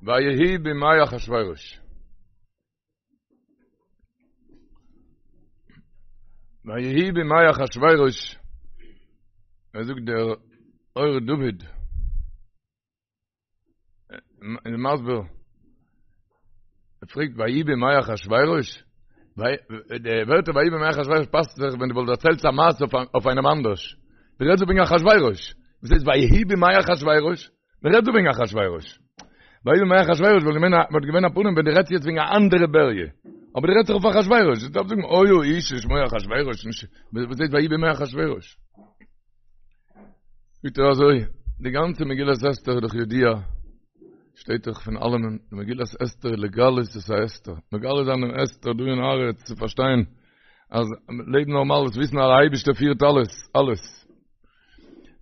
ויהי בימי אחשורוש. ויהי בימי אחשורוש, ער זאגט דער אור דוד, איז מסביר, ער פרעגט ויהי בימי אחשורוש, די ווערטער ויהי בימי אחשורוש פאסט זיך ווען דו וואלסט דערציילט א מעשה אויף איינעם אנדערש, דו רעדסט דא וועגן אחשורוש, וואס הייסט ויהי בימי אחשורוש? מען רעדט דא וועגן אחשורוש. ויהי בימי אחשורוש וואלט געווען א וואלט געווען א פנים ווען דו רעדסט יעצט וועגן א אנדערע בריה. אבער דו רעדסט דאך אויף אחשורוש. דו דארפסט זאגן היה איש ששמו אחשורוש, נישט וואס הייסט ויהי בימי אחשורוש. זאגט ער אזוי, די גאנצע מגילת אסתר איז דאך ידוע, שטייט דאך פון אלעמען, די מגילת אסתר איז לגלות את ההסתר, מגלה זיין דעם הסתר דא אין הארץ צו פארשטיין אז לעבן נארמאל איז וויסן אז דער אייבערשטער פירט אלעס, אלעס.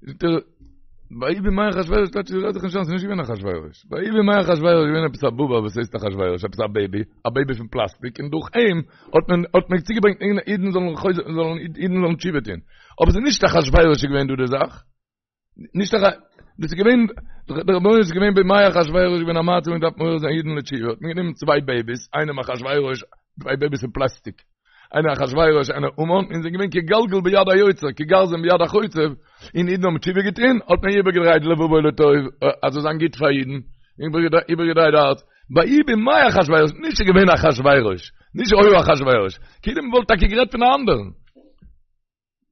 זאגט ער, ויהי בימי אחשורוש, טייטש רעד זיך נישט איין, ס'איז נישט געווען אחשורוש. ויהי בימי אחשורוש איז געווען עפעס א בובע וואס הייסט אחשורוש, עפעס א בעיבי, א בעיבי פון פלאסטיק, און דורך אים האט מען האט מען צוגעברענגט אידן זאלן חוזר זאלן אידן זאלן תשובה טון. אבער ס'איז נישט אחשורוש איז געווען דא די זאך. נישט אח... דאס איז געווען, דער רבונו איז געווען בימי אחשורוש איז געווען א מצב מען דארף מעורר זיין אידן לתשובה, האט מען גענומען צוויי בעיביס, איינעם אחשורוש, צוויי בעיביס פון פלאסטיק, איינער אחשורוש איינער המן, און זענען געווען כגלגל ביד היוצר, כגרזן ביד החוצב, און אידן האבן תשובה געטון, האט מען איבערגעדרייט לבבו לטוב, אז זאל זיין גוט פאר אידן, איבערגעדרייט די הארץ, ויהי בימי אחשורוש, נישט ס'איז געווען אחשורוש, נישט היה אחשורוש, כאילו מ'וואלט טאקע גערעדט פון א אנדערן.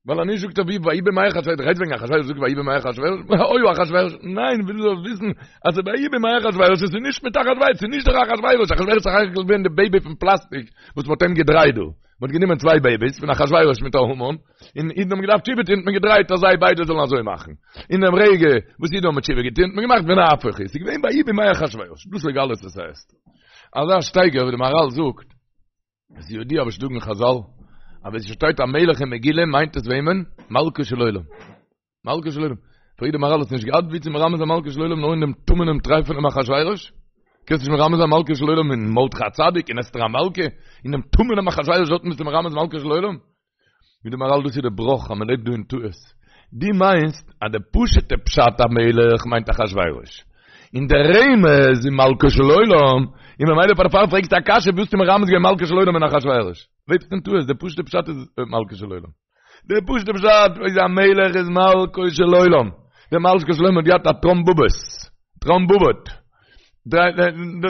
ווייל אז נישט זאגט ער ווי ויהי בימי אחשורוש, רעדט וועגן אחשורוש זאגט ויהי בימי אחשורוש, היה אחשורוש, ניין, וויל דו זאלסט וויסן אז ס'איז ויהי בימי אחשורוש, עס איז נישט מיט אחשורוש, ס'איז נישט דער אחשורוש, אחשורוש איז סך הכל געווען די בעיבי פון פלאסטיק וואס מ'האט אים געדרייט דא, מ'האט גענומען צוויי בעיביס פון אחשורוש מיט א המן, און אידן האבן געדארפט תשובה טון, האט מען געדרייט אז זיי ביידע זאלן אזוי מאכן, אין דעם רגע וואס אידן האבן תשובה געטון האט מען געמאכט ונהפוך הוא, ס'איז געווען ויהי בימי אחשורוש, דאס איז לגלות את ההסתר. אזא שטייגער ווי די מהרל זאגט. עס איז ידוע וואס זאגן חזל, אז ווען ס'שטייט א מלך אין מגילה מיינט עס וועמען? מלכו של עולם. מלכו של עולם. פרעגט די מהרל האסט נישט געהאט ווי צו מרמז זיין מלכו של עולם נאר אין דעם טמא'נעם טרייפענעם אחשורוש? קענסט נישט מרמז זיין מלכו של עולם אין מרדכי הצדיק אין אסתר המלכה? אין דעם טמא'נעם אחשורוש דארטן ביסטו מרמז מלכו של עולם? זאגט די מהרל דאס איז די בראך אז מען לעבט דא אין טעות. דו מיינסט אז די פשוט'ע פשט המלך מיינט אחשורוש. און דער רמז איז מלכו של עולם, און ממילא פאר דערפאר פרעגסטו א קשיא ווי האסטו מרמז געווען מלכו של עולם אין אחשורוש. לעבסט אין טעות, די פשוט'ע פשט איז מלכו של עולם. די פשוט'ע פשט איז א מלך איז מלכו של עולם. דער מלכו של עולם האט געהאט א טראמבובעס. טראמבובעט.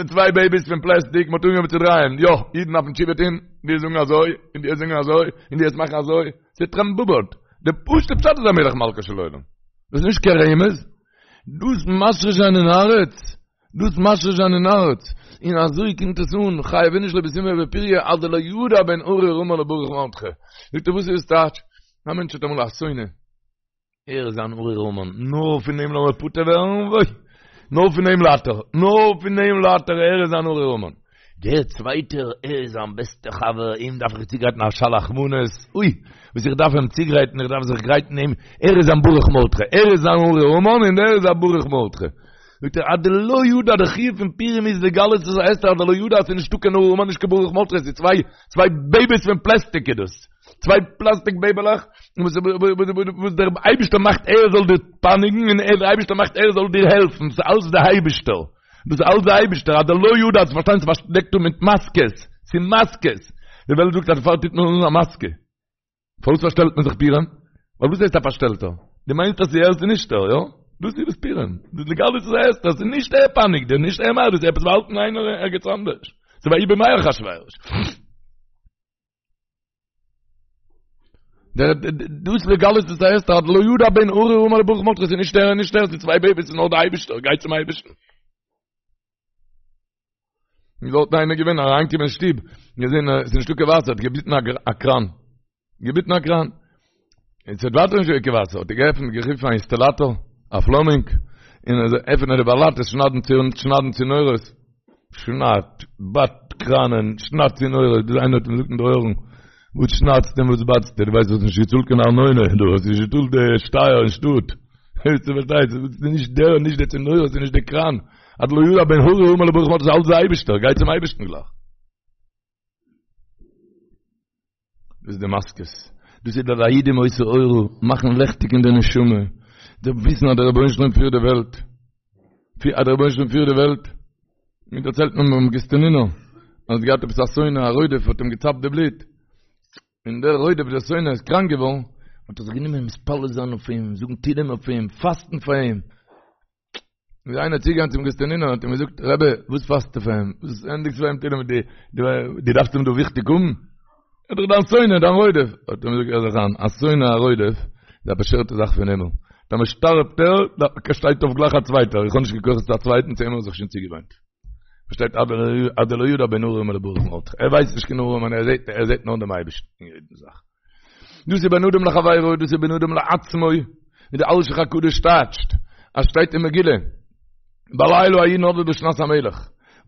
צוויי בעיביס פון פלעסטיק, מ'האט אנגעהויבן צו דרייען, יא, אידן דארפן תשובה טון, די זאגן אזוי, און די זאגן אזוי, און די מאכן אזוי, ס'איז טראמבובעט. די פשוט'ע פשט איז א מלך מלכו של עולם. דאס איז נישט קיין רמז. דאס משריש זיין אין הארץ, דאס משריש זיין אין הארץ, און אזוי קומט עס אן, חייב איניש לבסומי בפוריא עד דלא ידע בין ארור המן לברוך מרדכי. זאגט ער וואס איז עס טייטש? א מענטש האט אמאל א שונא, ער איז אן ארור המן, נאר פון אים לאמיר פטור ווערן, וואוי! נאר פון אים ליידט ער, נאר פון אים ליידט ער, ער איז אן ארור המן. דער צווייטער, ער איז זיין בעסטער חבר, אים דארף איך צוגרייטן א שלח מנות, אוי! וואס איך דארף אים צוגרייטן, איך דארף זיך גרייטן אים, ער איז זיין ברוך מרדכי, ער איז זיין ארור המן און דער איז זיין ברוך מרדכי. זאגט ער, עד דלא ידע, דער חיוב פון פורים איז לגלות את ההסתר, עד דלא ידע אז ס'איז נישטא קיין ארור המן, נישט קיין ברוך מרדכי, ס'איז צוויי, צוויי בעיביס פון פלעסטיק איז דאס. צוויי פלאסטיק בעיבעלעך וואס דער אייבישטער מאכט ער זאל דיר פייניגן און דער אייבישטער מאכט ער זאל דיר העלפן, ס'איז אלץ דער אייבישטער, דאס איז אלץ דער אייבישטער, עד דלא ידע, צו פארשטיין ס'איז פארדעקט דא מיט מאסקעס, ס'איז מאסקעס, די וועלט זאגט אז דערפאר טוט מען אן א מאסקע, פארוואס פארשטעלט מען זיך פורים? ווייל וואס הייסט א פארשטעלטער? דו מיינסט אז ס'איז ער ס'איז נישט ער, יא? דאס איז דאס פורים, דאס לגלות את ההסתר, ס'איז נישט ער פייניגט דיר, נישט ער מאכט דאס, עפעס באהאלטן איינער ערגעץ אנדערש, ס'איז ויהי בימי אחשורוש. דער דאס לגלות את ההסתר עד דלא ידע בין ארור המן לברוך מרדכי ס'איז נישט ער נישט ער ס'איז צוויי בעיביס ס'איז נאר דער אייבישטער גיי צום אייבישטן איז דארט איינער געווען אריינגעקומען אין שטוב געזען עס איז נישטא קיין וואסער האט געביטן א קראן געביטן א קראן און ס'האט ווייטער נישט געווען קיין וואסער האט ער געעפנט גערופן א אינסטאלאטאר א פלאמינג און ער זאל עפענען די באלאטעס שניידן צו שניידן צינורות שניידט, בייט קראנען, שניידט צינורות, ביז איינער האט אים געזאגט אין די אויערן, וואס שניידסטו און וואס בייטסטו, דו ווייסט דו האסט נישט געצאלט קיין ארנונה, דו האסט נישט געצאלט די שטייער אין שטאט, דו פארשטייסט, ס'איז נישט דער, נישט די צינורות, ס'איז נישט די קראן, עד דלא ידע בין ארור המן לברוך מרדכי, ס'איז אלץ דער אייבערשטער, גיי צום אייבערשטן גלייך. דאס איז די מאסקעס, דאס איז די ליהודים היתה אורה, מאכן לעכטיג אין די נשמה, די וויסן אז דער רבונו של עולם פירט די וועלט, אז דער רבונו של עולם פירט די וועלט. מיר דערציילט מען ביים גאסטינינער, אז ער האט געהאט עפעס א שונא א רודף האט אים געצאפט די בלוט, און דער רודף דער שונא איז קראנק געווארן, האט ער זיך גענומען מתפלל זיין אויף אים, זאגן תהילים אויף אים, פאסטן פאר אים. איז איינער צוגעגאנגען צום גאסטינינער און האט אים געזאגט, רבי, וואס פאסטו פאר אים? וואס ענדיגסטו פאר אים תהילים? דו דארפסט אים דא וויכטיג האבן? ער איז דאך דיין שונא, דיין רודף. האט ער אים געזאגט, הער זיך איין, א שונא א רודף איז א באשערטע זאך פון הימל. טאמער שטארבט ער, שטייט אויף גלייך א צווייטער. איך האב נישט קיין כוחות צו א צווייטן, צו אים האב איך זיך שוין צוגעוואוינט. פארשטייט עד דלא ידע בין ארור לברוך מרדכי. ער ווייסט נישט קיין ארעמאן, ער זעט, ער זעט נאר דעם אייבערשטן אין יעדן זאך. דאס איז בין אדם לחבירו, דאס איז בין אדם לעצמו, ווי דער אלשיך הקדוש טייטשט, אז שטייט אין מגילה, בלילה ההוא נדדה שנת המלך,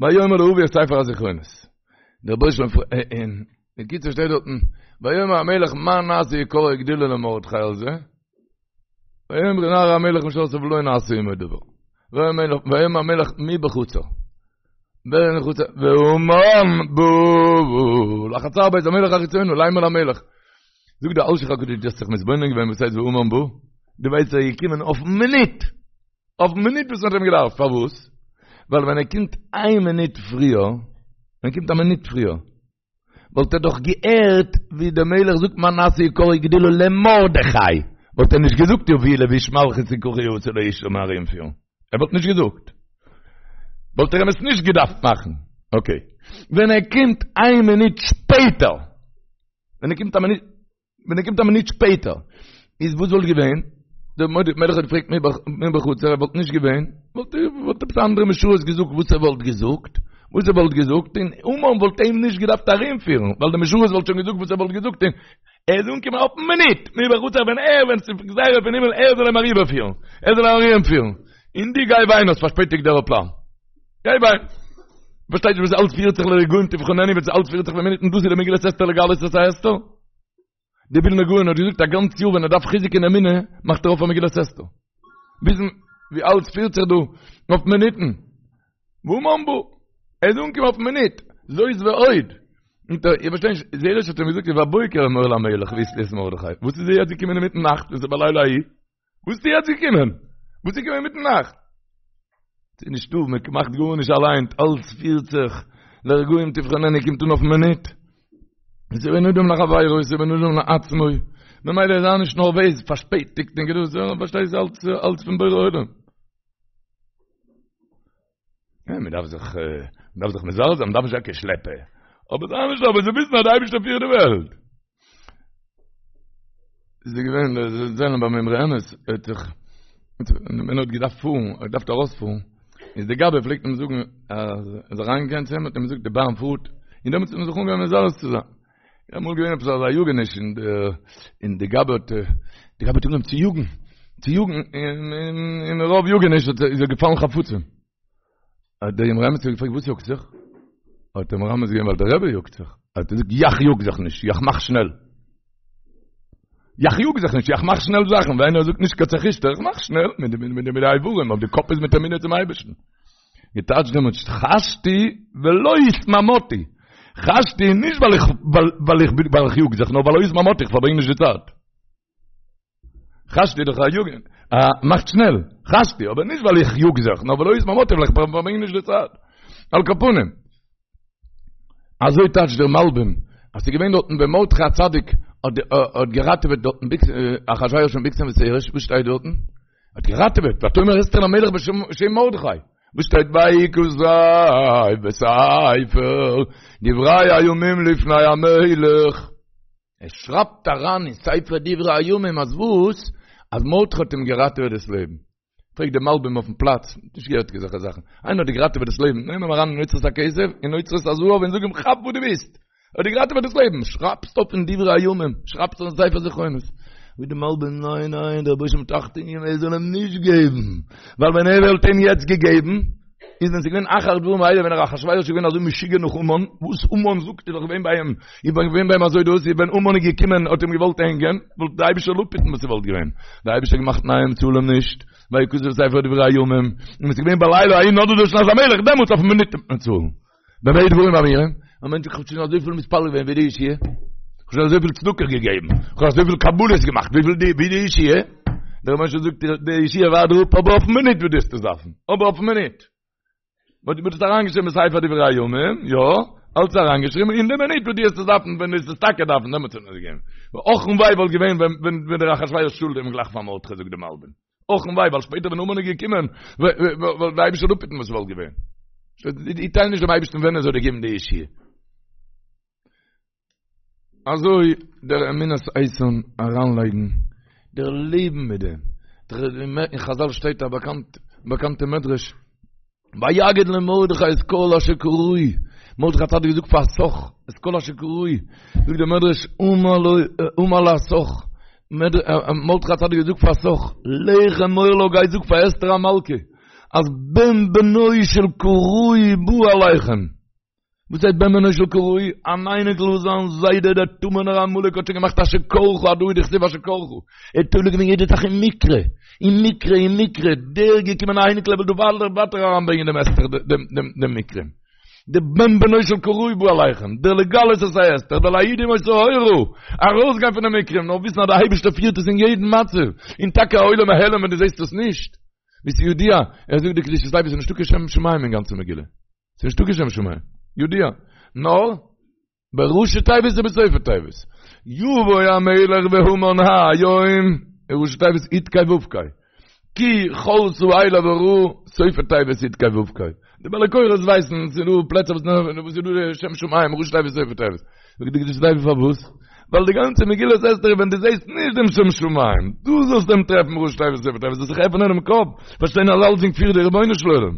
ויאמר להביא את ספר הזכרונות. דער רבונו של עולם אין בקיצור שטייט דארטן, ויאמר המלך מה נעשה יקר וגדולה למרדכי על זה? ויאמרו נערי המלך משרתיו לא נעשה עמו דבר. ויאמר המלך מי בחצר? ווער אין חצר? והמן בא לחצר בית המלך החיצונה לאמר למלך. זאגט דער אלשיך הקדוש דו האסט זיך מתבונן געווען וואס הייסט והמן בא? דו ווייסט ער איז געקומען אויפן מינוט! אויפן מינוט וואס מ'האט אים געדארפט, פארוואס? ווייל ווען ער קומט איין מינוט פריער, ווען ער קומט א מינוט פריער, וואלט ער דאך געהערט ווי דער מלך זאגט מה נעשה יקר וגדולה למרדכי, וואלט ער נישט געזאגט יביאו לבוש מלכות וככה יעשה לאיש זאל מען ארומפירן, ער וואלט נישט געזאגט, וואלט ער אים עס נישט געדארפט מאכן, אקעי, ווען ער קומט איין מינוט שפעטער, ווען ער קומט א מינוט. ווען ער קומט א מינוט שפעטער, איז וואס וואלט געווען? דער מלך האט געפרעגט מי בחצר, ער וואלט נישט געווען, וואלט וואלט עפעס א אנדערע משרת געזאגט וואס ער וואלט געזאגט, וואס ער וואלט געזאגט, און המן וואלט אים נישט געדארפט ארומפירן, ווייל דער משרת וואלט שוין געזאגט וואס ער וואלט געזאגט, און ער איז אנגעקומען אויפן מינוט, מי בחצר, ווען ער, ווען ס'איז גזירה פון הימל, ער זאל אים אריבערפירן, ער זאל אים ארומפירן, און דו גיי וויין האסט פארשפעטיגט דער עראפלאן. גיי וויין. פארשטייט נישט וואס אלץ פירט זיך לרגעים תבחננו וואס אלץ פירט זיך במינוטן דאס איז די מגילת אסתר לגלות את ההסתר. די ווילנא גאון האט געזאגט א גאנץ יאר ווען ער דארף חיזוק אין אמונה מאכט ער אויף א מגילת אסתר. וויסן ווי אלץ פירט זיך דא אויף מינוטן. והמן בא. ער איז אנגעקומען אויפן מינוט. זאת ועוד. איך פארשטיי נישט, זרש האט אים געזאגט ובבוקר אמור למלך ויתלו את מרדכי. וואס איז ער יעצט געקומען אינמיטן נאכט וואס איז בלילה ההוא? וואס איז יעצט געקומען? וואס איז געקומען אינמיטן נאכט? ס'איז נישטא, מען מאכט גארנישט אליין, אלץ פירט זיך, לרגעים תבחננו קומט אן אויפן מינוט. עס איז בין אדם לחבירו, עס איז בין אדם לעצמו, ממילא זיי נישט נערוועז, פארשפעטיגט און געדאס, פארשטייסט אלץ אלץ פון בורא עולם. מען דארף זיך, מען דארף זיך מזרז זיין, מען דארף נישט זיין קיין שלעפער. אבער זיי נישט אבער זיי וויסן אז דער אייבערשטער פירט די וועלט. איז געווען דער זעלבער ביים אמרי אמת, האט זיך, ווען ער האט געדארפט פארן, ער האט געדארפט ארויספארן, איז דער גבאי פלעגט אים זאגן, אז ער איז אריינגעגאנגען צו אים, האט אים געזאגט די באן פארט, און דעמאלטס האט מען זיך אנגעהויבן מזרז צו זיין. איז אמאל געווען עפעס אזא יאגעניש און די און די גבאי האט די גבאי האט אנגעהויבן צו יאגן צו יאגן און און מרוב יאגעניש האט איז ער געפאלן חפצים. האט דער אמרי אמת געפרעגט וואס יאגט זיך? האט ער מרמז געווען ווייל דער רבי יאגט זיך. האט ער געזאגט יאך יאג זיך נישט, יאך מאך שנעל. יאך יאג זיך נישט, יאך מאך שנעל זאכן, ווען איינער זאגט נישט קיין צעחישטער, איך מאך שנעל מיט די מיט די מיט די איברים, אבער די קאפ איז מיט אמונה צום אייבערשטן. געטייטשט דעמאלטס חשתי ולא התמהמהתי. חשתי נישט ווייל איך ווייל איך ווייל איך יאג זיך, נאר ווייל לא התמהמהתי, איך פארברענג נישט די צייט. חשתי דאך א יאגן, א מאכט שנעל, חשתי, אבער נישט ווייל איך יאג זיך, נאר ווייל לא התמהמהתי, ווייל איך פארברענג נישט די צייט. על כל פנים. אזוי טייטשט דער מלבים, אז ס'איז געווען דארטן ווען מרדכי הצדיק האט געראטעוועט דארטן אחשורוש פון בגתן ותרש, וואס שטייט דארטן? האט געראטעוועט, ותאמר אסתר למלך בשם מרדכי, וואס שטייט ויכתב בספר דברי הימים לפני המלך, ער שרייבט אריין אין ספר דברי הימים אז וואס? אז מרדכי האט אים געראטעוועט דאס לעבן. פרעגט דער מלבים אויפן פלאץ, נישט געהערט אזעלכע זאכן, איינער האט דיר געראטעוועט דאס לעבן, נעם אים אריין אין אוצרות הכסף, אין אוצרות הזהב און זאג אים כאפ וואס דו ווילסט, ער האט דיר געראטעוועט דאס לעבן, שרייבסט אויף אין דברי הימים, שרייבסט אין ספר זכרונות. זאגט דער מלבים, ניין ניין, דער רבוש"ע האט אכטונג געגעבן ער זאל אים נישט געבן, ווייל ווען ער וואלט אים יעצט געגעבן, איז ווען ס'איז געווען אחר הדברים האלה ווען אחשורוש איז געווען אזוי משוגע נאך המן, וואס המן זאגט איז דאך געווען ביי אים, איז געווען ביי אים אזוי דאס, איז ווען המן איז געקומען האט אים געוואלט הענגען, וואלט די אייבישטער זאל אפהיטן וואס ס'וואלט געווען, די אייבישטער האט געמאכט ניין צאל אים נישט, ויכתב בספר דברי הימים, און עס איז געווען בלילה ההוא נדדה שנת המלך, דעמאלטס אויפן מינוט וועט מען צאלן. במה דברים אמורים? א מענטש זאגט כ'האב שוין אזויפיל מתפלל געווען וואו די ישועה, כ'האב שוין אזויפיל צדקה געגעבן, כ'האב אזויפיל קבלות געמאכט, וויפיל די וואו די ישועה? דער רבונו של עולם זאגט דיר די ישועה ווארט דיר אפ אבער אויפן מינוט וואס דו וועסט עס דארפן, אבער אויפן מינוט. מ'האט עס אריינגעשריבן בספר דברי הימים, יא, אלץ אריינגעשריבן, אין די מינוט וואס דו וועסט עס דארפן, ווען דו וועסט עס טאקע דארפן, דעמאלטס וועט מען עס געבן. אך און וויי וואלט געווען ווען ווען דער אחשורוש צאלט אים גלייך פאר מרדכי, זאגט די מלבים. אך און וויי, ווייל שפעטער ווען המן איז געקומען, וואלט דער אייבערשטער אפהיטן וואס וואלט געווען. דו טייל נישט דעם אייבערשטן ווען ער זאל דיר געבן די ישועה. אזוי דער אמונת איתן אריינלייגן דער לעבן מיט דעם, אין חזל שטייט א באקאנט באקאנטע מדרש, ויגד למרדכי את כל אשר קרהו, מרדכי הצדיק האט געזאגט פאר התך את כל אשר קרהו, זאגט דער מדרש אמר לו אמר להתך, מרדכי הצדיק האט געזאגט פאר התך, לך אמור לה גיי זאג פאר אסתר המלכה, אז בן בנו של קראי בא עליכם. וואס הייסט בן בנו של קראי? אן אייניקל וואס זיין זיידע דער טמא'נער עמלק האט שוין געמאכט אשר קרך הדא הוא דכתיב אשר קרך. ער האט תולה געווען יעדע זאך אין מקרה, אין מקרה, אין מקרה, דער געקומען א אייניקל ער וויל דא ווייטער ווייטער אריינברענגען דעם הסתר דעם דעם מקרה. דער בן בנו של קראי בא עליכם, דער לגלות את ההסתר, דער ליהודים היתה אורה, ארויסגיין פון די מקרים, נאר וויסן אז דער אייבערשטער פירט עס אין יעדן מצב, און טאקע א עולם העלם ווען דו זעסט עס נישט. ווי ס'איז ידוע, ער זאגט די קדושת לוי ס'איז נישטא קיין שם שמים אין גאנצע מגילה. ס'איז נישטא קיין שם שמים. ידוע. נאר, בראשי תיבות ובסופי תיבות. יבוא המלך והמן היום, ראשי תיבות יוד קיי וו קיי. כי כלתה אליו הרעה, סופי תיבות יוד קיי וו קיי. די בעלי קורא'ס ווייסן, ס'איז דא פלעצער וואס איז דא שם שמים, ראשי תיבות סופי תיבות. זאגט די קדושת לוי פארוואס? ווייל די גאנצע מגילת אסתר איז ווען דו זעסט נישט דעם שם שמים, דו זאלסט אים טרעפן ראשי תיבות סופי תיבות, זאלסט זיך עפענען דעם קאפ, פארשטיין אז אלצדינג פירט דער רבונו של עולם.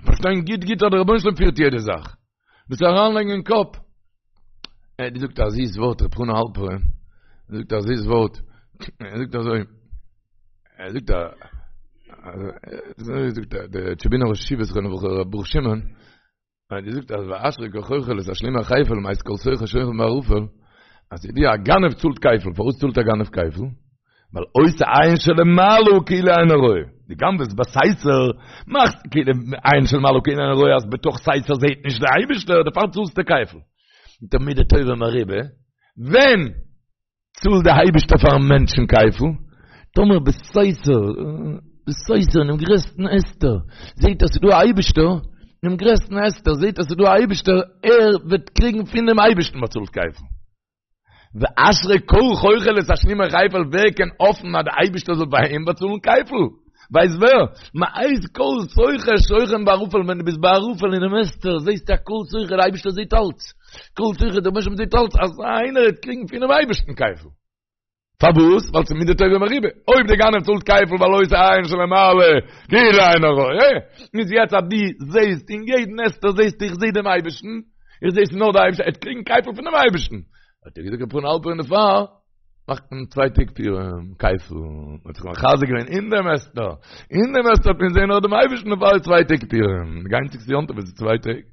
פארשטיין גוט גוט אז דער רבונו של עולם פירט יעדע זאך. דאס אריינלייגן אין קאפ. ער האט געזאגט א זיס ווארט ר' חנא האלפערן. ער זאגט א זיס ווארט. ער זאגט אזוי. ער זאגט א אזוי זאגט ער דער טשעבינער ראש ישיבה זכרונו לברכה ר' ברוך שמעון. ער האט געזאגט אז ואשרי כל חוכל לתשלומי כפל מאת כל סוחר שוכן בערפל. אז ידוע א גנב צאלט כפל. פארוואס צאלט א גנב כפל? ווייל עושה עין שלמעלה כאילו אינו רואה. דו גנב'עסט בסתר, מאכסט כאילו עין שלמעלה כאילו אינו רואה אז בתוך סתר זעהט נישט דער אייבישטער, דערפאר צאלסטו כפל. מיט א מידה טובה מרובה, ווען צאלט דער אייבישטער פארן מענטשן כפל? טאמער בסתר, בסתר אינעם גרעסטן הסתר, זעהט ער ס'איז דא א אייבישטער, אינעם גרעסטן הסתר זעהט ער ס'איז דא א אייבישטער, ער וועט קריגן פונעם אייבישטן באצאלט כפל. ואשרי כל חוכל לתשלומי כפל ווער קען האפן אז די אייבישטער זאל ביי אים באצאלן כפל? ווייסט ווער? מאת כל סוחר שוכן בערפל ווען דו ביסט בערפל אינעם הסתר זעסטו אז כל סוחר די אייבישטער זעט אלץ כל סוחר דער רבונו של עולם זעט אלץ אזא איינער וועט קריגן פונעם אייבישטן כפל פארוואס? ווייל ס'איז מידה טובה מרובה אויב דער גנב צאלט כפל ווייל עושה עין שלמעלה כאילו אינו רואה איז יעצט אז דו זעסט אין יעדן הסתר זעסטו איך זע דעם אייבישטן איך זע עס נאר דער אייבערשטער, ער וועט קריגן כפל פונעם אייבערשטן. האט ער געזאגט ר' חנא האלפערן דערפאר מאכט מען צוויי טעג פורים כפל, מען האט זיך מחזק געווען אין דעם הסתר, אין דעם הסתר האט מען געזען נאר דעם אייבערשטן דערפאר איז צוויי טעג פורים, די איינציגסטע יום טוב איז צוויי טעג.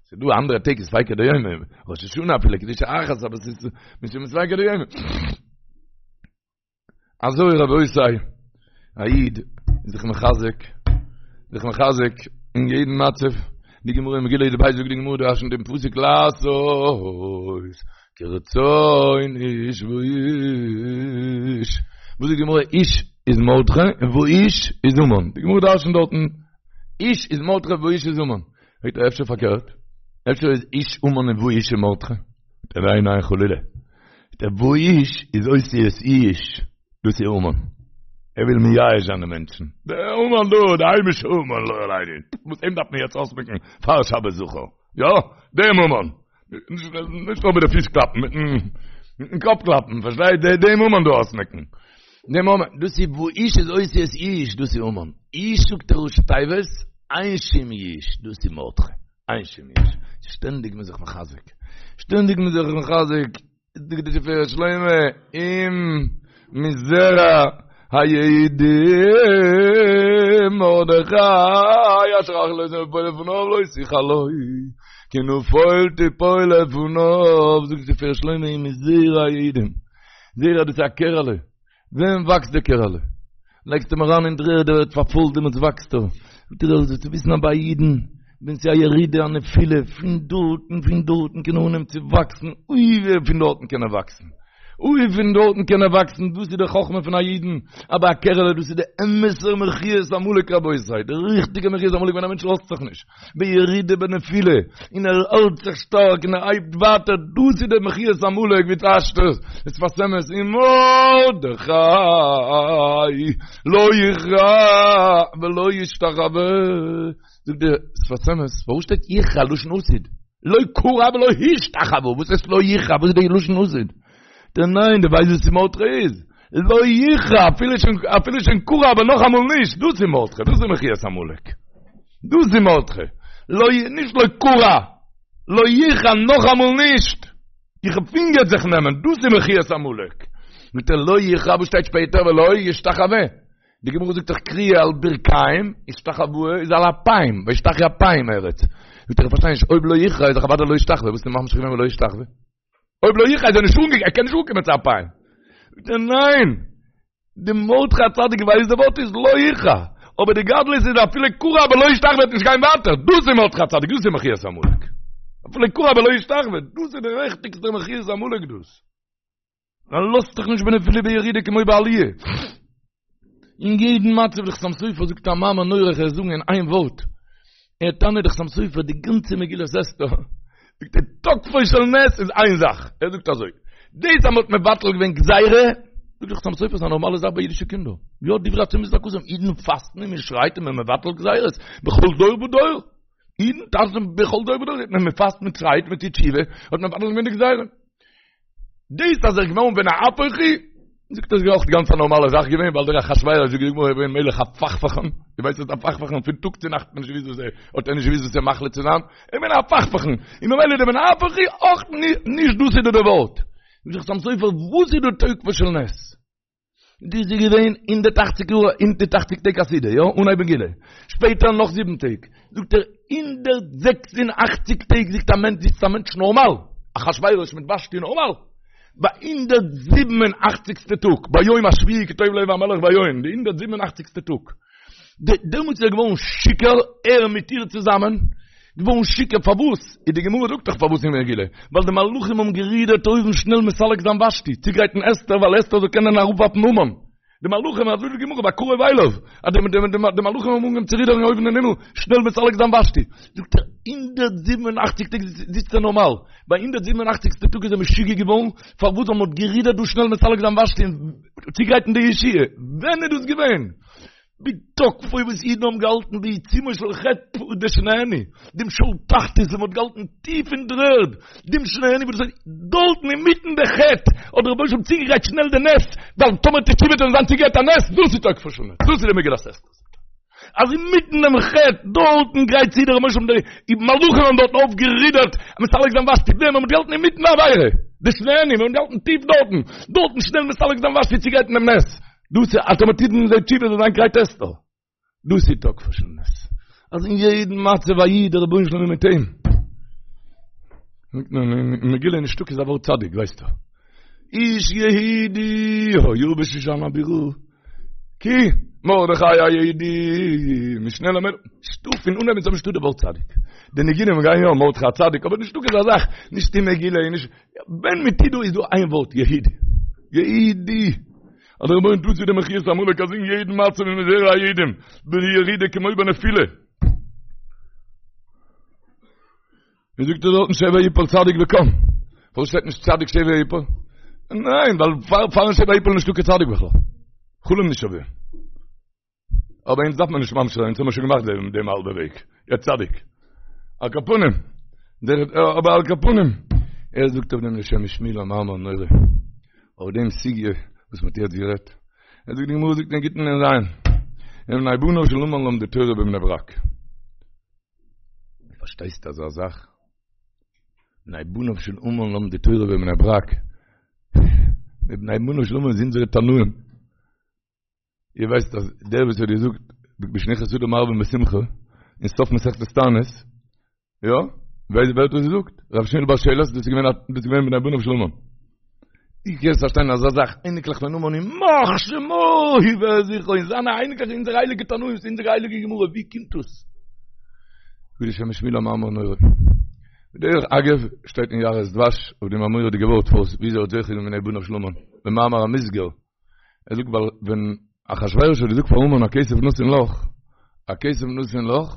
ס'איז דא אנדערע טעג איז ספיקא דיומא, ראש השנה אפילו קדושה אחת אבער ס'איז משום ספיקא דיומא. אזוי רבותי, א איד איז זיך מחזק, זיך מחזק אין יעדן מצב, די גמרא אין מגילה י"ב זאגט די גמרא דרש'נט דעם פסוק לעשות כרצון איש ואיש, וואס זאגט די גמרא איש איז מרדכי און ואיש איז המן, די גמרא דרש'נט דארטן איש איז מרדכי ואיש איז המן, פרעגט ער אפשר פארקערט, אפשר איז איש המן און ואיש איז מרדכי, זאגט ער ניין ניין חלילה. דער ואיש איז אותיות יאוש, דאס איז המן. ער וויל מייאש זיין די מענטשן. דער המן דא, דער היימישער המן, לא עלינו. וואס אים דארף מען יעצט אויסמעקן פאר שבת זכור. יא, דעם המן. נישט נאר מיט די פיס קלאפן, מיטן קאפ קלאפן, פארשטייט? דעם המן דא אויסמעקן. דעם המן, דאס איז ואיש איז אותיות יאוש, דאס איז המן. איש זאגט ער ראשי תיבות, אין שום יאוש, דאס איז מרדכי. אין שום יאוש. שטענדיג מען זיך מחזק. שטענדיג מען זיך מחזק. זאגט די תפארת שלמה, אם מזרע היהודים מרדכי אשר החלות נפול לפניו לא תוכל לו כי נפול תפול לפניו זאגט די תפארת שלמה אם מזרע היהודים זרע דאס איז א קערעלע ווען וואקסט די קערעלע? לייגסט אים אריין אין דר'ערד, ער ווערט פארפוילט, דעמאלטס וואקסט ער. זאגט ער, זאלסטו וויסן אז ביי אידן, ווען ס'איז א ירידה, א נפילה, פון דארטן, פון דארטן קען ער אנהייבן צו וואקסן, אוי ווי פון דארטן קען ער וואקסן. אוי פון דארטן קען ער וואקסן, דאס איז די חכמה פון א אידן, אבער א קערעלע דאס איז די אמת'ע מחיית עמלק רבותי, די ריכטיגע מחיית עמלק ווען א מענטש לאזט זיך נישט, בירידה בנפילה, און ער האלט זיך שטארק און ער הייבט ווייטער, דאס איז די מחיית עמלק ווי טייטשט עס, דער שפת אמת ומרדכי לא יכרע ולא ישתחווה, זאגט דער שפת אמת, פארוואס שטייט יכרע לשון עתיד? לא כרע ולא השתחווה, וואס הייסט לא יכרע, וואס איז די לשון עתיד? דער ניין, דו ווייסט וואס מרדכי איז? לא יכרע, אפילו שוין, אפילו שוין כרע אבער נאכאמאל נישט, דאס איז מרדכי, דאס איז מחיית עמלק. דאס איז מרדכי. לא, נישט לא כרע, לא יכרע, נאכאמאל נישט. איך פינגער זיך נעמען, דאס איז מחיית עמלק. מיט דער לא יכרע, וואס שטייט שפעטער, ולא ישתחווה. די גמרא זאגט דאך כריעה על ברכיים, השתחוואה איז על אפיים, וישתחו אפיים ארץ. זאגט ער איך פארשטיי נישט, אויב לא יכרע איז דאך אוודאי לא ישתחווה, וואס איז ממשיך געווען ולא ישתחווה? אויב לא יכרע איז ער נישט אנגעקומען, ער קען נישט אנקומען צו אפיים. זאגט ער ניין, די מרדכי הצדיק ווייסט די ווארט איז לא יכרע, אבער די גדלות איז אפילו כרע אבער לא ישתחווה וועט נישט גיין ווייטער, דאס איז מרדכי הצדיק, דאס איז מחיית עמלק. אפילו כרע אבער לא ישתחווה, דאס איז די ריכטיגסטע מחיית עמלק דאס. ער לאזט זיך נישט בנפילה בירידה כמו בעליה. אין יעדן מצב דער חתם סופר זאגט א מאמר נורא איך וועל זאגן אין איין ווארט. ער טענה'ט דער חתם סופר די גאנצע מגילת אסתר. זאגט ער תוקפו של נס איז איין זאך. ער זאגט אזוי. דאס אז מ'האט מבטל געווען גזירה, זאגט דער חתם סופר איז א נארמאלע זאך ביי אידישע קינדער. יא דברי הצומות זעקתם אידן פאסטן און מ'שרייט און מ'מבטל גזירות בכל דור ודור. אידן טאנצן בכל דור ודור. מען פאסט מען שרייט מען טוט תשובה האט מען מבטל געווען די גזירה. דאס אז ער איז געווארן ונהפוך הוא, זאגט ער איז אויך גאנץ א נארמאלע זאך געווען, ווייל דער אחשורוש זאגט די גמרא איז געווען מלך הפכפכן, דו ווייסט וואס איז א הפכפכן, פון טאג צו נאכט האט מען נישט געוואוסט וואס ער, האט ער נישט געוואוסט וואס ער מחליט צו זיין, ער איז געווען א הפכפכן, און ממילא דער ונהפוך הוא אויך נישט דאס איז דער ווארט. זאגט דער חתם סופר וואס איז דא תוקפו של נס? דאס איז געווען הונדערט אַכציק יאר, הונדערט אַכציק טעג א סעודה, יא, אנהייב מגילה. שפעטער נאך זיבן טעג. זאגט ער, הונדערט זעקס און אַכציק טעג זיצט א מענטש, זיצט א מענטש נארמאל, אחשורוש מיט ושתי נארמאל. ביי הונדערט זיבן און אַכציקסטע טאג, ביום השביעי כי טוב לב המלך ביין, די הונדערט זיבן און אַכציקסטע טאג. דעמאלטס איז ער געווארן שיכור, ער מיט איר צוזאמען, געווארן שיכור, פארוואס? איז די גמרא זאגט דאך פארוואס אין מגילה, ווייל די מלאכים האבן גערודערט אויבן שנעל מסלק זיין ושתי, צוגרייטן אסתר, ווייל אסתר זאל קענען אראפווארפן המן. די מלאכים, אזוי זאגט די גמרא, בקרוב אליו, אז די מלאכים האבן אנגעהויבן צו רודערן אויבן אין הימל, שנעל מסלק זיין ושתי. זאגט ער, הונדערט זיבן און אכציג טעג זיצט ער נארמאל, ביי הונדערט זיבן און אכציגסטע טאג איז ער משוגע געווארן, פארוואס ווייל מען האט גערודערט דא שנעל מסלק זיין ושתי און צוגרייטן די ישועה. ווען איז דאס געווען? בתוקפו וואס אידן האבן געהאלטן בעיצומו של חטא די שנהנו, דעם שאול תחתית וואס מ'האט געהאלטן טיף אין דר'ערד, דעם שנהנו וואס דאס דארטן אינמיטן די חטא האט דער רבונו של עולם צוגעגרייט שנעל די נס, ווייל טאמער תשובה וועט זיין צוגעגרייט א נס, דאס איז תוקפו של נס, דאס איז די מגילת אסתר. אז אינמיטן דעם חטא דארטן גרייט צו דער רבונו של עולם די מלאכים האבן דארטן אויפגערודערט מסלק זיין ושתי, ווען מ'האט געהאלטן אינמיטן די עבירה, די שנהנו, מ'האט געהאלטן טיף דארטן, דארטן שנעל מסלק זיין ושתי צוגרייטן דעם נס. דאס איז אז טאמער טוט מען זיי תשובה זאל זיין גרייט אסתר. דאס איז תוקפו של נס. אז אין יעדן מצב א איד דער רבונו של עולם איז מיט אים. אין מגילה נישטא קיין ווארט צדיק ווייסטו. איש יהודי היה בשושן הבירה. כי מרדכי היהודי משנה למלך. נישטא פון אנהייב ביז סוף נישטא די ווארט צדיק. די ניגונים גייען יא מרדכי הצדיק אבער נישטא קיין אזא זאך נישט אין מגילה נישט ווען מ'טוט דא איז דא איין ווארט יהודי. יהודי. אז דער רבונו טוט צו די מחיית עמלק אז אין יעדן מצב איז מזרע היהודים בירידה כמו בנפילה. ווי זאגט ער דארטן שבר יפול צדיק וקם. פארוואס שטייט נישט צדיק שבר יפול? ניין, ווייל פאר פארן שבר יפול נישטא קיין צדיק בכלל. חלום נישט אויף דעם. אבער אונז דארף מען נישט ממשיך זיין, אונז האבן שוין געמאכט דעם דעם האלבע וועג. יא צדיק. על כל פנים. דער אבער על כל פנים. ער זאגט אויף דעם שם משמואל א מאמר נורא. אויף דעם סוגיא וואס מ'האט יעצט גערעדט. ער זאגט די גמרא זאגט אין גיטין נ"ז. ובני בניו של המן למדו תורה בבני ברק. פארשטייסט אזא זאך? בני בניו של המן למדו תורה בבני ברק. די בני בניו של המן איז אונזערע תנאים. איר ווייסט אז דער וואס האט געזאגט משנכנס אדר מרבין בשמחה אין סוף מסכת תענית, יא? ווייסט ווער האט דאס געזאגט? רב שמואל בר שילת, דאס איז געווען דאס איז געווען בני בניו של המן. ווי קענסט פארשטיין אזא זאך, אייניקלעך פון המן ימח שמו וזכרו, און זיינע אייניקלעך אונזערע הייליגע תנאים, אונזערע הייליגע גמרא, ווי קומט דאס? זאגט דער שם משמואל א מאמר נורא. בדרך אגב שטייט אין יערות דבש אויף דעם א מורא'דיגע ווארט פארוואס וויאזוי האט זוכה געווען מבני בניו של המן במאמר המוסגר ער זאגט ווייל ווען אחשורוש האט געזאגט פאר המן הכסף נתון לך הכסף נתון לך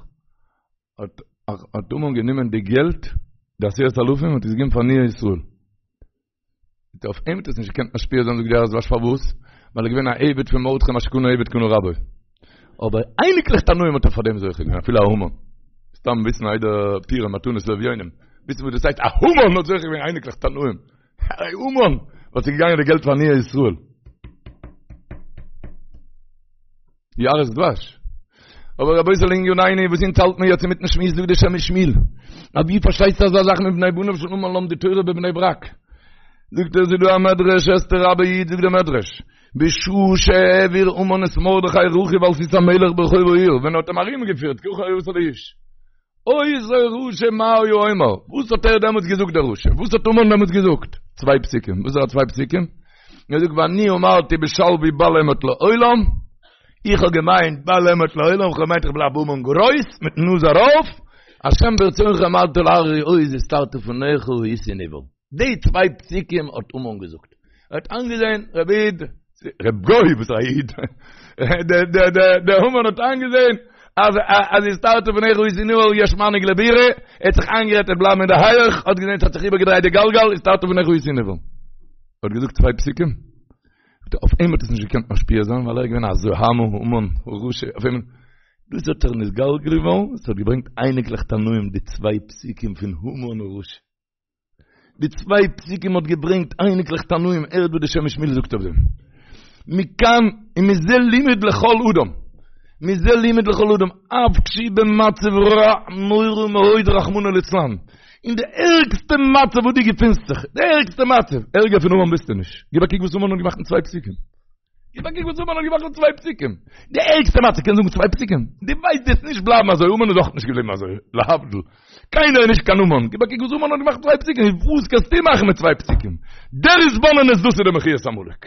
האט האט המן גענומען די געלט די עשרת אלפים האט עס געגעבן פאר עניי ישראל אויף אים האט עס נישט געקענט משפיע זיין זאגט די יערות דבש פארוואס? ווייל ער איז געווען א עבד פון מרדכי מה שקנה עבד קנה רבו. אבער אייניקלעך תנאים האט ער פאר דעם זוכה געווען אפילו א המן. סתם וויסן איידער פורים מתנות לאביונים. וויסן וואס דאס הייסט א המן האט זוכה געווען אייניקלעך תנאים. א המן וואס איז געגאנגען די געלט פאר עניי ישראל. יערות דבש. אבער רבותי לענינינו וואס אונז האלט מיר יעצט אינמיטן שמועס זאגט די שם משמואל. אז ווי פארשטייסטו אזא זאך מבני בניו של המן למדו תורה בבני ברק? זאגט ער ס'איז דא א מדרש אסתר רבה י' זאגט דער מדרש בשעה שהעביר המן את מרדכי רכוב על סוס המלך ברחוב העיר ווען ער האט אים ארומגעפירט ככה יעשה לאיש אותו רשע מה היה אומר? וואס האט ער דעמאלטס געזאגט דער רשע? וואס האט המן דעמאלטס געזאגט? צוויי פסוקים. וואס זענען צוויי פסוקים? ער זאגט ואני אמרתי בשלוי בל אמוט לעולם, איך האב געמיינט בל אמוט לעולם, איך האב געמיינט איך בלייב המן גרויס, מיטן נאז ארויף, השם ברצונך המדת להררי עוז הסתרת פניך הייתי נבהל. די צוויי פסוקים האט המן געזאגט. ער האט איינגעזען, רבי איד, רב גוי וואס א איד, דער המן האט איינגעזען אז אז הסתרת פניך הייתי נבהל יש מנהיג לבירה, ער האט זיך איינגערעדט ער וועט בלייבן אין די הייעך, האט געזען ס'האט זיך איבערגעדרייט די גלגל, הסתרת פניך הייתי נבהל. ער האט געזאגט צוויי פסוקים, אויף אים האט עס נישט געקענט משפיע זיין ווייל ער איז געווען א זוהמא המן הרשע, אויף אים, דאס האט ער נתגלגל געווארן, עס האט געברענגט אייניקלעך תנאים די צוויי פסוקים פון המן הרשע. די צוויי פסוקים האט געברענגט אייניקלעך תנאים, הערט וואס די שם משמואל זאגט אויף דעם. מכאן ומזה לימוד לכל אדם, מזה לימוד לכל אדם, אף כשהוא במצב רע נורא מאוד רחמנא ליצלן, אין די ערגסטע מצב וואס דו געפינסט זיך, די ערגסטע מצב, ערגער פון המן ביסטו נישט, גיב א קוק וואס המן האט געמאכט מיט צוויי פסוקים. גיב א קוק וואס המן האט געמאכט מיט צוויי פסוקים. די ערגסטע מצב קען זאגן צוויי פסוקים. דו ווייסט דו וועסט נישט בלייבן אזוי, המן איז אויך נישט געבליבן אזוי, להבדיל. קיינער איז נישט קיין המן. גיב א קוק וואס המן האט געמאכט מיט צוויי פסוקים. וואס קענסטו מאכן מיט צוויי פסוקים? דער התבוננות דאס איז די מחיית עמלק.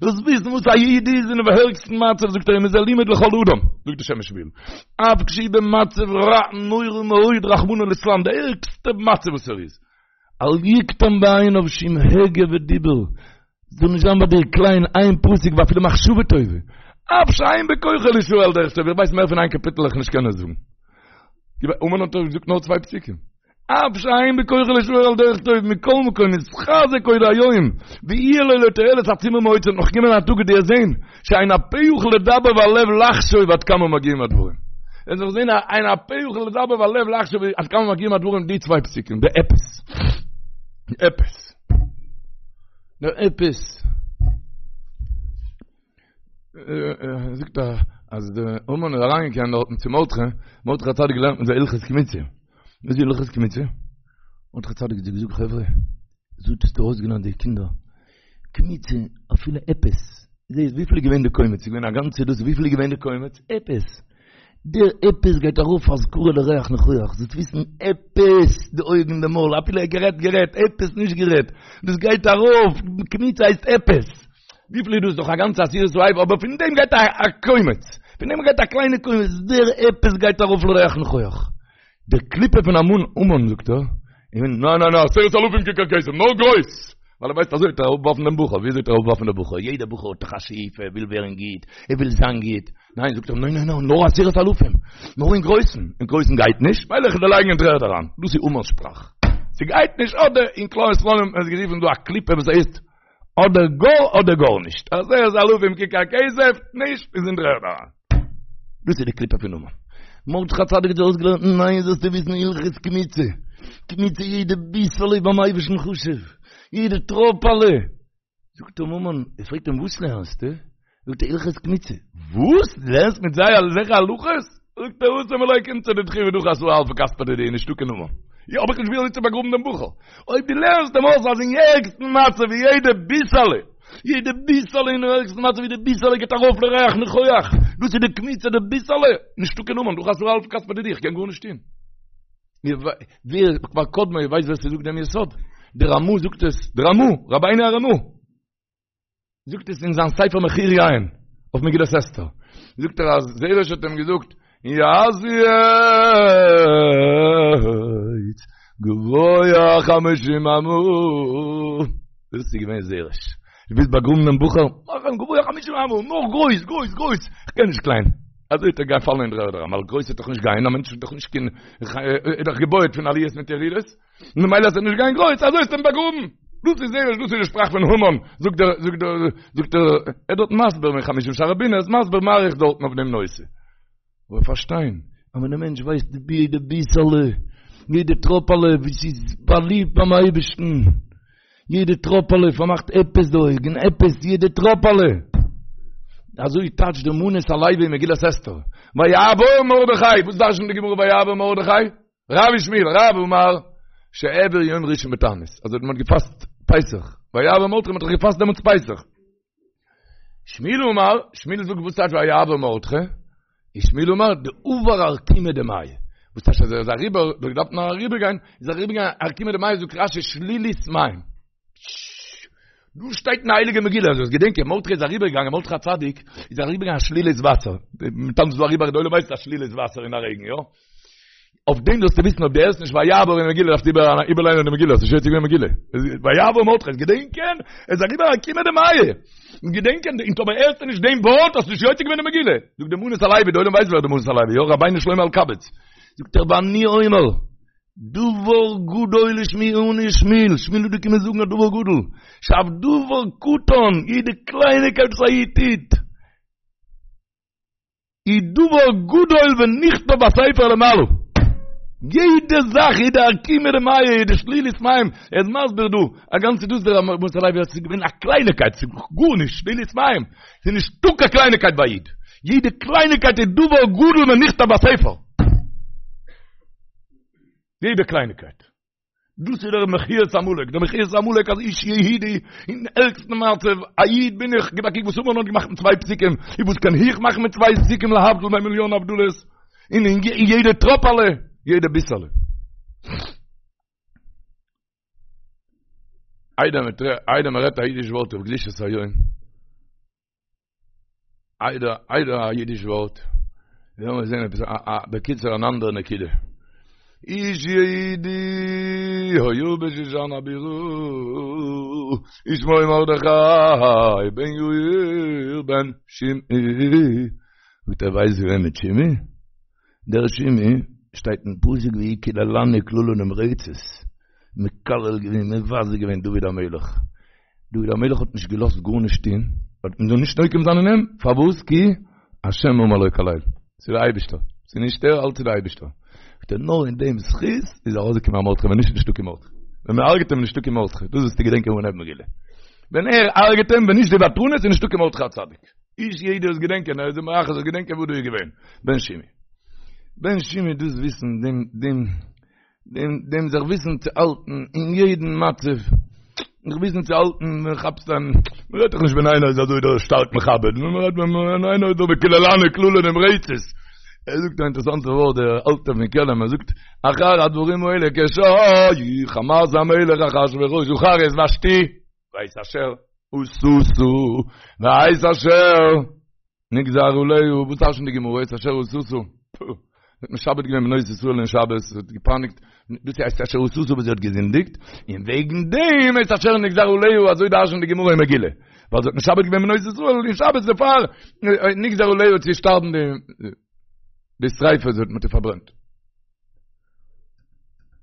דאס וויסן וואס א איד איז אינעם ערגסטן מצב זאגט ער ומזה לימוד לכל אדם, זאגט די שם משמואל. אף כשהוא במצב רע נורא מאוד רחמנא ליצלן, די ערגסטע מצב וואס ער איז. אל יקטן בעיניו שום הגה ודיבור, זאל נישט זיין ביי דיר קליין איין פסוק ואפילו מחשבה טובה, אף שאין בכוחו לישאר על דרך טוב, איך ווייס מער פון איין קאפיטל וועל איך נישט קענען זאגן. המן האט דאך געזאגט נאר צוויי פסוקים. אף שאין בכוחו לישאר על דרך טוב, מכל מקום יתחזק עוד היום, ויהיה לו לתועלת עצומה מאוד, ס'וועט נאך קומען א טאג וועט איר זען, שאין הפה יכול לדבר והלב לחשוב עד כמה מגיעים הדברים. ער זאל זען אין הפה יכול לדבר והלב לחשוב עד כמה מגיעים הדברים די צוויי פסוקים, די עפעס. די עפעס. די עפעס. זאגט ער אז די המן איז אריינגעקומען דארטן צו מרדכי, מרדכי הצדיק געלערנט מיט זיי הלכות קמיצה. וואס איז הלכות קמיצה? מרדכי הצדיק האט זיי געזאגט חברה, אזוי האסטו אויסגעלערנט די קינדער, קמיצה אפילו עפעס, זעהסט וויפיל איז געווען די קומץ, איז געווען א גאנצע דאס, וויפיל איז געווען די קומץ? עפעס. דער עפעס גייט ארויף אזכרה לריח ניחוח, זאלסט וויסן עפעס, די אויגן די מויל, אפילו ער גערעדט גערעדט, עפעס נישט גערעדט, דאס גייט ארויף, קמיצה הייסט עפעס. וויפיל איז דאס? דאך א גאנצע עשירית האיפה, אבער פון דעם גייט א קומץ, פון דעם גייט א קליינע קומץ, דער עפעס גייט ארויף לריח ניחוח. די קליפה פון המן, המן זאגט ער, ניין ניין ניין, עשרת אלפים ככר כסף, נאר גרויס! ווייל ער ווייסט אזוי וועט ער אראפווארפן דעם בחור, וויאזוי וועט ער אראפווארפן דעם בחור? יעדער בחור האט דאך א שאיפה, ער וויל ווערן גוט, ער וויל זיין גוט, ניין זאגט ער, ניין ניין ניין, נאר עשרת אלפים, נאר אין גרויסן, אין גרויסן גייט נישט, ווייל איך וועל דיר לייגן אין דר'ערד אריין, דאס איז המן'ס שפראך, ס'גייט נישט אדער אין כלל ישראל האט מען עס גערופן דא א קליפה וואס הייסט אדער גאר אדער גארנישט, עשרת אלפים ככר כסף, נישט איז אין דר'ערד אריין. דאס איז די קליפה פון המן. מרדכי הצדיק האט זיי אויסגעלערנט, ניין זאלסטו וויסן הלכות קמיצה, קמיצה יעדע ביסעלע איז ביים אייבערשטן חשוב, יעדע טראפעלע. זאגט אים המן, ער פרעגט אים וואס לערנסטו? זאגט ער הלכות קמיצה. וואס? דו לערנסט מיט זיי אזעלכע הלכות? זאגט ער התם מלא קומצא דידכו ודחי עשרה אלפי כספא דידי נישטא קיין המן. יא האב איך נישט ווי אזוי צו באגראבן דעם בחור. אויב דו לערנסט אים אויס אז אין ערגסטן מצב ווי יעדע ביסעלע, יעדע ביסעלע אין ערגסטן מצב ווי די ביסעלע גייט ארויף לריח ניחוח, דאס איז די קמיצה די ביסעלע, נישטא קיין המן, דחי עשרה אלפי כספא דידי איך קען גארנישט טון. ווער כבר קדמו ווייסט ווער ס'זאגט דעם יסוד? דער רמ"א זאגט עס, דער רמ"א, רבינו הרמ"א. זאגט עס אין זיין ספר מחיר יין אויף מגילת אסתר זאגט ער אז זרש האט אים געזאגט יעשו עץ. גבוה חמשים אמה. דאס איז געווען זרש. דו ווילסט באגראבן דעם בחור? מאך אים גבוה חמשים אמה, נאך גרויס, גרויס, גרויס. איך קען נישט קליין. אזוי וועט ער גיין פאלן אין דר'ערד אריין, ווייל גרויס וועט דאך נישט גיין, א מענטש איז דאך נישט קיין, איז דאך געבויעט פון עליות מיט ירידות. ממילא אז ער וועט נישט גיין גרויס, אזוי האסטו אים באגראבן. דאס איז זרש, דאס איז די שפראך פון המן. זאגט דער, זאגט דער, זאגט דער, ער איז דארט מסביר אין חמשים שערי בינה, ער איז מסביר מאריך דארטן אויף דעם נושא. אבער פארשטיין, אז ווען א מענטש ווייסט די יעדע ביסעלע, יעדע טראפעלע ווי ס'איז באליבט ביים אייבערשטן, יעדע טראפעלע פארמאכט עפעס די אויגן, עפעס, יעדע טראפעלע. אזוי טייטשט די מנות הלוי אין מגילת אסתר. ויעבור מרדכי, וואס דרש'נט די גמרא ויעבור מרדכי? רב ושמואל, רב אמר, שהעביר יום ראשון בתענית. אזוי האט מען געפאסט פסח. ויעבור מרדכי, מען האט דאך געפאסט דעמאלטס פסח. שמואל אמר, שמואל זאגט וואס טייטש ויעבור מרדכי? איז שמואל אמר, דעבר ארקומא דמיא. וואס טייטש אז ער איז אריבער, דאך געדארפט נאר אריבער גיין, איז אריבער געגאנגען ארקומא דמיא, זאגט רשי שלולית מים. דא שטייט אין הייליגע מגילה, זאלסט געדענקען, מרדכי איז אריבער געגאנגען, מרדכי הצדיק איז אריבער געגאנגען א שלולית וואסער. מ'טאנצט דא אריבער, די עולם ווייסט א שלולית וואסער אין א רעגן, יא? אויף דעם זאלסטו וויסן אויב דו הערסט נישט ויעבור אין מגילה דארפסטו איבערליינען די מגילה, האסט נישט יוצא געווען מגילה. ויעבור מרדכי, געדענקען, ער איז אריבער ארקומא דמיא. געדענקען, און טאמער הערסטו נישט דעם ווארט האסטו נישט יוצא געווען די מגילה. זאגט די מנות הלוי, די עולם ווייסט ווער די מנות הלוי, יא, רבינו שלמה אלקבץ. זאגט ער ואני אומר, דבר גדול השמיענו שמואל, שמואל איז דא געקומען זאגן א דבר גדול, שאף דבר קטן, יעדע קלייניקייט וואס א איד טוט, איז דבר גדול ונכתב בספר למעלה. יעדע זאך, יעדע ארקומא דמיא, יעדע שלולית מים, ער איז מסביר דא, א גאנצע דאס דער מנות הלוי אז ס'איז געווען א קלייניקייט, ס'איז גארנישט, שלולית מים, ס'איז נישטא קיין קלייניקייט ביי א איד, יעדע קלייניקייט איז דבר גדול ונכתב בספר. יעדע קלייניקייט. דאס איז דער מחיית עמלק, דער מחיית עמלק אז איש יהודי אין ערגסטן מצב, א איד בין איך, גיב א קוק וואס המן האט געמאכט מיט צוויי פסוקים, און וואס קען איך מאכן מיט צוויי פסוקים להבדיל בין מיליאן הבדלות, און אין יעדע טראפעלע, יעדע ביסעלע. איידער מען רעדט א אידיש ווארט אויף קדושת היום, איידער איידער א אידיש ווארט, לאמיר זען עפעס א א בקיצור אן אנדערע נקודה. איש יהודי היה בשושן הבירה, ושמו מרדכי בן יאיר בן שמעי. זאגט ער ווייסט ווער מיט שמעי? דער שמעי שטייט אין פסוק והוא קללני קללה נמרצת, מקלל געווען מבזה געווען דוד המלך, דוד המלך האט נישט געלאזט גארנישט טון, האט מען זאל נישט נוקם זיין אין אים, פארוואס? כי השם אמר לו קלל, ס'איז דער אייבישטער, ס'איז נישט ער, אלץ איז דער אייבישטער. זאגט ער, נאר אין דעם זכות איז ארויסגעקומען א מרדכי, ווען נישט איז נישטא קיין מרדכי. ווען מען הרג'ט אים איז נישטא קיין מרדכי, דאס זאלסטו געדענקען פון דער מגילה. ווען ער הרג'ט אים, ווען נישט די ותרנות איז נישטא קיין מרדכי הצדיק. איש יהודי זאל געדענקען, ער איז אים מרחץ זאל געדענקען וואס דא איז געווען. בן שמעי. בן שמעי דאס וויסן דעם דעם דעם דעם זיך וויסן צו האלטן אין יעדן מצב, זיך וויסן צו האלטן ווען כאפסט אן, מען רעדט דאך נישט ווען איינער איז אזוי דא שטארק מכבד, נאר מען רעדט ווען איינער איז דא וקללני קללה נמרצת. ער זאגט א אינטערעסאנטע ווארט דער אלטער פון קעלם, ער זאגט, אחר הדברים האלה כשהיה חמת המלך אחשורוש זכר את ושתי ואת אשר עשתה ואת אשר נגזר עליה, וואס דרש'נט די גמרא את אשר עשתה? פו, האט משעבד געווען בנות ישראל אין שבת, האט געפייניגט, דאס הייסט אשר עשתה וואס זי האט געזינדיגט, און וועגן דעם את אשר נגזר עליה, אזוי דרש'נט די גמרא אין מגילה, ווייל זי האט משעבד געווען בנות ישראל אין שבת דערפאר נגזר עליה צו שטארבן די שריפה, זי האט מיט איר פארברענט.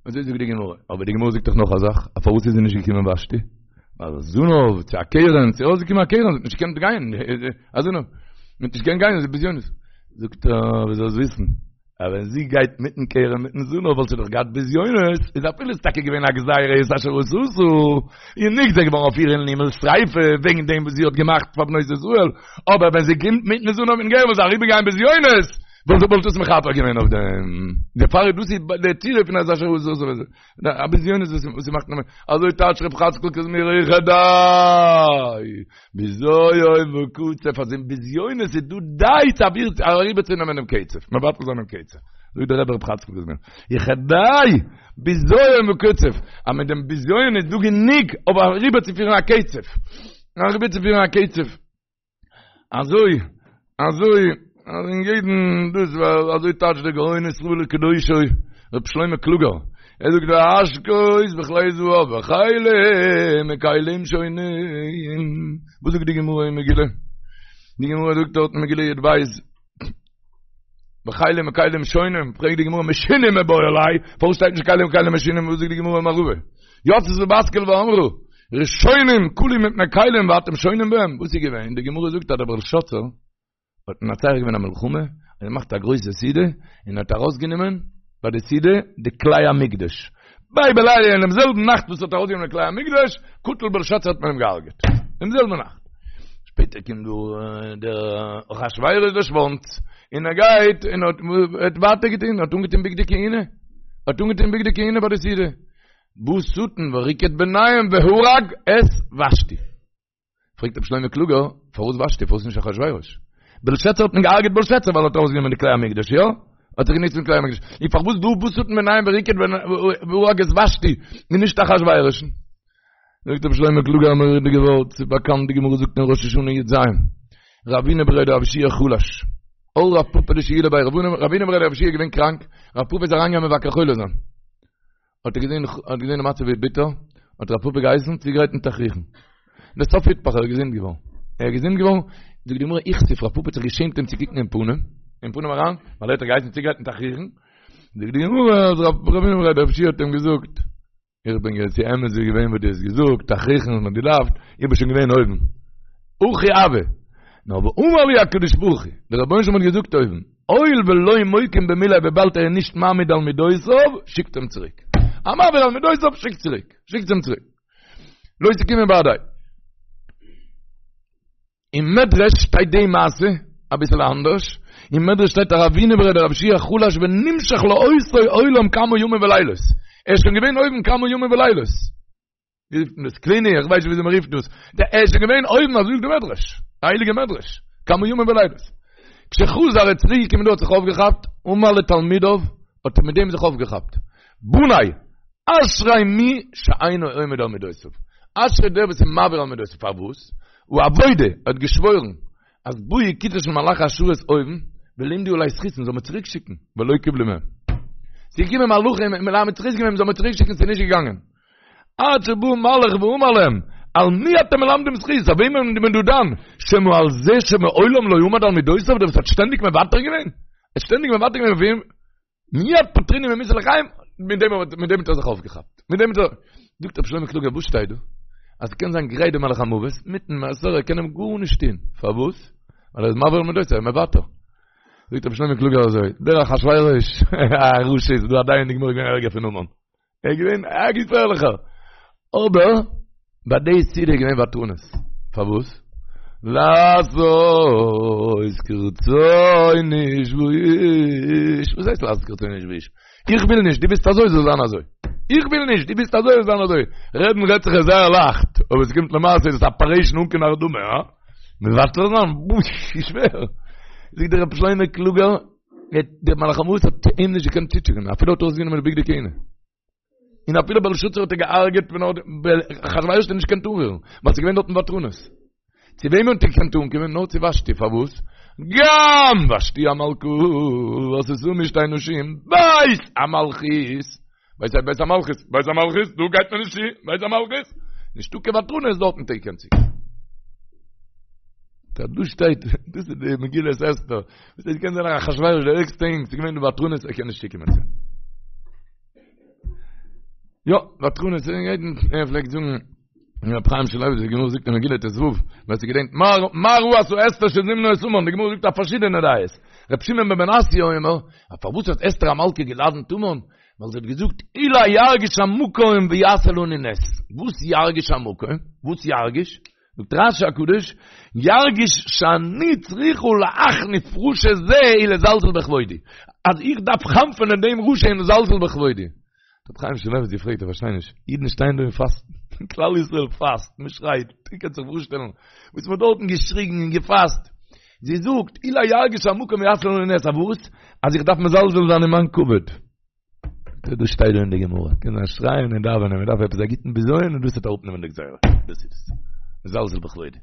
אזוי זאגט די גמרא, אבער די גמרא זאגט דאך נאך א זאך, א פארוואס איז זי נישט געקומען ושתי? ווייל זנב צו א קרן, ס'איז ארויסגעקומען א קרן, זי האט נישט געקענט גיין, א זנב, זי האט נישט געקענט גיין, זי איז בזיונות. זאגט ער, ווי זאלסט וויסן, אז ווען זי גייט מיטן קרן מיטן זנב וואלט זי דאך געהאט בזיונות, איז אפילו איז טאקע געווען א גזירה את אשר עשתה, איז נגזר געווארן אויף איר אין הימל שריפה וועגן דעם וואס זי האט געמאכט פאר בנות ישראל, אבער ווען זי קומט מיטן זנב מיטן קרן וואלט זי אריבערגיין בזיונות, וואלט וואלט דאס מכפר געווען אויף דעם? דערפאר איז דאס די תירוץ פון את אשר עשתה א בזיונות וואס וואס מאכט נאר אזוי טייטש רב חצקל קוזמיר וכדי בזיון וקצף אז אין בזיונות איז דא די צו אוויר אריבער צו נעמען דעם קצף מבטל זיין דעם קצף זאגט דער רבי רב חצקל קוזמיר וכדי בזיון וקצף אז מיט דעם בזיון איז דא גענוג אויף אריבער צו פירן א קצף אריבער צו פירן א קצף אזוי, אזוי, אז אין יעדן דאס ווייל אזוי טייטשט דער גאון ישראל וקדושו, רבי שלמה קלוגער. ער זאגט והשקות בכלי זהב וכלים מכלים שונים. וואס זאגט די גמרא אין מגילה? די גמרא זאגט דארט אין מגילה י"ב וכלים מכלים שונים, פרעגט די גמרא משונים מיבעי ליה, פארוואס שטייט נישט כלים מכלים משונים, וואס זאגט די גמרא אין מערבא? יצתה בת קול ואמרה, ראשונים כלו מפני כלים ואתם שונים בהם, וואס איז געווען? די גמרא זאגט אז דער בלשאצר האט מנצח געווען א מלחמה, און געמאכט א גרויסע סעודה, און האט ארויסגענומען ביי די סעודה די כלי המקדש. בו בלילה אינעם זעלבן נאכט וואס האט ארויסגענומען די כלי המקדש, קטל בלשאצר האט מען אים געהארגעט. דעם זעלבן נאכט. שפעטער קומט דא דער אחשורוש דער שוואנץ, און ער גייט און האט האט ווייטער געטון, האט אנגעטון בגדי כהונה, האט אנגעטון בגדי כהונה ביי די סעודה. בא שטן וריקד ביניהם והרג את ושתי. פרעגט רבי שלמה קלוגער, פארוואס ושתי, פארוואס נישט אחשורוש? בלשאצר האט מען געהארגעט בלשאצר ווייל ער האט ארויסגענומען די כלי המקדש, יא? האט זיך גענוצט מיט כלי המקדש. און פארוואס דא בא שטן ביניהם וריקד והרג את ושתי, און נישט אחשורוש'ן? זאגט רבי שלמה קלוגער א מורא'דיגע ווארט, ס'איז באקאנט די גמרא זאגט אין ראש השנה י"ז, רבינא בריה דרב יהושע חלש, על רב פפא לשיולי ביה, רבינא בריה דרב יהושע איז געווען קראנק, רב פפא איז אריינגעגאנגען מבקר חולה זיין. האט ער געזען האט געזען די מצב ווי ביטער, האט רב פפא געהייסן צוגרייטן תכריכים. לסוף איתפח ער איז געזונט געווארן. ער איז געזונט געווארן, זאגט די גמרא איכסיף רב פפא האט זיך געשעמט אים צו קוקן אין פנים, אין פנים אריין, ווייל ער האט געהייסן צוגרייטן תכריכים. זאגט די גמרא אז רב רבינא בריה דרב יהושע האט אים געזאגט, איך בין געווען ס'איז אמת איז געווען וואס דו האסט געזאגט, תכריכים האט מען געדארפט, איך בין שוין געווען אויבן. הכי הוה. נאר ואמר לי הקדוש ברוך הוא, דער רבונו של עולם האט געזאגט אויבן, הואיל ולא מוקים במיליה וויבאלד ער איז נישט מעמיד על מידותיו, שיקט אים צוריק. א מעביר על מידותיו שיקט צוריק. שיקט אים צוריק. לא תקימו בהדיה. אין מדרש שטייט די מעשה אביסל אנדערש. אין מדרש שטייט רבינא בריה דרב יהושע חלש ונמשך לאותו עולם כמה ימים ולילות. ער איז שוין געווען אויבן כמה ימים ולילות. ווי רופט מען דאס? קליני, איך ווייס נישט וויאזוי מען רופט דאס. דער ער איז שוין געווען אויבן, אזוי זאגט דער מדרש. א הייליגע מדרש. כמה ימים ולילות. כשחזר ער איז צוריק געקומען דא האט זיך אויפגעכאפט, אמר לתלמידיו, האט ער מיט דעם זיך אויפגעכאפט. בניי, אשרי מי שאינו עומד על מידותיו. אשרי דער וואס איז מעביר על מידותיו. פארוואס? העבודה, ער האט געשוואוירן, אז באו כיתה של מלאכי השרת אויבן, ולימדו עלי זכות, מ'זאל מיר צוריק שיקן, ולא קיבלו מהם. ס'איז געקומען מלאכים, מלמד זכות געווען, מ'זאל מיר צוריק שיקן, ס'איז נישט געגאנגען. עד שבא מלאך ואמר להם, על מי אתם מלמדים זכות? אויף וועמען איז מען דא דן? שמא על זה שמעולם לא עמד על מידותיו, דער וואס האט שטענדיג מוותר געווען? ער האט שטענדיג מוותר געווען אויף וועם? מיד פטרוני ממיתה לחיים, מיט דעם האט מיט דעם האט ער זיך אויפגעכאפט. מיט דעם האט ער, זאגט רבי שלמה קלוגער, וואס שטייט דא? אז ס'קען זיין גרייט דער מלאך המוות, מיטן מעסער, ער קען אים גארנישט טון. פארוואס? ווייל ער איז מעביר על מידותיו, ער איז מוותר. זאגט רבי שלמה קלוגער אזוי, דער אחשורוש, א רשע איז דא א דיין אין די גמרא געווען ערגער פון המן. ער איז געווען א געפערליכער. אבער ביי די סעודה איז געווען ותרנות. פארוואס? לעשות כרצון איש ואיש. וואס הייסט לעשות כרצון איש ואיש? איך וויל נישט, דו ווילסט אזוי זאל זיין אזוי. איך וויל נישט, דו ווילסט אזוי זאל זיין אזוי. רעדן רעדט זיך עס זייער לייכט, אבער עס קומט למעשה איז עס אפערעישן אן קיין הרדמה, הא? מוותר זיין? בוש, שווער. זאגט דער רבי שלמה קלוגער, דער מלאך המוות האט אים נישט געקענט צוטשעפען, אפילו האט ער ארויסגענומען די בגדי כהונה. און אפילו בלשאצר האט ער געהארגעט ווען ער האט אחשורוש האט ער נישט געקענט אנרירן, ווייל ס'איז געווען דארטן ותרנות. צו וועמען האט ער געקענט אנקומען? נאר צו ושתי, פארוואס? גם ושתי המלכה עשתה משתה נשים בית המלכות, בית בית המלכות, בית המלכות, דא גייט מען נישט צו, בית המלכות, נישטא קיין ותרנות דארטן האט ער געקענט צוקומען. דא דא שטייט, דאס איז די מגילת אסתר, וואס עס קען זיין אחשורוש דער ערגסטע אינג, ס'איז געווען די ותרנות, ער קען נישט צוקומען צו. יא, ותרנות, יעדן, ער פלעגט זאגן, רב חיים שמואלביץ, די גמרא זאגט אין מגילה ט"ו, ווער ס'געדענקט, מה ראתה אסתר שזימנה את המן, די גמרא זאגט א פארשידענע דעות. רב שמעון בן מנסיא אומר, פארוואס האט אסתר המלכה געלאדענט המן? ווייל זי האט געזאגט, אולי ירגיש המקום ויעשה לנו נס. וואס ירגיש המקום? וואס ירגיש? זאגט רש"י הקדוש, ירגיש שאני צריכה להחניף רשע זה ולזלזל בכבודי. אז איך דארף חנפ'ענען דעם רשע און לזלזל בכבודי. רבי חיים שמואלביץ געפרעגט, איך פארשטיי נישט, אידן שטייען דא און פאסטן, כלל ישראל פאסט, מען שרייט, איר קענט זיך פארשטעלן וואס מען האט דארטן געשריגן און געפאסט. זי זאגט, אולי ירגיש המקום ויעשה לנו נס, אז וואס? אז איך דארף מזלזל זיין אין מיין כבוד. דאס שטייט דא אין די גמרא, קען זיין שרייען און דאווענען, מען דארף עפעס א גוטן בזיון און דאס וועט אראפנעמען די גזירה, דאס איז עס, מזלזל בכבודי.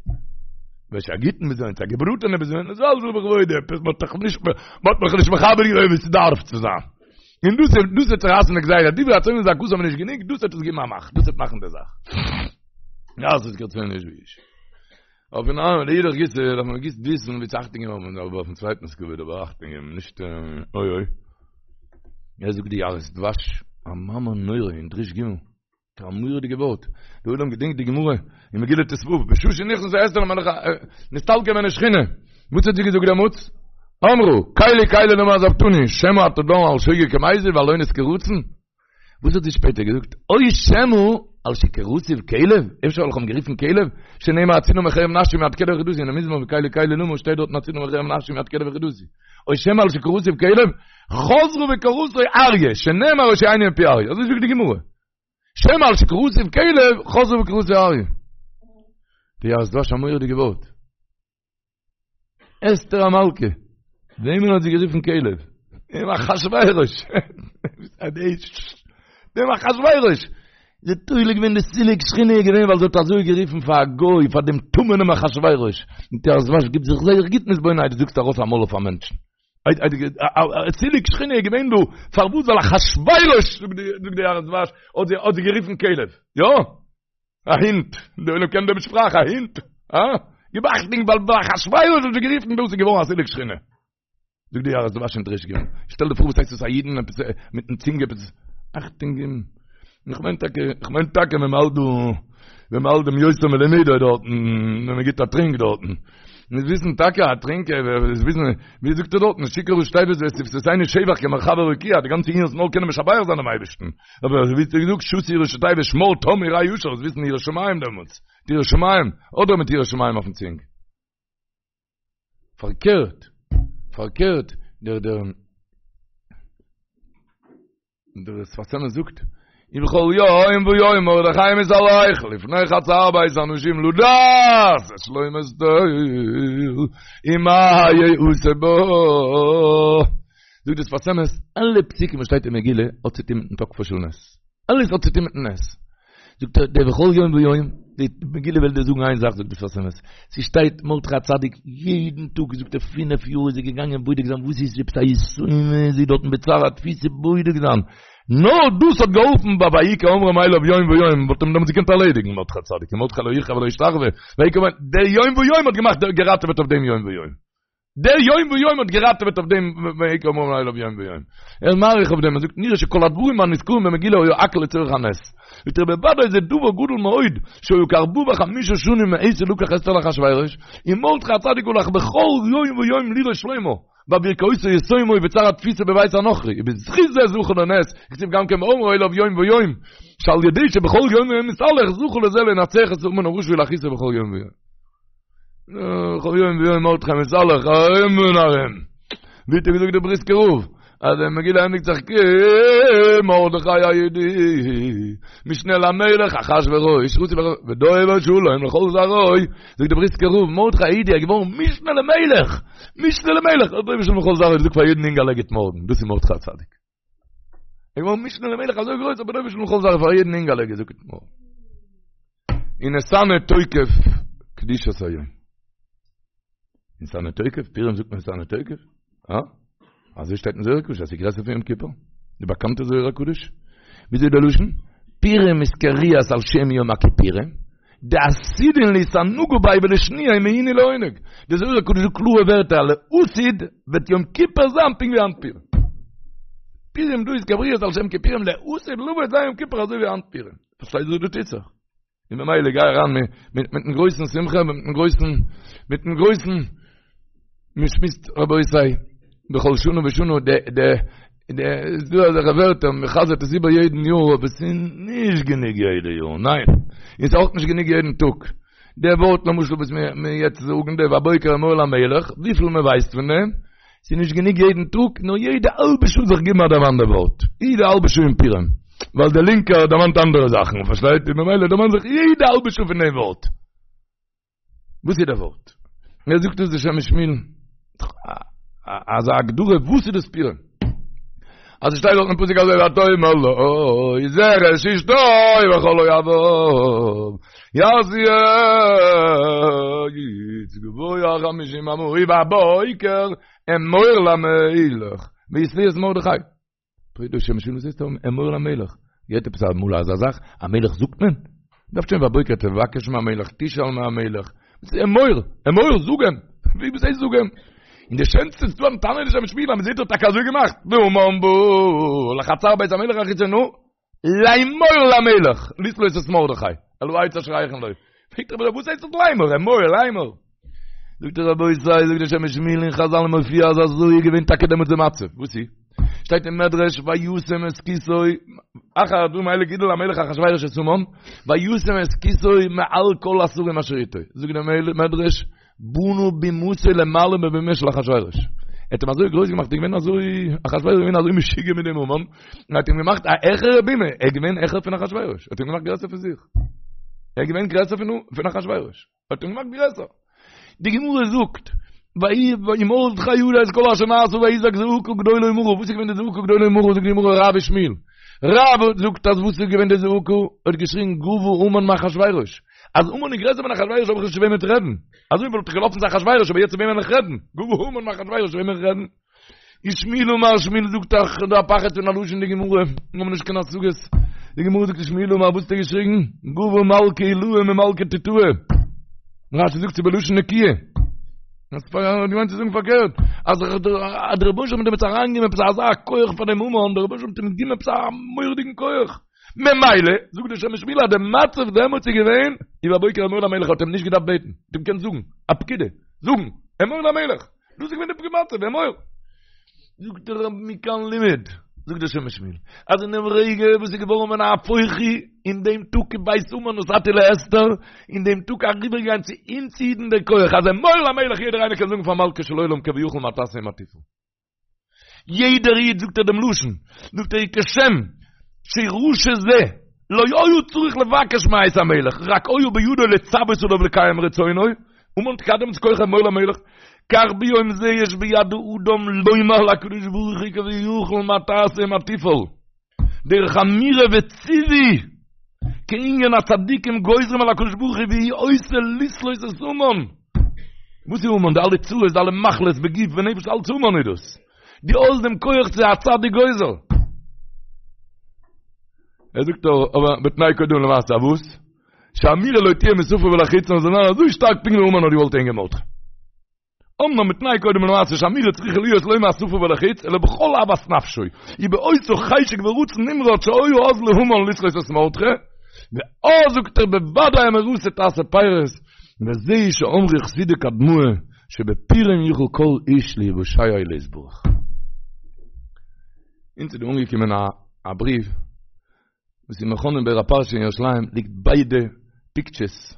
וועלכע א גוטן בזיון, א געבראטענע בזיון, מזלזל בכבודי, עפעס מען האט דאך נישט, מען האט מיך נישט מכבד געווען ווי ס'דארף צו זיין. און דאס איז דאס וועט צורייסן די גזירה, דברי הצופים וזעקתם איז נישט גענוג, דאס וועט עס געבן א מאך, דאס וועט מאכן די זאך. לעשות כרצון איש ואיש. אויפן ארם לאידך גיסא דארף מען גוט וויסן ווי צו אכטונג געבן אבער אויפן צווייטנס כבוד אבער אכטונג געבן נישט אוי אוי. ער זאגט די יערות דבש א מאמר נורא אין דרוש ג' א מורא'דיגע ווארט די עולם געדענקט די גמרא אין מגילה ט"ו בשעה שנכנסה אסתר למלך נסתלקה ממנה שכינה וואס האט זי געזאגט דעמאלטס? אמרה קלי קלי למה עזבתני שמא אתה דן על שוגג כמזיד ועל אונס כרצון וואס האט זי שפעטער געזאגט? או שמא על שקראתיו כלב, אפשר ווייל איך האב אים גערופן כלב, שנאמר הצילה מחרב נפשי מיד כלב יחידתי, אין מזמור קלי קלי למה שטייט דארטן הצילה מחרב נפשי מיד כלב יחידתי. או שמא על שקראתיו כלב, חזרה וקראתו אריה, שנאמר הושיעני מפי אריה. אזוי זאגט די גמרא. שמא על שקראתיו כלב, חזרה וקראתו אריה. די יערות דבש א מורא'דיגע ווארט. אסתר המלכה, וועמען האט זי גערופן כלב? דעם אחשורוש. דעם אחשורוש. זי האט תולה געווען די סילוק שכינה איז געווען ווייל זי האט אזוי גערופן פאר א גוי, פאר דעם טמא'נעם אחשורוש. זאגט יערות דבש גיב זיך זייער גוט מתבונן איידער דו זאגסט ארויס א מויל אויף א מענטשן. סילוק שכינה איז געווען דא, פארוואס? ווייל אחשורוש, זאגט די יערות דבש, האט זי גערופן כלב. יא? א הינט, די עולם קען דעם שפראך, א הינט, אה? גיב אכטונג ווייל ביי אחשורוש האט זי גערופן דאס איז געווארן א סילוק שכינה. זאגט די יערות דבש אין דרוש ג'. שטעל דיר פאר וואס הייסט עס א אידן עפעס מיטן צינג עפעס אכטונג געבן. איך מיין טאקע, איך מיין טאקע ווען מ'האלט דא, ווען מ'האלט דעם יותר מלימודו דארטן, ווען מ'גיט א טרינק דארטן. מיר וויסן טאקע א טרינק, מיר וויסן, ווי זאגט ער דארטן, שיכור ראשי תיבות ושפתותינו שבח כמרחבי רקיע, די גאנצע ענין איז נאר קענען משבח זיין דעם אייבערשטן. אבער ווי האט ער געזאגט שתו ראשי תיבות שמר תם וראה ישר, זאלסט וויסן יראת שמים דעמאלטס, מיט יראת שמים, אדער מיט יראת שמים אויפן צינג. פארקערט, פארקערט, דער דער דער שפת אמת זאגט, ובכל יום ויום מרדכי מתהלך לפני חצר בית האנשים לדעת את שלום אסתר ומה יעשה בה. זאגט דער שפת אמת, אלע פסוקים וואס שטייט אין מגילה האט צו טון מיטן תוקפו של נס. אלעס האט צו טון מיטן נס. זאגט ער, דער בכל יום ויום, די מגילה וויל דיר זאגן איין זאך, זאגט דער שפת אמת, ס'שטייט מרדכי הצדיק יעדן טאג, זאגט ער, פינף יאר איז ער געגאנגען בודק זיין וואס איז עפעס א יתומה, זי דארטן בצער התפיסה בודק זיין. נאר דאס האט געהאלפן ביי ויהי כאומרם אליו יום ויום, וואלט אים דעמאלטס געקענט ערלעדיגן מרדכי הצדיק, ומרדכי לא יכרע ולא ישתחוה, ויהי כאומרם, דער יום ויום האט געמאכט געראטעוועט אויף דעם יום ויום. דער יום ויום האט געראטעוועט אויף דעם ויהי כאומרם אליו יום ויום. ער איז מאריך אויף דעם, ער זאגט נראה שכל הדברים הנזכרים במגילה היו הכל לצורך הנס. זאגט ער בוודאי זה דבר גדול מאוד, שהיו כארבעה וחמישה שנים מעת שלקח אסתר לאחשורוש, ומרדכי הצדיק הלך בכל יום ויום לראות שלומה, בעבור כאותה יתומה ובצער התפיסה בבית הנכרי, ובזכות זה זכו לנס, כתיב גם כן באומרו אליו יום ויום, שעל ידי שבכל יום ויום מתהלך זכו לזה לנצח את המן הרשע ולהכעיסו בכל יום ויום. בכל יום ויום מרדכי מתהלך ארום און ארום. ווי האט ער געזאגט דער בריסקער רב, אז די מגילה ענדיגט זיך כי מרדכי היהודי, משנה למלך אחשורוש, ודובר שלום לכל זרעו, זאגט דער בריסקער רב, מרדכי היהודי איז געווארן משנה למלך, משנה למלך, ודובר שלום לכל זרעו, זאגט פאר יעדן אינגעלע גוט מארגן, דאס איז מרדכי הצדיק. ער איז געווארן משנה למלך אזוי גרויס אבער ודובר שלום לכל זרעו פאר יעדן אינגעלע געזאגט גוט מארגן. ונתנה תוקף קדושת היום. ונתנה תוקף, פורים זאגט מען ונתנה תוקף? אה? אזוי שטייט אין זוהר הקדוש, אז ס'איז גרעסער פון יום כיפור. די באקאנטע זוהר הקדוש. וויאזוי איז דער לשון? פורים אתקריאת על שם יום הכיפורים. דעתידין לאתענגא ביה ולשנויי מעינוי לעונג. די זוהר הקדוש זאגט קלארע ווערטער לעתיד וועט יום כיפור זיין פונקט ווי היינט פורים. פורים דא אתקריאת על שם כיפורים לעתיד לבוא וועט זיין יום כיפור אזוי ווי היינט פורים. פארשטייסט וואס דא טוט זיך? און ממילא גיי אריין מיטן גרויסן שמחה מיטן גרויסן מיטן גרויסן מען שמועסט רבותי בכל שנה ושנה די די די איז דא אזעלכע ווערטער מען חזר'ט עס איבער יעדן יאר אבער עס איז נישט גענוג יעדע יאר ניין און ס'איז אויך נישט גענוג יעדן טאג די ווארט למשל וואס מיר מיר יעצט זאגן די והבוקר אמור למלך וויפיל מען ווייסט פון דעם ס'איז נישט גענוג יעדן טאג נאר יעדע האלבע שעה זיך געבן א דערמאן די ווארט יעדע האלבע שעה אין פורים ווייל דער לינקער דערמאנט אנדערע זאכן פארשטייט איר ממילא דערמאן זיך יעדע האלבע שעה פון דעם ווארט וואס איז דער ווארט? ער זאגט עס די שם משמואל אזא הגדרה וואס איז דאס פורים? אז עס שטייט דארט אין פסוק אזוי ותאמר לו זרש אשתו וכל אוהביו יעשו עץ גבוה חמישים אמה ובבוקר אמור למלך ויתלו את מרדכי. פרעגט דער שם משמואל וואס הייסט אמור למלך? געהערט עפעס אמאל אזא זאך? א מלך זאגט מען? דארף שוין בבוקר תבקש מהמלך תשאל מהמלך. וואס איז אמור? אמור זאג אים! ווי וואס הייסט זאג אים? און די שענסטע איז דא א טענה די שם משמואל אז מ'זעט האט טאקע אזוי געמאכט. והמן בא לחצר בית המלך החיצונה לאמור למלך לתלות את מרדכי על העץ אשר הכין לו. פרעגט ער וואס הייסט דאס לאמור? אמור לאמור. זאגט ער רבותי, זאגט דער שם משמואל אין חזל מופיע אז אזוי איז געווען טאקע דעמאלטס די מצב. וואס איז? שטייט אין מדרש וישם את כסאו אחר הדברים האלה גידל המלך אחשורוש את המן וישם את כסאו מעל כל השרים אשר איתו. זאגט דער מדרש בנה בימתו למעלה מבימה של אחשורוש. ער האט אים אזוי גרויס געמאכט, ער איז געווען אזוי, אחשורוש איז געווען אזוי משוגע מיט דעם המן, ער האט אים געמאכט א העכערע בימה, ער איז געווען העכער פון אחשורוש, ער האט אים געמאכט גרעסער פון זיך. ער איז געווען גרעסער פון אחשורוש. האט אים געמאכט גרעסער. די גמרא זאגט, ומרדכי ידע את כל אשר נעשה ויזעק זעקה גדולה ומרה, וואס איז געווען די זעקה גדולה ומרה, זאגט די גמרא רב ושמואל, רב זאגט אז וואס איז געווען די זעקה, ער האט געשריגן גבה המן מאחשורוש, אז המן איז גרעסער פון אחשורוש האב איך נישט צו וועמען צו רעדן, אזוי וואלט איך געלאפן צו אחשורוש אבער יעצט צו וועמען וועל איך רעדן, גבה המן מאחשורוש צו וועמען וועל איך רעדן. ושמואל אמר שמואל זאגט דאך דא א פחד פון א לשון די גמרא, מיר האבן נישט קיין השגות, די גמרא זאגט ושמואל אמר וואס האט ער געשריגן? גבה מלכא עילאה ממלכא תתאה, רשי זאגט ס'איז בלשון נקיה, האט געמיינט צו זאגן פארקערט, אז דער רבונו של עולם האט דעמאלטס אריינגעגעבן עפעס אזא כח פאר דעם המן, דער רבונו של עולם האט אים געגעבן עפעס א מורא'דיגן כח, ממילא, זאגט דער שם משמואל אז דער מצב דעמאלטס איז געווען, ובבוקר אמור למלך האט אים נישט געדארפט בעטן, האט אים געקענט זאגן, א פקידה, זאגן, אמור למלך. דאס איז געווען די מצב, אמור. זאגט דער רב מכאן לימד, זאגט דער שם משמואל, אז אין דעם רגע וואס איז געווארן ונהפוך הוא, אין דעם טאג כבית המן נתתי לאסתר, אין דעם טאג אריבערגעגאנגען צו אונז אידן דער כח, אז אמור למלך יעדער איינער קען זאגן פאר מלכו של עולם כביכול מה תעשה ומה תפעל. יעדער איד זאגט ער דעם לשון, זאגט ער כשם שרשע זה לא היה צריך לבקש מאת המלך, רק היה בידו לצוות עליו לקיים רצונו, המן האט געהאט דעמאלטס כח אמור למלך, כך ביום זה יש ביד האדם לומר לקדוש ברוך הוא כביכול מה תעשה ומה תפעל, דרך אמירה וציווי, כענין הצדיקים גוזרים על הקדוש ברוך הוא והוא עושה לתלות את המן. וואס איז המן? די אלע צרות, די אלע מחלות בגוף ונפש, אלץ המן איז דאס. דו האסט דעם כח צו א צדיק גוזר. ער זאגט אבער בתנאי קודם למעשה, וואס? שאמירה לא תהיה משפה ולחוץ, נאר זאל זיין אזוי שטארק פונקט ווי המן האט געוואלט הענגען מרדכי. אמנם בתנאי קודם למעשה שאמירה צריכה להיות לא מהשפה ולחוץ, אלא בכל אהבת נפשו, ובאותו חשק ורצון נמרץ שהיה אז להמן לתלות את מרדכי, ואז זאגט ער בוודאי אמירתו תעשה פירות, וזה שאמרו חסידי קדמאה שבפורים יוכל כל איש להיוושע ולהתברך. אונז איז דא אנגעקומען א בריוו וואס אין מכון אין באר הפרשה אין ירושלים ליגט ביידע פיקטשערס,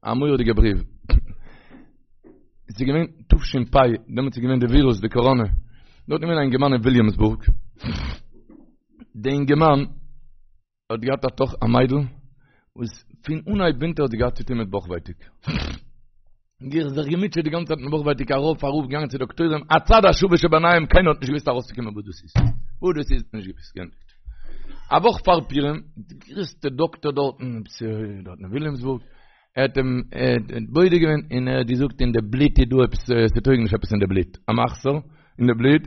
א מורא'דיגע בריוו. עס איז געווען תש"פ, דעמאלטס איז געווען די ווירוס, די קאראנע. דארט איז געווען א אינגערמאן אין וויליאמסבורג. די אינגערמאן האט געהאט א טאכ א מיידל, וואס פון אנהייב ווינטער האט זי געהאט צוטון מיט בויך ווייטאג. זיך געמוטשעט די גאנצע צייט מיט בויך ווייטאג ארויף אראפ געגאנגען צו דאקטוירים הצד השווה שביניהם קיינער האט נישט געוואוסט ארויסצוקומען וואס דאס איז וואס דאס איז נישט געוואוסט געענדיגט א וואך פאר פורים די גרעסטע דאקטער דארטן דארטן אין וויליאמסבורג ער האט אים בודק געווען און ער האט געזאגט אין די בלוט איז דא עפעס ס'טויג נישט עפעס אין די בלוט א מחסור אין די בלוט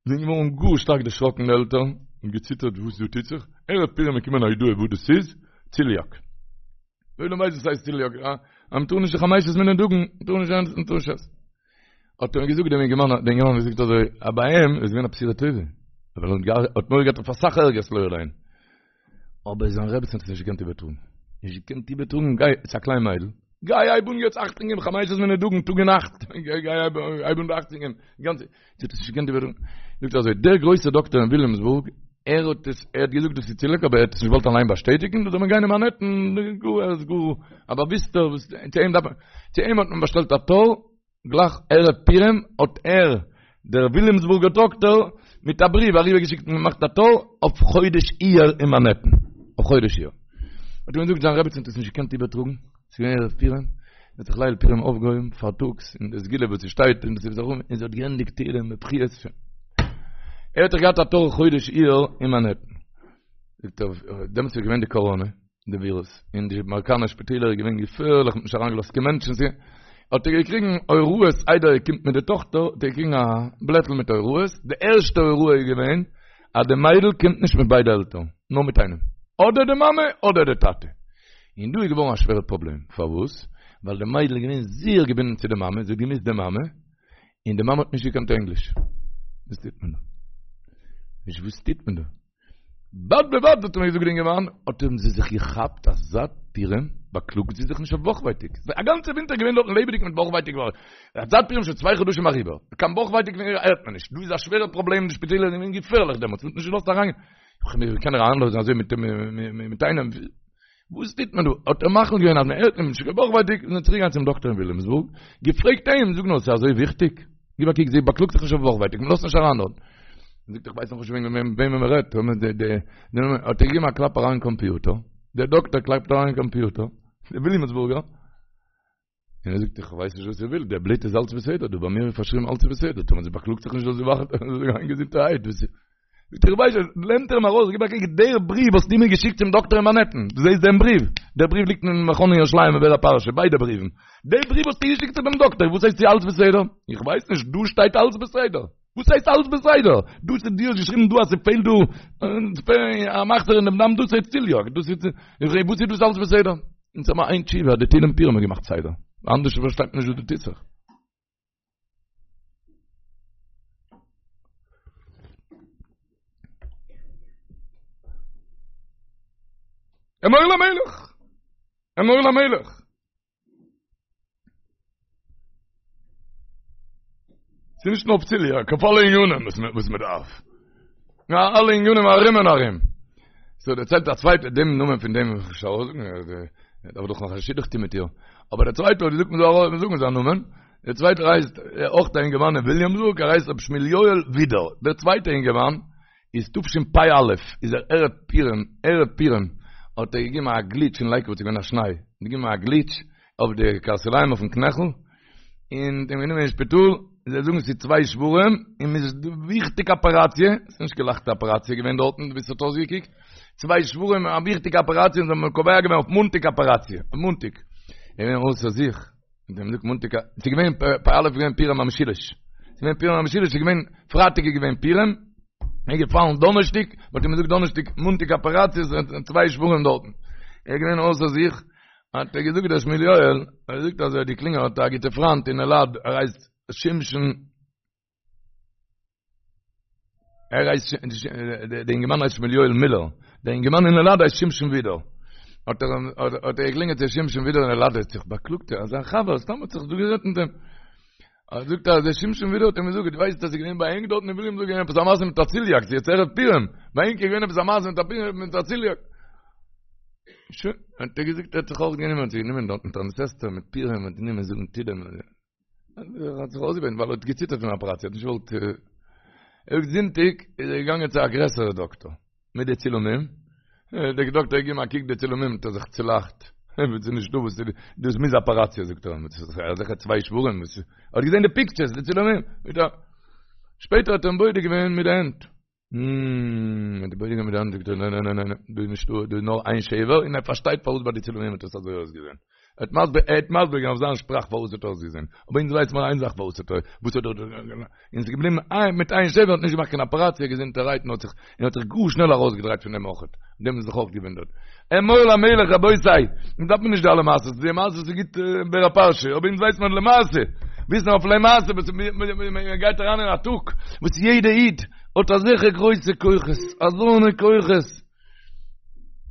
זענען געווארן גאר שטארק דערשראקן די עלטערן און געציטערט וואס דא טוט זיך ערב פורים איז געקומען א הודעה וואס דאס איז ציליאק דער עולם ווייסט וואס הייסט ציליאק, אה? אז מ'טאר נישט די חמשת מיני דגן, מ'טאר נישט עסן, מ'טאר נישט עסן. האט ער געזאגט דעם אינגערמאן, דער אינגערמאן האט געזאגט אזוי, אז ביי אים איז געווען א בשורה טובה. ווייל ער האט מורא געהאט אויף אסאך ערגערס לא עלינו. אבער זיין רעבעצן האט עס נישט געקענט איבערטראגן. נישט געקענט איבערטראגן, גיי, עס איז א קליין מיידל. גיי הייב אן יעצט אכטונג געבן חמשת מיני דגן טאג און נאכט. גיי הייב אן אכטונג געבן. גאנצע. זי האט עס נישט געקענט איבערטראגן. זאגט ער אזוי, דער גרויסער דאקטער אין וויליאמסבורג, ער האט עס, ער האט געזאגט דאס איז ציליאק אבער ער האט עס נישט געוואלט אליין באשטעטיגן, דא זאל מען גיין אין מאנהעטן, גאר ער איז גאר א באוויסטער, וואס צו אים דארף מען, צו אים האט מען באשטעלט א תור, גלייך ערב פורים האט ער, דער וויליאמסבורגער דאקטער, מיט א בריוו אריבערגעשיקט און געמאכט א תור אויף חודש אייר אין מאנהעטן, אויף חודש אייר. האט ער מיר געזאגט זיין רעבעצין האט עס נישט געקענט איבערטראגן, ס'איז געווען ערב פורים, זי האט זיך ליל פורים אויפגעהויבן פארטאגס אין די סגולה וואס ס'שטייט אין די ספר און זי האט געענדיגט תהילים בבכיות שוין. ער האט דאך געהאט א תור חודש אייר אין מאנהעטן. זאגט ער, דעמאלטס איז געווען די קאראנע, די ווירוס, אין די אמעריקאנער שפיטעלער איז געווען געפערליך, מ'האט נישט אריינגעלאזט קיין מענטשן, האט ער געקריגן הוראות איידער ער קומט מיט די טאכטער, האט ער געקריגן א בלעטל מיט הוראות, די ערשטע הוראה איז געווען. אז די מיידל קומט נישט מיט ביידע עלטערן, נאר מיט איינעם, אדער די מאמע אדער די טאטע. און דא איז געווארן א שווערע פראבלעם, פארוואס? ווייל די מיידל איז געווען זייער געבינדן צו די מאמע, זי האט געמוזט די מאמע, און די מאמע האט נישט געקענט ענגליש. וואס טוט מען דא? נישט וואס טוט מען דא? בד בבד האט מיר געזאגט די אינגערמאן, האט האבן זיי זיך געכאפט אז זייט פורים באקלאגט זי זיך נישט אויף בויכווייטאג. א גאנצע ווינטער געווען דארטן לעבעדיג מיט בויכווייטאג, זייט פורים שוין צוויי חדשים אריבער, קיין בויכווייטאג פון איר הערט מען נישט, דא איז א שווערע פראבלעם, די שפיטעלער זענען געווען געפערליך דעמאלטס, מען האט נישט געלאזט אריין, ווי קען ער אריינלאזן אזוי מיט מיט איינעם, וואס טוט מען דא? האט ער מחליט געווען אז מען הערט נישט קיין בויכווייטאג, איז מען צוריק געגאנגען צום דאקטער אין וויליאמסבורג, געפרעגט אים, זאג נאר, ס'איז אזוי וויכטיג? גיב א קוק, זי באקלאגט זיך נישט אויף בויכווייטאג, מען לאזט נישט אריין דארט. זאגט איך ווייס נאך נישט וועגן וועמען מען רעדט, האט ער געגעבן א קלאפ אריין אין קאמפיוטער, דער דאקטער קלאפט אריין אין קאמפיוטער, דער וויליאמסבורגער, און ער זאגט איך ווייס נישט וואס איר ווילט, דער בלוט איז אלץ בסדר, דא ביי מיר איז פארשריבן אלץ איז בסדר, טאמער זי באקלאגט זיך נישט זאל זי גיין געזונטערהייט, וואס איז? זאגט ער איך ווייס נישט, נעמט ער אים ארויס, גיב א קוק, דער בריוו וואס דו מיר געשיקט צום דאקטער אין מאנהעטן, דו זעסט דעם בריוו? דער בריוו ליגט אין מכון אין ירושלים אין באר הפרשה, ביידע בריוון, דער בריוו האסטו געשיקט צו דעם דאקטער, וואס הייסט ס'איז אלץ בסדר? איך ווייס נישט, דא שטייט אלץ בסדר. וואס הייסט אלץ בסדר? דאס איז דו האסט געשריבן דא אז ס'פעלט דא א מחסור אין דעם דם דאס איז ציליאק, דאס איז וואס איז דאס אלץ בסדר? אונז האבן איין תשובה אז די תהילים פורים האט געמאכט סדר, אנדערש פארשטייט מען נישט וואס דא טוט זיך. אמור למלך! אמור למלך! ס'איז נישט נאר אויף ציליאק, אויף אלע ענינים וואס מען דארף. נאר אלע ענינים ארום און ארום. סאו דערציילט א צווייטער דעם נאמען פון דעם וועל איך נישט ארויסזאגן, ער דארף דאך נאך א שידוך טון מיט איר. אבער דער צווייטער האט געזאגט מען זאל ארויס זאגן זיין נאמען. דער צווייטער הייסט אויך א אינגערמאן אין וויליאמסבורג, ער הייסט רבי שמואל יואל ווידער. דער צווייטער אינגערמאן איז תשפ"א איז ער ערב פורים, ערב פורים האט ער געגעבן א גליטש אין לייקוואד ס'איז געווען א שניי, געגעבן א גליטש אויף די קרסוליים אויפן קנעכל, און מ'האט אים גענומען אין שפיטאל, זיי זאגן ס'איז צוויי שברים, און מ'איז וויכטיג אפעראציע, ס'איז נישט קיין לייכטע אפעראציע געווען דארטן ווי ס'האט אויסגעקוקט, צוויי שברים, א וויכטיגע אפעראציע, און זיי האבן קובע געווען אויף מאנטאג אפעראציע, אויף מאנטאג, ער איז געווען אויסער זיך. און דעם זאגט מאנטאג ס'איז געווען פ"א איז געווען פורים המשולש ס'איז געווען פורים המשולש ס'איז געווען פרייטאג איז געווען פורים איז געפאלן דאנערשטיק מ'האט אים געזאגט דאנערשטיק מאנטאג אפעראציע צוויי שברים דארטן ער איז געווען אויסער זיך האט ער געזאגט דער שמואל יואל ער זאגט אז ער האט געקלינגען האט א גוטע פריינט אין אלעד ער הייסט שמשון ער הייסט דער אינגערמאן הייסט שמואל יואל מילער, דער אינגערמאן אין אלעד הייסט שמשון ווידער. האט ער האט ער געקלינגען צו שמשון ווידער אין אלעד האט זיך באקלאגט אז זיין חבר סתם האט זיך דא גערעדט מיט אים. ער זאגט אז דער שמשון ווידער האט אים געזאגט, דו ווייסט אז ס'איז געווען ביי ענק דארטן אין וויליאמסבורג געווען עפעס א מעשה מיט א ציליאק, ס'איז יעצט ערב פורים, ביי ענק איז געווען עפעס א מעשה מיט א פורים מיט א ציליאק. שוין, האט ער געזאגט ער האט זיך אויך גענומען, האט זיך גענומען דארטן תענית אסתר מיט פורים האט גענומען זאגן תהילים. ער האט זיך אויסגעבעטן ווייל ער האט געציטערט פון אפעראציע, האט נישט געוואלט, ער זאגט זונטאג איז ער געגאנגען צו א גרעסערע דאקטאר מיט די צילומים, דער דאקטאר האט געגעבן א קוק די צילומים האט ער זיך צולאכט, וואס איז נישטא וואס איז, דאס מוז אפעראציע זאגט ער, אזעלכע צוויי שברים, ער האט געזען די פיקטשערס די צילומים, שפעטער האט ער אים בודק געווען מיט די הענט. מ האט בודק געווען מיט די האנט זאגט ער ניין ניין ניין דא איז נישטא דא איז נאר איין שבר און ער פארשטייט פארוואס ביי די צילומים האט עס אזוי אויסגעזען ער האט מסביר ער האט מסביר געווען אויף זיין שפראך פארוואס האט אויסגעזען אבער אונז ווייסט מיר איין זאך פארוואס האט וואס האט און ס'איז געבליבן איין מיט איין שבר האט נישט געמאכט קיין אפעראציע געזונטערהייט און האט זיך און האט זיך גאר שנעל ארויסגעדרייט פון דעם אויכעט דעם איז זיך אויך געוואונדערט אמור למלך רבותי אונז דארף מען נישט די אלע מעשות די מעשות איז גוט באר הפרשה אבער אונז ווייסט מען למעשה וויסן אויף למעשה וואס מען גייט אריין אין א טאג וואס יעדע איד האט אזעלכע גרויסע כוחות, אזוינע כוחות,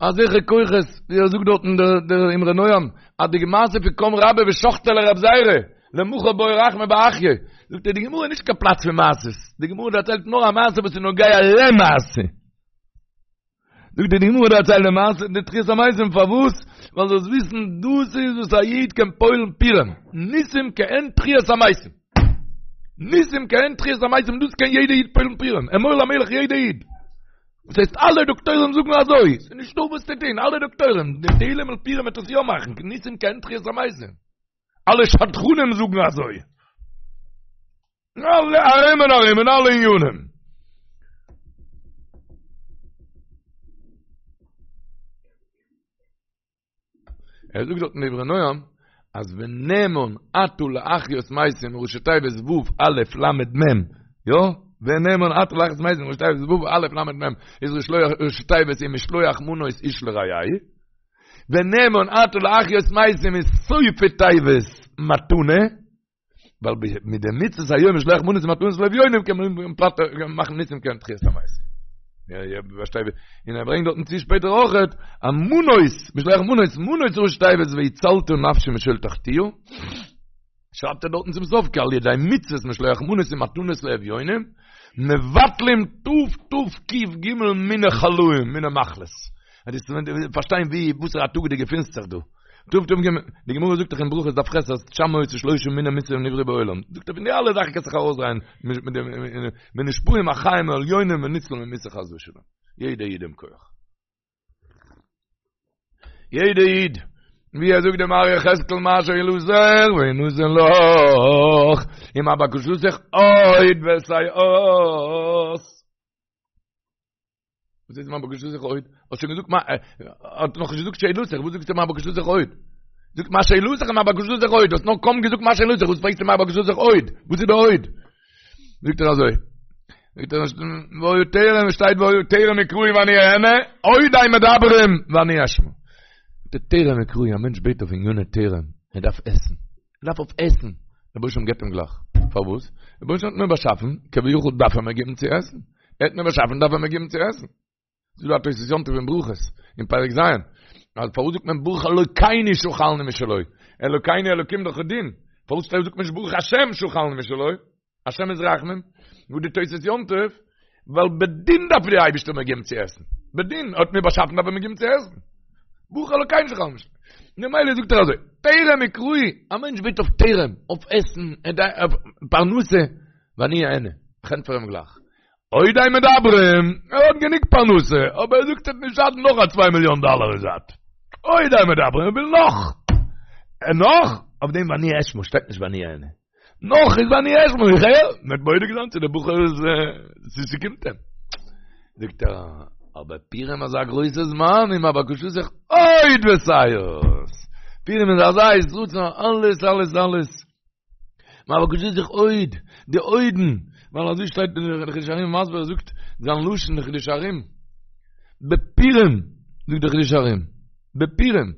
אזעלכע כוחות, ווי ער זאגט דארטן דער אמרי נועם, אז די מעשה פון קם רבה ושחטיה לרב זירא, למחר בעי רחמי באחיה, זאגט ער די גמרא איז נישט קיין פלאץ פון מעשות, די גמרא דערציילט נאר א מעשה וואס איז נוגע למעשה. זאגט די גמרא דערציילט די מעשה די תחיית המתים פארוואס? ווייל זאלסט וויסן דאס איז וואס א איד קען פועל'ן פורים, ניסים כעין תחיית המתים. ניסים כעין תחיית המתים דאס קען יעדע איד פועל'ן פורים, אמור למלך יעדע איד. וואס הייסט אלע דאקטוירים זאגן אזוי, ס'איז נישטא וואס צו טון, אלע דאקטוירים, די תהילים'ל פורים וועט עס יא מאכן, ניסים כעין תחיית המתים. אלע שדכנים זאגן אזוי. אלע ארום און ארום אין אלע עניינים. ער זאגט דארט אין דברי נועם אז ונאמן אתה להחיות מתים ראשי תיבות ו' א' ל' מ' יא? ונאמן אתה להחיות מתים ראשי תיבות ו' א' ל' מ' איז ראשי תיבות ומשלוח מנות איש לרעהו, ונאמן אתה להחיות מתים איז סופי תיבות מתנה, ווייל מיט די מצוות היום משלוח מנות ומתנות לאביונים קען מען מאכן ניסים קען תחיית המתים. יא יא פארשטיי און ער ברענגט דארטן צו שפעטער אויכעט א מנות משלוח מנות מנות ראשי תיבות והצלת נפשי משאול תחתיה שרייבט ער דארטן צום סוף כי על ידי מצוות משלוח מנות ומתנות לאביונים מבטלים תתק"ג מיני חלאים מיני מחלות. אז דו פארשטיין ווי וואסערע א טאג דו געפינסט זיך דא. תתק"ג, די גמרא זאגט דאך אין ברכות דף ח' אז תשע מאות ושלושה מיני מיתה נבראו בעולם. זאגט ער פון די אלע זאכן קענסט זיך ארויסדרייען מיט דעם ונשפעים החיים העליונים וניצול ממיתה חס ושלום. יעדע איד דעם כח. יעדע איד, ווי ער זאגט דעם מראה יחזקאל מה שאלתך וינתן לך, ומה בקשתך עוד ותעש. וואס איז מה בקשתך עוד? האסט שוין געזאגט מה, האט נאך נישט געזאגט שאלתך, וואס זאגסטו מה בקשתך עוד? זאגט מה שאלתך מה בקשתך עוד, האסט נאר קוים געזאגט מה שאלתך, וואס פרעגסטו מה בקשתך עוד? וואס איז די עוד? זאגט ער אזוי, זאגט ער והיה טרם שטייט והיה טרם יקראו ואני אענה, עוד הם מדברים ואני אשמע. די טרם יקראו, א מענטש בעט אויף עניני טרם, ער דארף עסן. ער דארף אויף עסן, דער רבונו של עולם געבט אים גלייך. פארוואס? דער רבונו של עולם האט מיר באשאפן, כביכול דארף ער מיר געבן צו עסן. ער האט מיר באשאפן דארף ער מיר געבן צו עסן. ס'איז דא א תוס' יום טוב אין ברכות, אין פרק ז', אז פארוואס זאגט מען ברוך אלוקינו שאכלנו משלו? אלוקינו אלוקים דאך דין. פארוואס זאגט מען נישט ברוך השם שאכלנו משלו? השם איז רחמים. זאגט די תוס' יום טוב, ווייל בדין דארף די אייבערשטער מיר געבן צו עסן. בדין, ער האט מיר באשאפן דארף ער מיר געבן צו עסן. ברוך אלוקינו שאכלנו משלו. ממילא זאגט ער אזוי, טרם יקראו, א מענטש בעט אויף טרם, אויף עסן, אויף פרנסה, ואני אענה, איך ענטפער אים גלייך. עוד הם מדברים, ער האט גענוג פרנסה, אבער ער זאגט ס'וועט נישט שאטן נאך א צוויי מיליאן דאלער אין זייט. עוד הם מדברים, ער וויל נאך. נאך, אויף דעם ואני אשמע, שטייט נישט ואני אענה. נאך איז ואני אשמע, איך הער, מ'וועט בודק זיין צו דער בחור איז, צו ס'קומט אים. זאגט ער, אבער פורים אזא גרויסע זמן, ומה בקשתך עוד ותעש. פורים איז אזא עת רצון, אלעס, אלעס, אלעס. מה בקשתך עוד, די עודן, ווייל אזוי שטייט אין חידושי הרי"ם מסביר, ער זאגט זיין לשון אין חידושי הרי"ם, בפורים, זאגט דער חידושי הרי"ם, בפורים,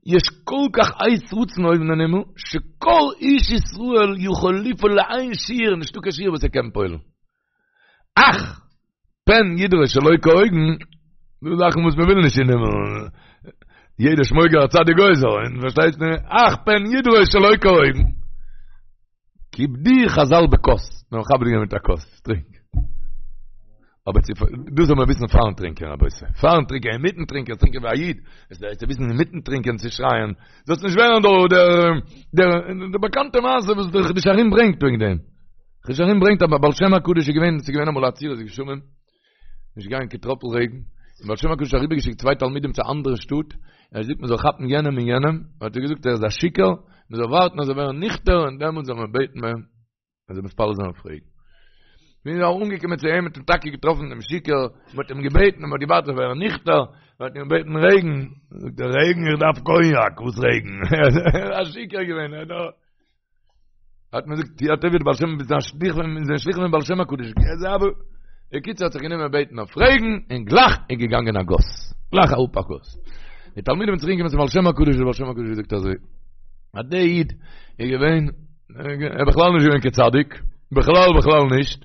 יש כל כך עת רצון אויבן אין הימל, שכל איש ישראל יכול לפעול לאין שיעור, נישטא קיין שיעור וואס ער קען פועל'ן. אך! פן ידרוש שלא כהוגן, דא זאכן וואס מען וויל נישט אין הימל, יעדער שמויגער א צדיק גוזר, און פארשטייסט מיר, אך פן ידרוש שלא כהוגן. כיבדוהו חזל בכוס, מיר האבן מכבד געווען מיט א כוס, טרינק. אבער צו, דאס זאל מען וויסן פארן טרינקען רבותי, פארן טרינקען, אינמיטן טרינקען, טרינקען ווי א איד, עס איז צו וויסן אינמיטן טרינקען צו שרייען, זאלסט נישט ווערן דער, דער, דער, דער באקאנטע מעשה וואס דער חידושי הרי"ם ברענגט וועגן דעם. חידושי הרי"ם ברענגט אז בעל שם הקדוש איז געווען, עס איז געווען אמאל א עצירת גשמים, נישט געגאנגען קיין טראפל רעגן, און בעל שם הקדוש האט אריבערגעשיקט צוויי תלמידים צו א אנדערע שטאט, ער האט געזאגט מען זאל כאפן יענעם און יענעם, האט ער געזאגט ער איז א שיכור, מען זאל ווארטן אז ער זאל ווערן ניכטער און דעמאלטס זאל מען בעטן ביי אים, מען זאל מתפלל זיין אויף רעגן. ווען מ'איז אנגעקומען צו אים האט מען טאקע געטראפן דעם שיכור, מען האט אים געבעטן, מען האט געווארט ער זאל ווערן ניכטער, מען האט אים געבעטן רעגן, זאגט ער רעגן איך דארף קאניאק, וואס רעגן? ער איז א שיכור געווען, ער האט האט מען געזאגט יא טוב בעל שם ביסט א שליח פון איז א שליח פון בעל שם הקדוש אבער בקיצור האט זיך גענומען בעטן אויף רעגן און גלייך איז געגאנגען א גאס גלייך אראפ א גאס די תלמידים זענען צוריק געקומען צום בעל שם הקדוש דער בעל שם הקדוש געזאגט אזוי אז דער איד איז געווען ער בכלל נישט געווען קיין צדיק בכלל בכלל נישט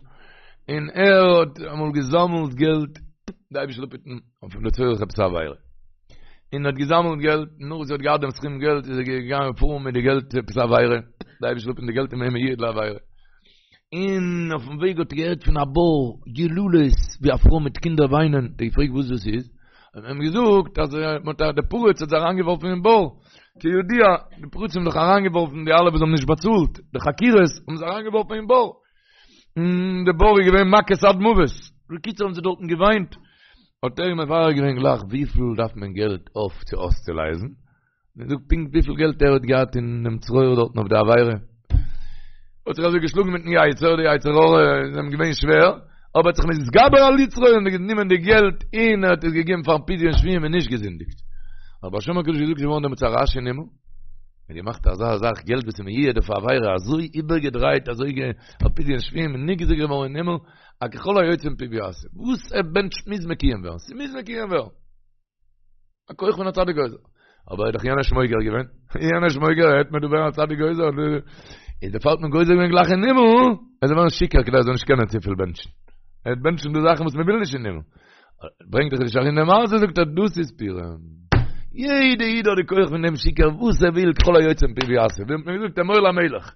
און ער האט אמאל געזאמלט געלט דער אייבערשטער זאל אפהיטן אויף לצורך עפעס א עבירה און האט געזאמלט געלט, נאך וואס ער האט געהאט דעם סכום געלט איז ער געגאנגען פארן מיט די געלט עפעס א עבירה, די אייבערשטער זאל אפהיטן די געלט איז געווען מיועד לעבירה. און אויפן וועג האט ער געהערט פון א בור יללות ווי א פרוי מיט קינדער וויינען, האט ער געפרעגט וואס דאס איז, האט מען אים געזאגט אז מען האט די פריץ האט זיי אריינגעווארפן אין בור, כידוע די פריצים האבן דאך אריינגעווארפן די אלע וואס האבן נישט באצאלט די חכירות האבן זיי אריינגעווארפן אין בור, און די בור איז געווען מכות עד מוות, בקיצור האבן זיי דארטן געוויינט, האט ער אים מברר געווען גלייך וויפיל דארף מען געלט אויף צו אויסצולייזן, און זאגט פונקט וויפיל געלט ער האט געהאט אין דעם צרור דארטן אויף די עבירה. האט זיך אזוי געשלאגן מיטן יצר, די יצר הרע איז אים געווען שווער, אבער האט זיך מתגבר על יצרו און גענומען די געלט און ער האט עס געגעבן פארן פדיון שבויים און נישט געזינדיגט. האט בעל שם הקדוש געזאגט ס'איז געווארן דעמאלטס א רעש אין הימל, מ'האט געמאכט אזא זאך געלט וואס איז מיועד אויף א עבירה אזוי איבערגעדרייט אזוי אויף פדיון שבויים און נגזר געווארן אין הימל. א ככל היוצא מפיו יעשה, וואס ער בענטשט מוז מקוים ווערן, ס'מוז מקוים ווערן. א כח פון א צדיק גוזר. אבער איז דאך יענער שמויגער געווען. יענער שמויגער העט מען דא ווערן א צדיק גוזר. איז דערפאר האט מען גוזר געווען גלייך אין הימל, ער זאל ווערן שיכור כדי ער זאל נישט קענען צופיל בענטשן. ער וועט בענטשן די זאכן וואס מען וויל נישט אין הימל. ברענגט דער חידושי הרי"ם די מעשה זאגט ער דאס איז פורים. יעדע איד האט די כח פון דעם שיכור וואס ער וויל ככל היוצא מפיו יעשה. ווי האט מען געזאגט אמור למלך.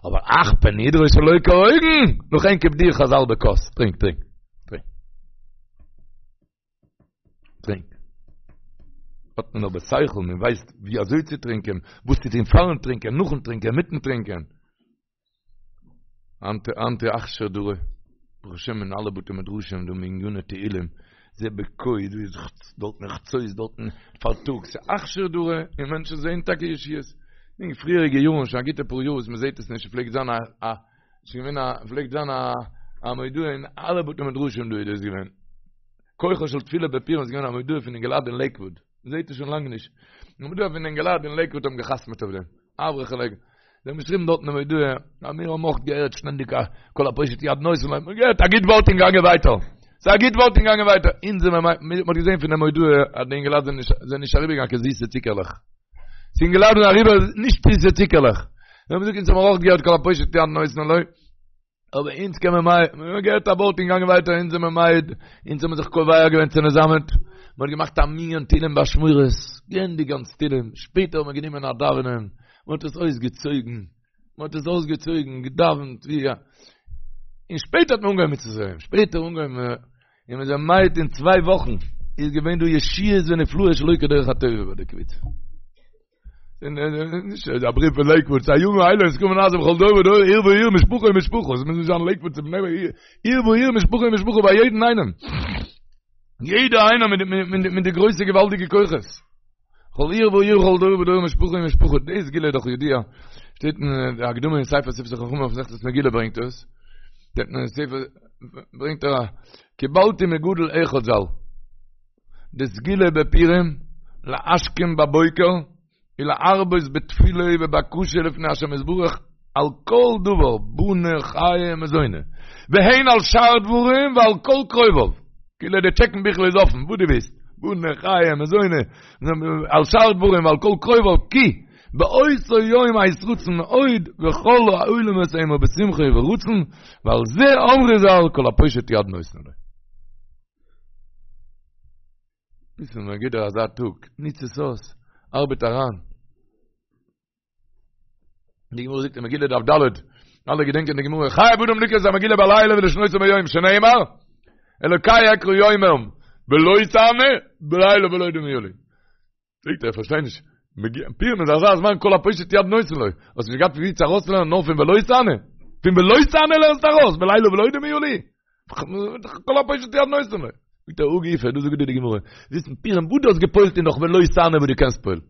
אבער אך פן ידרוש שלא כהוגן, לכן כיבדוהו חז"ל בכוס. טרינק, טרינק. טרינק. טרינק. האט מען אבער שכל, מען ווייסט ווי אזוי צו טרינקען, וואס צו טון פארן טרינקען, נאכן טרינקען, מיטן טרינקען. היינט היינט איז אכשר דרא, ברוך השם אין אלע בתי מדרשים דא מניני תהילים, זה בכה, דא איז דארטן חצות, דארטן פארטאגס, ס'איז אכשר דרא, און מענטשן זעען טאקע ישועות. אין פריעריגע יארן, שוין א גוטע פאר יאר וואס מען זעט עס נישט, פלעגט זיין א א ס'איז געווען א, פלעגט זיין א א מודעה אין אלע בתי מדרשים דא איז דאס געווען. כוחו של תפילה בפורים איז געווען א מודעה פון אינגעלייט אין לעיקוואוד. מ'זעט עס שוין לאנג נישט. א מודעה פון אינגעלייט אין לעיקוואוד האבן געחתמעט אויף דעם. אברכי לעיקוואוד. זיי האבן געשריבן דארטן די מודעה, אז מיר האבן אויך געהערט שטענדיג א כל הפושט יד נותנין לו. מ'האט געהערט א גוט ווארט און געגאנגען ווייטער. ס'איז א גוט ווארט און געגאנגען ווייטער. אונז זעמער מ, מ'האט געזען פון די מודעה אז די אינגעלייט זענען נישט, זענען נישט אריבערגעגאנגען קיין זיסע צוקערלעך. ס'איז אינגעלייט זענען אריבער נישט זיסע צוקערלעך. זיי האבן געזאגט אונז האבן אויך געהערט כל הפושט יד נותנין לו. אבער אונז קען מען מעיד, מיר האבן געהערט א ווארט און געגאנגען ווייטער, אונז זעמער מעיד, אונז האבן זיך קובע געווען צונעזאמען, מען האט געמאכט א מנין תהילים באשמורת, געענדיגט גאנץ תהילים, שפעטער האט מען גענומען א דאווענען, מען האט עס אויסגעצויגן, מען האט עס אויסגעצויגן, געדאווענט ווי א, און שפעטער האט מען אנגעהויבן מיט צו שפעטער אנגעהויבן, און מיר זענען מעיד אין צוויי וואכן איז געווען דא ישועות ונפלאות שלא כדרך הטבע ביי די קבוצה. נישט א בריוו פון לעיקוואוד, ס'איז הימים האלה נזכרים ונעשים בכל דור ודור, עיר ועיר, משפחה ומשפחה, עס מוז נישט זיין לעיקוואוד צו בני ברק, עיר ועיר, משפחה ומשפחה, ביי יעדן איינעם. יעדער איינער מיט מיט די גרויסע געוואלדיגע כוחות. כל עיר ועיר, כל דור ודור, משפחה ומשפחה, די סגולה איז דאך ידוע. שטייט אין די הקדמה אין ספר שפתי חכמים אויף מסכת מגילה ברענגט עס. שטייט אין ספר ברענגט ער קיבלתי מגדול אחד ז"ל. די סגולה בפורים, להשכים בבוקר, ולהרבות בתפילה ובבקשה לפני השם יתברך על כל דבר, בני חיי ומזוני, והן על שאר דברים ועל כל קרוביו, כאילו די טשעקן ביכל איז אפן, וואס דו ווילסט, בני חיי ומזוני, על שאר דברים ועל כל קרוביו, כי באותו יום עת רצון מאוד, וכל העולמות המה בשמחה וברצון, ועל זה אמרו ז"ל כל הפושט יד נותנין לו. וויסן מען גיט דיר אזא טאג, ניץ עס אויס, ארבעט אריין. די גמרא זאגט אין מגילה דף ד', אלע געדענקען די גמרא, חייב אדם לקרוא את המגילה בלילה ולשנותה ביום, שנאמר, אלוקי אקרא יומם ולא תענה, בלילה ולא דומיה לי. זאגט ער, איך פארשטיי נישט, פורים איז אזא זמן כל הפושט יד נותנין לו, האסט נישט געהאט ווי צו ארויסלערנען נאר פון ולא תענה? פון ולא תענה לערנסטו ארויס, בלילה ולא דומיה לי? כל הפושט יד נותנין לו. זאגט ער, הא גופא, דאס זאגט דיר די גמרא, וויסן פורים וואס דו האסט געפועלט איז נאך ולא תענה וואס דו קענסט פועל'ן.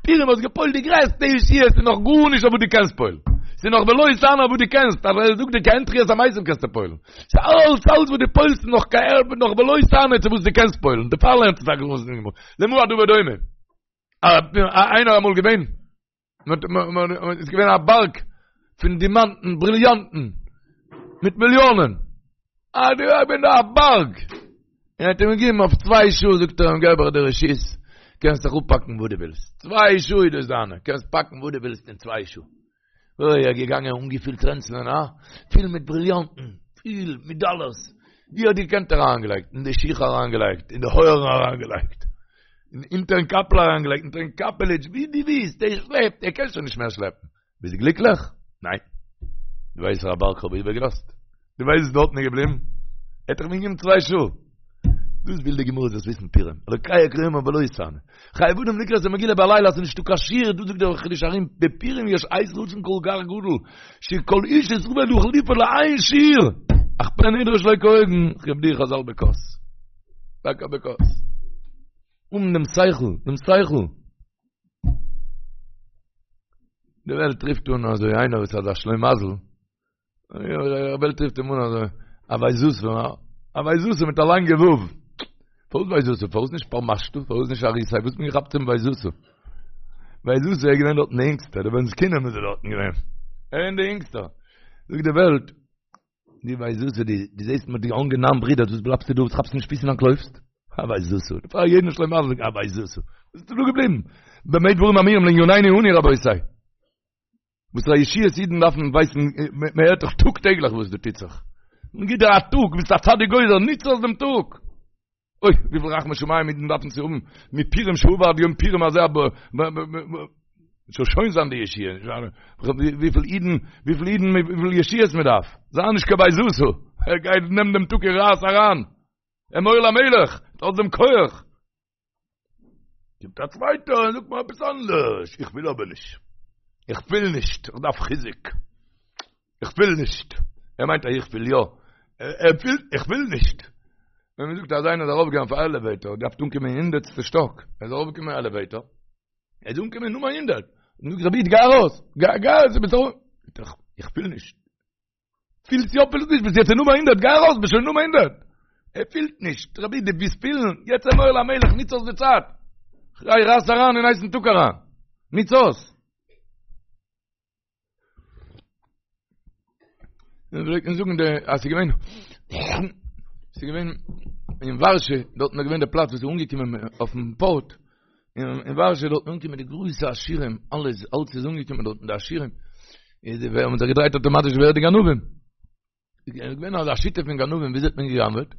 פורים האסט געפועלט די גרעסטע ישועות איז נאך גארנישט אויף וואס דו קענסט פועל'ן. ס'איז נאך ולא תענה אויף וואס דו קענסט, אז ער זאגט דיר כעין תחיית המתים קענסטו פועל'ן. ס'איז אלץ אלץ וואס דו פועל'סט איז נאך כעין נאך ולא תענה צו וואס דו קענסט פועל'ן. דערפאר לערנט עס א גרויסע גמרא. למה הדבר דומה? איינער אמאל געווען, איז געווען א בארג פון דימאנטן, בריליאנטן, מיט מיליאנען. אה, די געווען דא א בארג. און האט אים געגעבן אויף צוויי שעה, זאגט ער אים, געב איך דיר רשות, קענסט זיך אפפאקן וואס דו ווילסט. צוויי שעה איז דאס דיינע, קענסט פאקן וואס דו ווילסט אין צוויי שעה. אוי, ער איז געגאנגען אנגעפילט רענצלען, הא? פיל מיט בריליאנטן, פיל מיט דאלערס. ווי האט געקענט אריינגעלייגט? אין די שיך אריינגעלייגט, אין די אויערן אריינגעלייגט, אונטערן קאפל אריינגעלייגט, אונטערן קאפעליטש, ווי דו ווילסט, ער שלעפט, ער קען שוין נישט מער שלעפן. ביסט גליקליך? ניין. דו ווייסט וואסערע בארג כ'האב איבערגעלאזט? דו ווייסט וואס דארטן איז געבליבן? ער האט דאך מיר געגעבן צוויי שעה. דאס וויל די גמרא זאלסט וויסן פורים. אלוקי אקרא יומם ולא תענה. חייב אדם לקרוא את המגילה בלילה אז נישטא קיין שיעור, דא זאגט דער חידושי הרי"ם בפורים יש עת רצון כל כך גדול, שכל איש ישראל יכול לפעול לאין שיעור, אך פן ידרוש שלא כהוגן, כיבדוהו חז"ל בכוס. טאקע בכוס. אן דעם שכל, דעם שכל. די וועלט רופט אן אזוי איינער וואס האט א שלימזל, די וועלט רופט אים אן אזוי, א ויזתא, א ויזתא מיט א לאנגע וו. פארוואס ויזתא? פארוואס נישט פרמשתא? פארוואס נישט אריסאי? וואס האט מען געכאפט צום ויזתא? ויזתא איז געווען דארטן די אינגסטע, די בן זקונים איז ער דארטן געווען. ער איז די אינגסטע. זאגט די וועלט. דו ווייסט וואס דו דו זעסט מ'האט דיר אנגענארט ברידער וואס בלייבסטו דא וואס כאפסט נישט פיס און אנטלויפסט? א ויזתא פאר יעדן שלימזל א ויזתא ביסטו דא געבליבן במה דברים אמורים לענינינו אנו רבותי וואס פאר ישועות אידן דארפן ווייסן מען הערט דאך טאג טעגליך וואס דא טוט זיך מען גיט דיר א טאג ביסט א צדיק גוזר ניץ אויס דעם טאג אוי וויפיל רחמי שמים אידן דארפן צו האבן מפורים שעבר עד יום פורים הזה זאל שוין זיין די ישועה וויפיל אידן וויפיל אידן וויפיל ישועות מען דארף זיי נישט קיין ויזתא ער גייט נעם דעם טאג און רייס אריין אמור למלך האט דעם כח קומט א צווייטער און זאגט מיר עפעס אנדערש, איך וויל אבער נישט, איך פיל נישט, איך דארף חיזוק, איך פיל נישט, ער מיינט אז איך פיל יא, ער פילט, איך פיל נישט. ווען מען זאגט אז איינער איז ארויפגעגאנגען אויף א עלעוועיטאר, האט געדארפט אנקומען אין הונדערטסטע שטאק, ער איז ארויפגעקומען אין עלעוועיטאר, ער איז אנגעקומען אין נומער הונדערט, און זאגט רבי איד גיי ארויס, גיי גיי ארויס, ביסט ארויף, איך פיל נישט. פילסט יא פילסט נישט ביסט יעצט אין נומער הונדערט גיי ארויס ביסט שוין נומער הונדערט ער פילט נישט רבי דו ווילסט פילן יעצט אמור למלך ניץ אויס די צייט גיי רייס אריין אין הייסן טאג אריין ניץ אויס און פלעגט מען זאגן די אז ס'איז געווען ס'איז געווען אין ווארשע דארט איז געווען דער פלאץ וואס איז אנגעקומען אויפן פארט אין ווארשע דארט אנגעקומען די גרויסע עשירים, אלעס, אלץ איז אנגעקומען דארט די עשירים, איז די ווער האבן זיך געדרייט אויטאמאטיש ווער די גנבים. איז געווען אזא שיטה פון גנבים, וויאזוי האט מען געגנב'עט?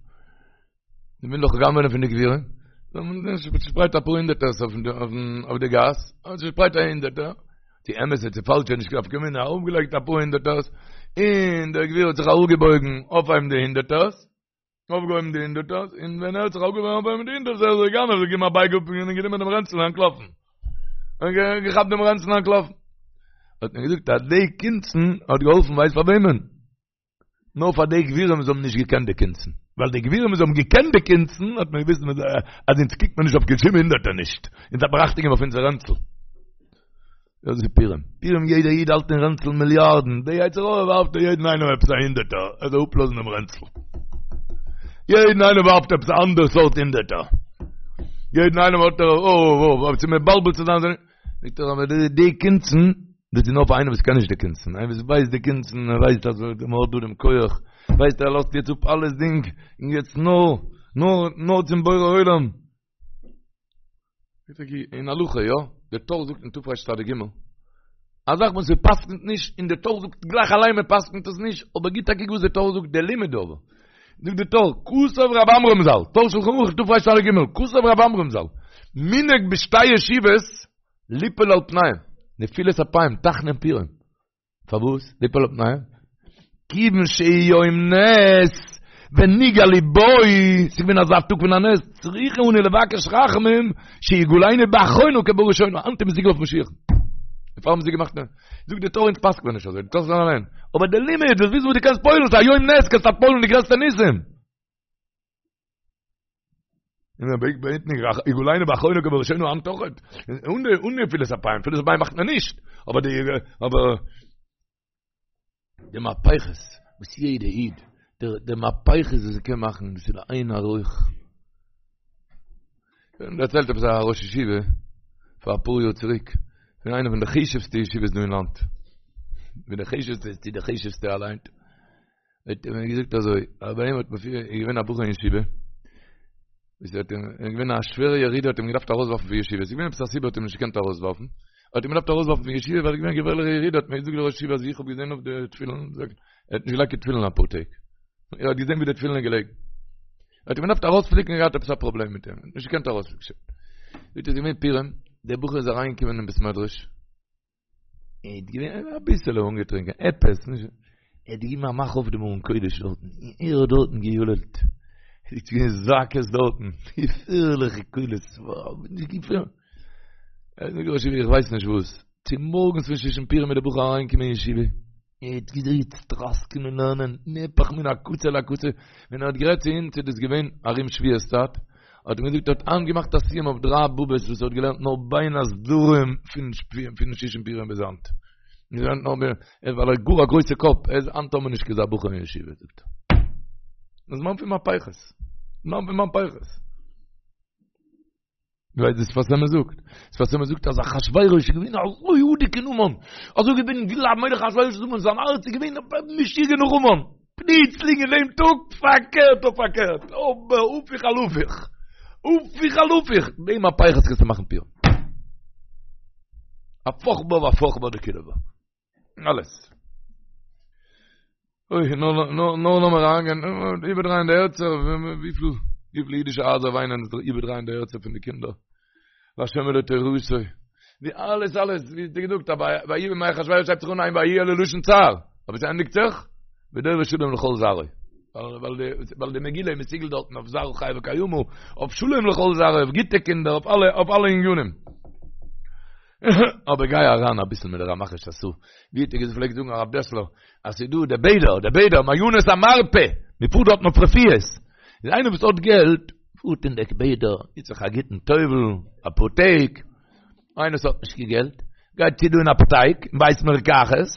מען וויל דאך גנב'ענען פון די גבירים. מען צושפרייט אפאר הונדערטערס אויף אויף די גאס, מען צושפרייט א הונדערטער, צו אמת צו פאלש נישט קיין נפקא מינה, ארויפגעלייגט אפאר הונדערטערס, און דער גביר האט זיך אראפגעבויגן אויפהייבן די הונדערטערס, אויפגעהויבן די הונדערטערס, און ווען ער האט זיך אויפגעהויבן אויפהויבן די הונדערטערס, איז דער גנב זיך געגעבן א בייג אפ און גענומען דעם רענצל און אנטלאפן. און געכאפט דעם רענצל און אנטלאפן. האט מען געזאגט אז די קונצן האט געהאלפן ווייסט פאר וועמען? נאר פאר די גבירים וואס האבן נישט געקענט די קונצן. ווייל די גבירים וואס האבן געקענט די קונצן האט מען געוויסט אז אונז קוקט מען נישט אויף קיין שום הונדערטער נישט. אונז דארף מען אכטונג געבן אויף אונזער רענצל. דאס איז פורים. פורים יעדער איד האלט אין רענצל מיליארדן, די יצר הרע ווארפט יעדן איינעם עפעס א הונדערטער, ער זאל אפלאזן דעם רענצל. יעדן איינעם ווארפט עפעס א אנדערע סארט הונדערטער. יעדן איינעם האט ער, אוי אוי אוי, צו מבלבל צו זיין, זאגט ער אבער די די קונצן, דאס איז נאר פאר איינער וואס קען נישט די קונצן, איינער וואס ווייסט די קונצן, ער ווייסט אז מען האט דא דעם כח, ווייסט ער לאזט יעצט אפ אלעס דינג, און יעצט נאר, נאר, נאר צום בורא עולם. אין הלכה יא, דער טור זאגט אין תרצ"ג, א זאך וואס מ'פסק'נט נישט, און דער טור זאגט גלייך אליין מ'פסק'נט עס נישט, אבער גיט א קוק וואס דער טור זאגט, דער לימוד אבער, זאגט דער טור, כתב רב עמרם ז"ל, טור שלחן ערוך תרצ"ג, כתב רב עמרם ז"ל, מנהג בשתי ישיבות ליפול על פניהם, נפילת אפיים, תחנון פורים. פארוואס ליפול על פניהם? כיוון שהוא יום נס ונגאלו בו, ס'איז געווען אזא טאג פון א נס, צריכים אנו לבקש רחמים שיגאלנו באחרונה כבראשונה, היינט איז מסוגל אויף משיח. דערפאר האבן זיי געמאכט נס. זאגט די טור אונז פסק'נט מען נישט אזוי, די טור זאגט אליין. אבער די לימוד, דאס וויסן וואס דו קענסט פועל'ן, ס'איז א יום נס, קענסט פועל'ן די גרעסטע ניסים. און ער בעט בעט נישט יגאלנו באחרונה כבראשונה היינט אויכעט און די און נפילת אפיים נפילת אפיים מאכט מען נישט אבער די אבער די מהפכות וואס יעדע איד דער די מהפכות וואס קען מאכן דאס איז לאין ערוך און דערציילט עפעס א ראש ישיבה פאר אפאר יאר צוריק פון איינע פון די חשובסטע ישיבות דא אין לאנד פון די חשובסטע צו די חשובסטע אליין האט ער מיר געזאגט אזוי, אז ביי אים האט מען פיר, איז געווען א בחור אין ישיבה, וואס האט אים, איז געווען א שווערע ירידה האט אים געדארפט ארויסווארפן פון ישיבה, ס'איז געווען עפעס א סיבה האט אים נישט געקענט ארויסווארפן, האט אים געדארפט ארויסווארפן פון ישיבה ווייל עס איז געווען א געפערליכע ירידה, האט מיר געזאגט דער ראש ישיבה אז איך האב געזען אויף די תפילין, ער האט נישט געלייגט קיין תפילין אפאר טעג, ער האט געזען ווי די תפילין איז געלעגן, ער האט אים געדארפט ארויספליקן, ער האט געהאט עפעס א פראבלעם מיט אים, נישט געקענט ארויספליקן. זאגט ער איז געווען פורים, דער בחור איז אריינגעקומען אין בית מדרש, ער האט געווען אביסעלע אנגעטרינקען, עפעס, נישט, ער האט געגעבן א מאך אויף דעם ארון קודש דארטן, און ער האט דארטן געיללט, עס איז געווען זעקות דארטן, געפערליכע קולות, נישט געפערליך. ער האט מיר געזאגט, איך ווייס נישט וואס, צומארגנס פון שושן פורים איז דער בחור אריינגעקומען אין ישיבה, ער האט געזעצט טראסקען אין לערנען, נהפך מן הקצה לקצה, ווען ער האט גערעדט צו אונז איז דאס געווען ארום שבועות צייט, האט ער געזאגט ער האט היינט געמאכט א סיום אויף דריי בבות וואס ער האט געלערנט נאר בין הסדרים פון פון שושן פורים ביז היינט. געלערנט נאר בין, ווייל ער האט גאר א גרויסע קאפ, ער איז היינט האבן מיר נישט קיין אזא בחור אין ישיבה זאגט ער. זמן פון מהפכות. זמן פון מהפכות. דו ווייסט וואס שפת אמת זאגט? שפת אמת זאגט אז אחשוורוש איז געווען אזוי אדוק אין המן, אזוי געווען גלייב מלך אחשוורוש איז המן, זיין הארץ איז געווען משוגע נאך המן. פלוצלינג אין דעם טאג פארקערט אויף פארקערט, אבער הפוך על הפוך, הפוך על הפוך, די מהפכות קענסטו מאכן פורים. הפוך בה והפוך בה דכולא בה. אלעס. אוי, נאר נאר נאר לאמיר אריינגיין, איבערדרייען די הערצער, וויפיל וויפיל אידישע הייזער וויינען זיך איבערדרייען די הערצער פון די קינדער. להשם ולתורתו. ווי אלעס אלעס, ווי האט ער געזאגט, ויהי בימי אחשורוש הייבט זיך אן ein ויהי אלא לשון צער, אבער עס ענדיגט זיך, ודורש שלום לכל זרעו. ווייל די מגילה איז מסוגל דארטן אויף זרעא חייא וקיימא, אויף שלום לכל זרעו, אויף גוטע קינדער, אויף אלע אויף אלע ענינים. אבער גיי אריין אביסל מיט די רמח שס"ה, ווי האט ער געפלעגט זאגן הרב דעסלער, אז ס'איז דא די בעדער, די בעדער, מעיינות המרפא, מען פארט דארטן אויף רפואות, איז איינער וואס האט געלט, פארט אין די בעדער, גיט זיך א גוטן טובל, אפאר טעג, איינער וואס האט נישט קיין געלט, גייט צו דא אין אפטייק, אין בית מרקחת,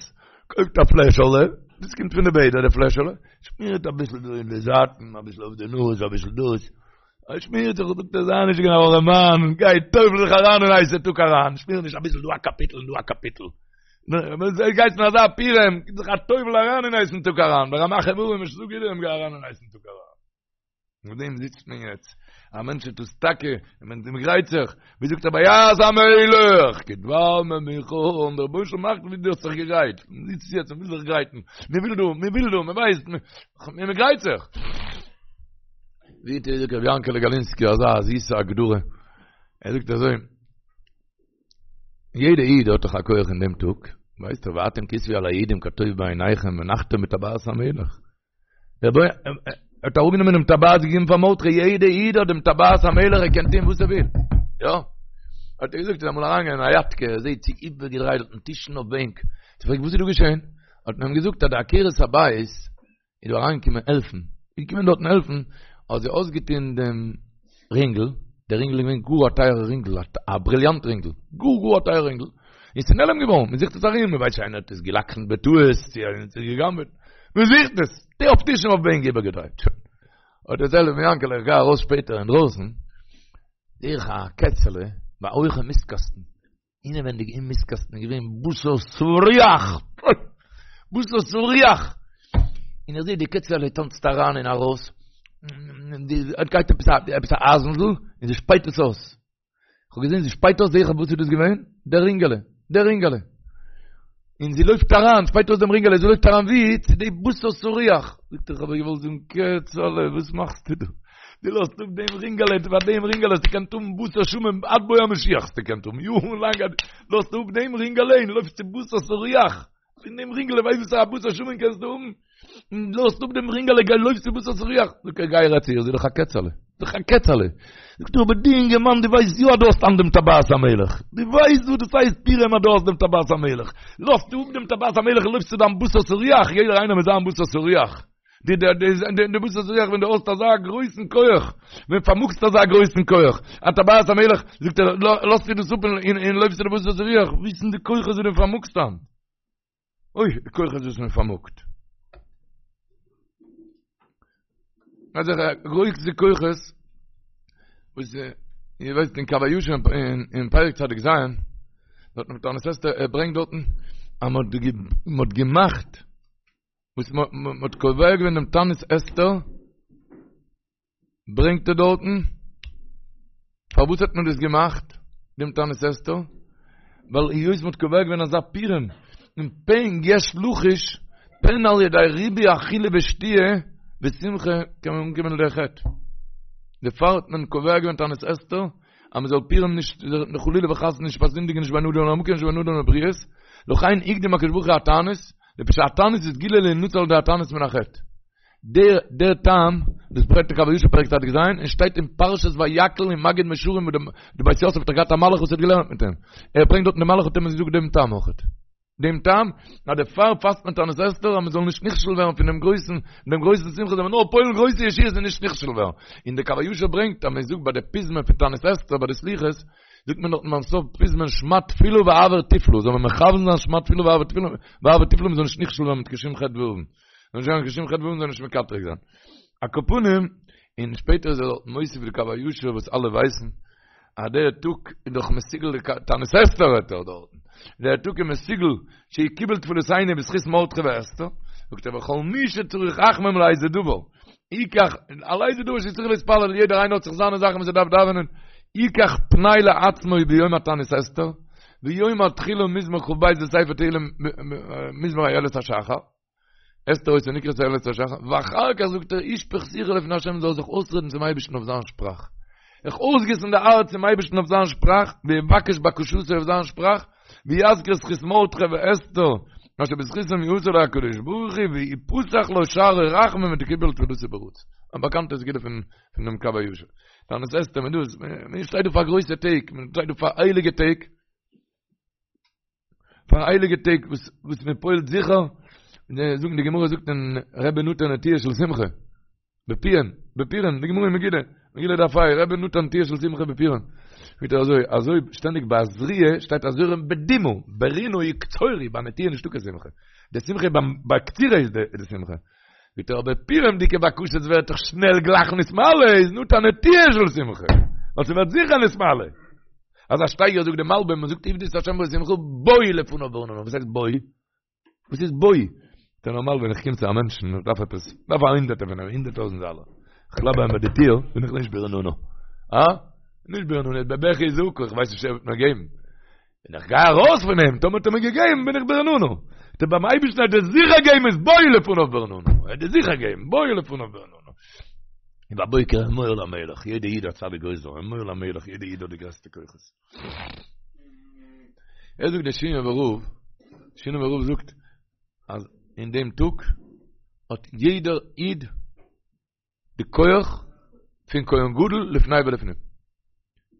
קויפט א פלעשעלע, דאס קומט פון די בעדער די פלעשעלע, שמירט אביסל דא אין די זייטן, אביסל אויף די נאז, אביסל דאס, ער שמירט זיך, זאגט ער, זיי נישט קיין ארעמאן, גיי טובל זיך אריין אין הייסע טאג אריין, שמיר נישט אביסל דא א קאפיטל און דא א קאפיטל. גייסט אין אזא פורים, גיב זיך א טובל אריין אין הייסן טאג אריין, ברמ"ח איברים ושס"ה גידים גיי אריין אין הייסן טאג אריין. מיט דעם זיצט מען יעצט, א מענטש טוט עס טאקע, מען גרייט זיך, ווי זאגט ער ויעש המלך, כדבר ממוכן, דער רבונו של עולם מאכט ווי דו האסט זיך געגרייט, מען זיצט יעצט, מען וויל זיך גרייטן, מען וויל דא, מען וויל דא, מען ווייסט, מען גרייט זיך. ווי האט געזאגט רבי יענקעלע גאלינסקי אזא זיסע הגדרה, ער זאגט אזוי, יעדע איד האט דאך א כח אין דעם טאג, ווייסט ער ואתם כתבו על היהודים כטוב בעיניכם ונחתום בטבעת המלך. דער בוי האט אראפגענומען דעם טבעת געגעבן פאר מרדכי, יעדע איד האט דעם טבעת המלך ער קען טון וואס ער וויל. יא. האט ער געזאגט איז אמאל אריינגעגאנגען אין א יאטקע, ער זעט ס'איז איבערגעדרייט דארטן טישן אויף בענק, האט ער געפרעגט וואס איז דא געשען? האט מען אים געזאגט אז די עקרת הבית איז דא אריינגעקומען העלפן, איז געקומען דארטן העלפן, האט זי אויסגעטון דעם רינגל, דער רינגל איז געווען גאר א טייערע רינגל, א בריליאנט רינגל, גאר גאר א טייערע רינגל, און ס'איז נעלם געווארן, מען זוכט עס ארום, מען ווייסט נישט איינער האט עס גע'לקח'נט בטעות, צו איינער האט עס גע'גנב'עט, מען זוכט עס, די אויף טישן אויף בענק איבערגעדרייט, שוין. האט דערציילט רבי יענקעלע, איך גיי ארויס שפעטער אינדרויסן, זעה איך א קעצעלע ביי א הויכע מיסטקאסטן, אינעווענדיג אין מיסטקאסטן איז געווען בשר סרוח! בשר סרוח! און איך זעה די קעצעלע טאנצט אריין און ארויס, די גייט עפעס א עפעס א אייזנדל און זי שפייט עס אויס. איך האב געזען זי שפייט אויס, זעה איך וואס איז דאס געווען? דער רינגעלע, דער רינגעלע. און זי לויפט אריין, שפייט אויס דעם רינגעלע, זי לויפט אריין ווי? צו די בשר סרוח. זאגט ער, איך האב איר געוואלט זאגן, קעצעלע, וואס מאכסטו דא? דו לאזט אפ דעם רינגעלע, פאר דעם רינגעלע האסטו געקענט האבן בשר שמן עד בוא המשיח האסטו געקענט האבן, יארן לאנג, לאזט אפ דעם רינגעלע און לויפסט צו בשר סרוח, פון דעם רינגעלע ווייסט וואס פאר א בשר שמן קענסטו האבן? לאזט אפ דעם רינגעלע, גיי לויפסט צו בשר סרוח, זאגט ער, גיי רעד צו איר, זי איז דאך א קעצעלע, זי איז דאך א קעצעלע, זאגט ער, אבער דו אינגערמאן, דו ווייסט יא אז דו האסט אן דעם טבעת המלך, דו ווייסט וואס דאס הייסט פורים אז דו האסט דעם טבעת המלך, לאזט אפ דעם טבעת המלך און לויפסט צו דיין בשר סרוח, יעדער איינער מיט זיין בשר סרוח. די די די די בשר סרוח ווען דו האסט אזא גרויסן כח, ווען פארמאגסט אזא גרויסן כח, א טבעת המלך, זאגט ער, לאזט דו דאס אפ און און לויפסט צו די בשר סרוח, וויסן די כוחות וואס דו פארמאגסט היינט. אוי, די כוחות וואס מען פארמאגט. אזעלכע גרויסע כוחות, וואס איר ווייסט אין קב הישר אין פרק צדיק ז', דארט אין תענית אסתר, ער ברענגט דארטן, אז מען האט געמאכט, וואס מען האט קובע געווען דעם תענית אסתר, ברענגט ער דארטן, פארוואס האט מען דאס געמאכט, דעם תענית אסתר? ווייל היות מען האט קובע געווען אזא פורים, און פן יש לחוש, פן על ידי ריבוי אכילה ושתיה ושמחה קען מען אנקומען לידי חטא. דערפאר האט מען קובע געווען תענית אסתר, אז מען זאל פורים נישט חלילה וחס נישט פארזינדיגן נישט בין אדם למקום נישט בין אדם לבריות, לכן הקדים הקדוש ברוך הוא התענית, לפי שהתענית איז סגולה להינצל על ידי התענית מן החטא. דער דער טעם, דאס ברענגט דער קב הישר פרק צדיק ז', און שטייט אין פרשת ויקהל אין מגיד מישרים וואו די בית יוסף האט געהאט א מלאך וואס האט געלערנט מיט אים. ער ברענגט דארטן די מלאך האט אים געזאגט דעם טעם אויכעט. דעם טעם, אז דערפאר פאסט מען תענית אסתר אז מען זאל נישט נכשל ווערן פון דעם גרויסן, דעם גרויסן שמחה זאל מען נאר פועל'ן גרויסע ישועות און נישט נכשל ווערן. און דער קב הישר ברענגט אז מען זאגט ביי די פזמון פון תענית אסתר ביי די סליחות, זאגט מען דארטן ביים סוף פזמון שמע תפילה והעבר תפלה, זאל מען מכוון זיין שמע תפילה והעבר תפלה, והעבר תפלה מען זאל נישט נכשל ווערן מיט קיין שום חטא ועוון. זאל נישט ווערן קיין שום חטא ועוון זאל נישט מקטרג זיין. על כל פנים, און שפעטער איז ער דארט מוסיף די קב הישר וואס אלע ווייסן, אז דער טאג איז דאך מסוגל די תענית אסתר רעדט ער דארטן, דער טאג איז מסוגל שיקבל תפילותינו בזכות מרדכי ואסתר, זאגט ער וכל מי שצריך רחמים לאיזה דבר, ייקח, על איזה דבר שצריך להתפלל, יעדער איינער האט זיך זיינע זאכן וואס ער דארף דאווענען, ייקח פנאי לעצמו ביום התענית אסתר, ויאמר תחילה מזמור כ"ב בספר תהילים מזמור איילת השחר, אסתר היתה נקראת איילת השחר, ואחר כך זאגט ער ישפוך שיחו לפני השם זאל זיך אויסרעדן צום אייבערשטן אויף זיין שפראך, זיך אויסגיסן די הארץ צום אייבערשטן אויף זיין שפראך, ויבקש בקשתו אויף זיין שפראך, ויזכיר זכות מרדכי ואסתר, אשר בזכותם יעשה לו הקדוש ברוך הוא, ויפתח לו שערי רחמים ותקובל תפילתו ברצון. א באקאנטע סגולה פון דעם קב הישר. תענית אסתר, מען דאס, מען שטייט דא פאר גרויסע טעג, מען שטייט דא פאר הייליגע טעג, פאר הייליגע טעג וואס וואס מען פועל'ט זיכער, זאגן די גמרא זאגט אין רבי נתן נטיעה של שמחה, בפיהם, בפורים, די גמרא אין מגילה, מגילה דף ה', רבי נתן נטיעה של שמחה בפורים. זאגט ער אזוי, אזוי שטענדיג ביי זריעה שטייט הזורעים בדמעה, ברינה יקצורו, ביי נטיעה נישטא קיין שמחה. די שמחה ביים ביי קצירה איז די שמחה. זאגט ער אבער פורים'דיגע בקשות ווערט דאך שנעל גלייך נתמלא, איז נתן נטיעה של שמחה. ווייל ס'ווערט זיכער נתמלא. אזא שטייגער זאגט די מלבים, מ'זאגט עבדו את השם בשמחה, בואו לפניו ברננה. וואס הייסט בואו? וואס איז בואו? דער נארמאל ווען איך קום צו א מענטשן איך דארף עפעס, דארף א הונדערטער פון אים, הונדערט טויזנט דאלער. איך קלאפ ביי אים ביי די טיר, בין איך נישט ברננה. אה? נישט ברננה, בבכי וזעקה, איך ווייס נישט ער וועט מיר געבן. ווען איך גיי ארויס פון אים, טאמער האט ער מיר געגעבן, בין איך ברננה. דער ביים אייבערשטן וועט ער זיכער געבן איז בואו לפניו ברננה. ער וועט דיר זיכער געבן, בואו לפניו ברננה. ובבוקר אמור למלך, יעדע איד האט צדיק גוזר, אמור למלך, יעדע איד האט די גרעסטע כוחות. ער זאגט דער שינאווער רב, שינאווער רב זאגט אז אין דעם טאג האט יעדער איד די כח פון כהן גדול לפני ולפנים.